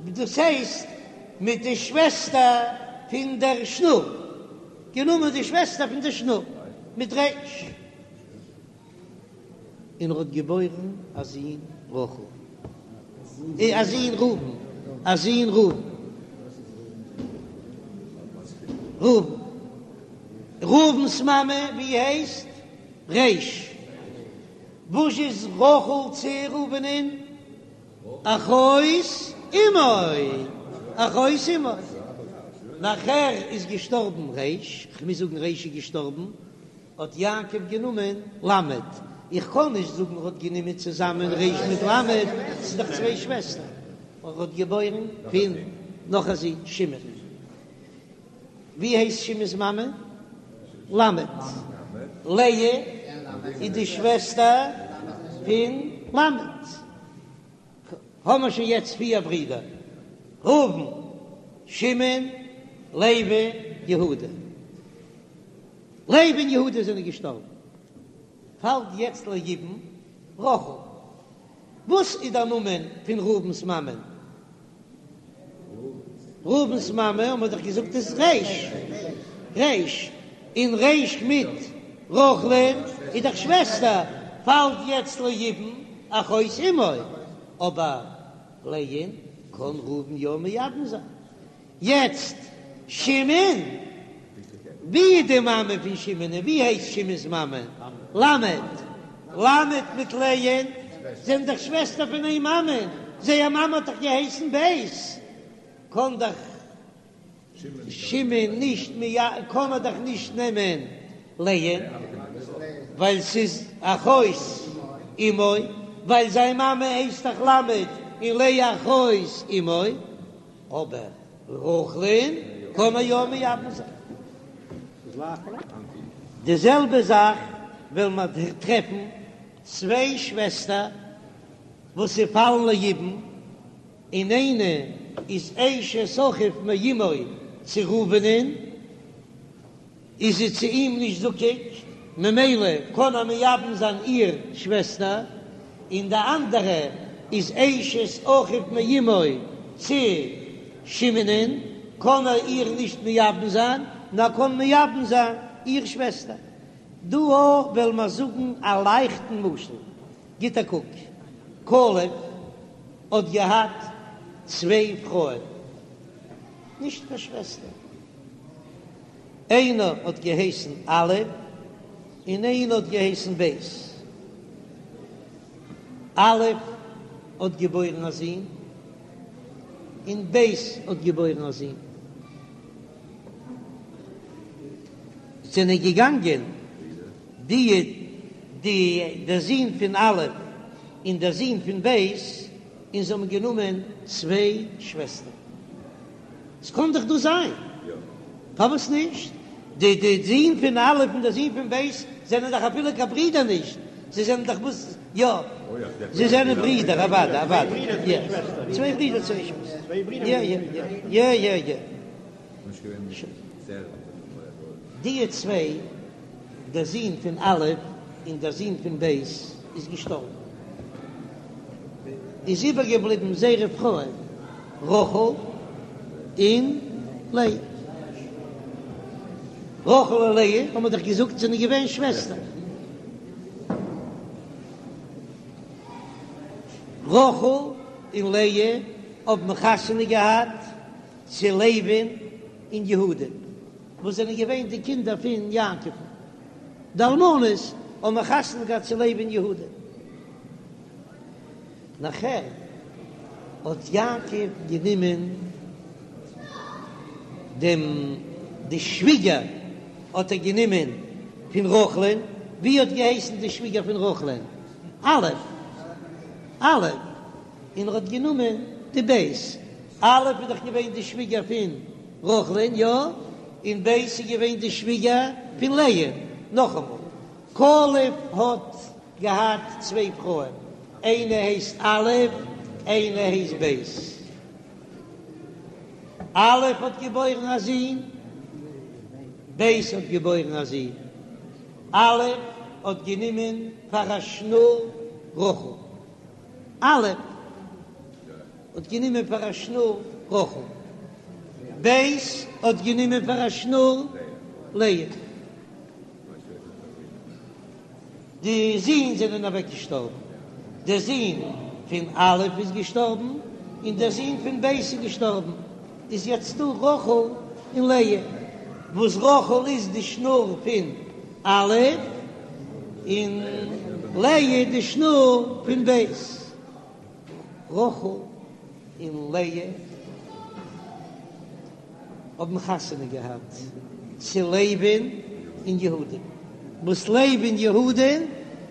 דאס הייסט מיט די שוועסטער פון דער שנור, גענומען די שוועסטער פון דער שנור מיט ר', און ער האט געבוירן א זון רחל, א זון ראובן, א זון ראובן, ראובן, ראובן'ס מאמע ווי הייסט? ר'. וואס איז רחל צו ראובנ'ען? אחות אמו, אחות אמו. נאכער איז געשטארבן ר', כ'מוז זאגן ר' איז געשטארבן, האט יעקב גענומען ל', איך קען נישט זאגן ער האט גענומען צוזאמען ר' מיט ל', ס'איז דאך צוויי שוועסטער, ער האט געבוירן פון נאך א זון שמעון. ווי הייסט שמעון'ס מאמע? למד. לאה איז די שוועסטער פון למד. האמער שוין יעצט פיר ברידער, ראובן, שמעון, לוי, יהודה. לוי און יהודה זענען געשטארבן. פאלט יעצט ליבום רחל. וואס איז דער נאמען פון ראובן'ס מאמען? ראובן'ס מאמע האט מען דאך געזאגט איז ר', ר', און ר' מיט רחל'ן איז דאך שוועסטער, פאלט יעצט ליבום אחות אמו, אבער לאה'ן קען ראובן יא מייבם זיין. יעצט שמעון, ווי איז די מאמע פון שמעון און ווי הייסט שמעון'ס מאמע? למד, למד מיט לאה'ן זענען דאך שוועסטער פון איין מאמע, זייער מאמע האט דאך געהייסן ב', קען דאך שמעון נישט קען ער דאך נישט נעמען לאה'ן ווייל ס'איז אחות אמו, ווייל זיין מאמע הייסט דאך למד און לאה אחות אמו. אבער רחל'ן קען ער יא מייבם זיין. די זעלבע זאך וועלן מיר טרעפן צוויי שוועסטער וואס זיי פאלן ליבום, און איינע איז אשת אחיו מאמו צו ראובנ'ען, איז זי צו אים נישט זקוק, ממילא קען ער מייבם זיין איר שוועסטער, און די אנדערע איז אשת אחיו מאמו צו שמעונ'ען, קען ער איר נישט מייבם זיין, נאר קען מייבם זיין איר שוועסטער. דא וועלן מיר זאגן א לייכטן משל, גיט א קוק, כלב האט געהאט צוויי פרויען, נישט קיין שוועסטער, איינער האט געהייסן א' און איינער האט געהייסן ב'. א' האט געבוירן א זון און ב' האט געבוירן א זון. זענען געגאנגען די די דער זון פון א' און דער זון פון ב' און זיי האבן גענומען צוויי שוועסטער. ס'קען דאך דא זיין. פארוואס נישט? די די זון פון א' און די זון פון ב' זענען דאך אפילו קיין ברידער נישט, זיי זענען דאך וואס יא, זיי זענען ברידער אוודאי אוודאי יא, צוויי ברידער צוויי שוועסטער יא יא יא יא יא. די צוויי, דער זון פון א' און דער זון פון ב' איז געשטארבן, איז איבערגעבליבן זייערע פרויען רחל און לאה. רחל און לאה האבן מיר דאך געזאגט זענען געווען שוועסטער. רחל און לאה האבן חתונה געהאט צו לוי'ן און יהודה'ן, וואס זענען געווען די קינדער פון יעקב'ן. די אלמנות האבן חתונה געהאט צו לוי און יהודה. נאכער. האט יעקב גענומען דעם די שוויגער האט ער גענומען פון רחל'ן, ווי האט געהייסן די שוויגער פון רחל'ן? א', א', און ער האט גענומען די ב', א' איז דאך געווען די שוויגער פון רחל'ן, יא? און ב' איז געווען די שוויגער פון לאה, נאכאמאל, כלב האט געהאט צוויי פרויען, איינע הייסט א', איינע הייסט ב'. א' האט געבוירן א זון, ב' האט געבוירן א זון. א' האט גענומען פאר א שנור רחל. א' האט גענומען פאר א שנור רחל. ב' האט גענומען פאר א שנור לאה. די זין זענען אוועק געשטארבן, דער זון פון א' איז געשטארבן, און דער זון פון ב' איז געשטארבן, איז יעצט דא רחל און לאה, וואס רחל איז די שנור פון א', און לאה די שנור פון ב'. רחל און לאה האבן חתונה געהאט צו לוי'ן און יהודה'ן, וואס לוי און יהודה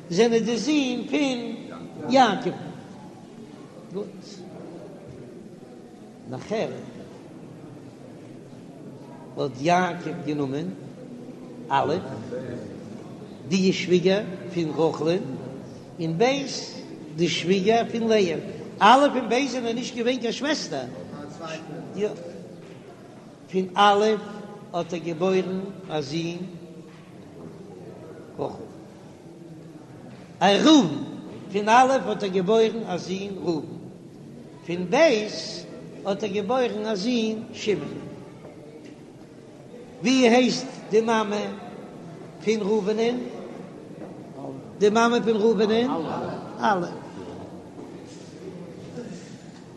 זענען די זין פון יעקב. גוט. נאכער האט יעקב גענומען א', די שוויגער פון רחל'ן, און ב', די שוויגער פון לאה. א' און ב' זענען נישט געווען קיין שוועסטער. פון א' האט ער געבוירן א זון רחל. א ראובן, פון א' האט ער געבוירן א זון ראובן, פון ב' האט ער געבוירן א זון שמעון. ווי הייסט די מאמע פון ראובנ'ען? די מאמע פון ראובנ'ען? א'.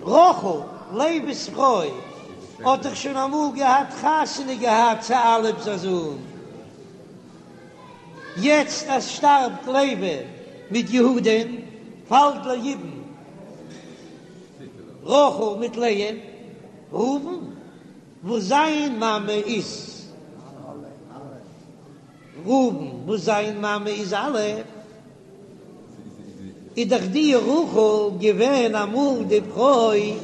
רחל, לוי'ס פרוי, האט דאך שוין אמאל געהאט חתונה געהאט צו אלף'ס א זון. יעצט אז שטארבט לוי מיט יהודה'ן, פאלט ליבום רחל מיט לאה, ראובן וואס זיין מאמע איז ראובן וואס זיין מאמע איז א', איז דאך די רחל געווען אמאל די פרוי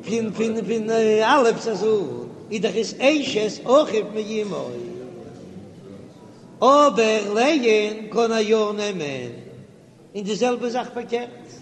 פון פון פון אלף'ס א זון, איז דאך עס אשת אחיו מאמו. אבער לאה'ן קען ער יא נעמען, און די זעלבע זאך פארקערט.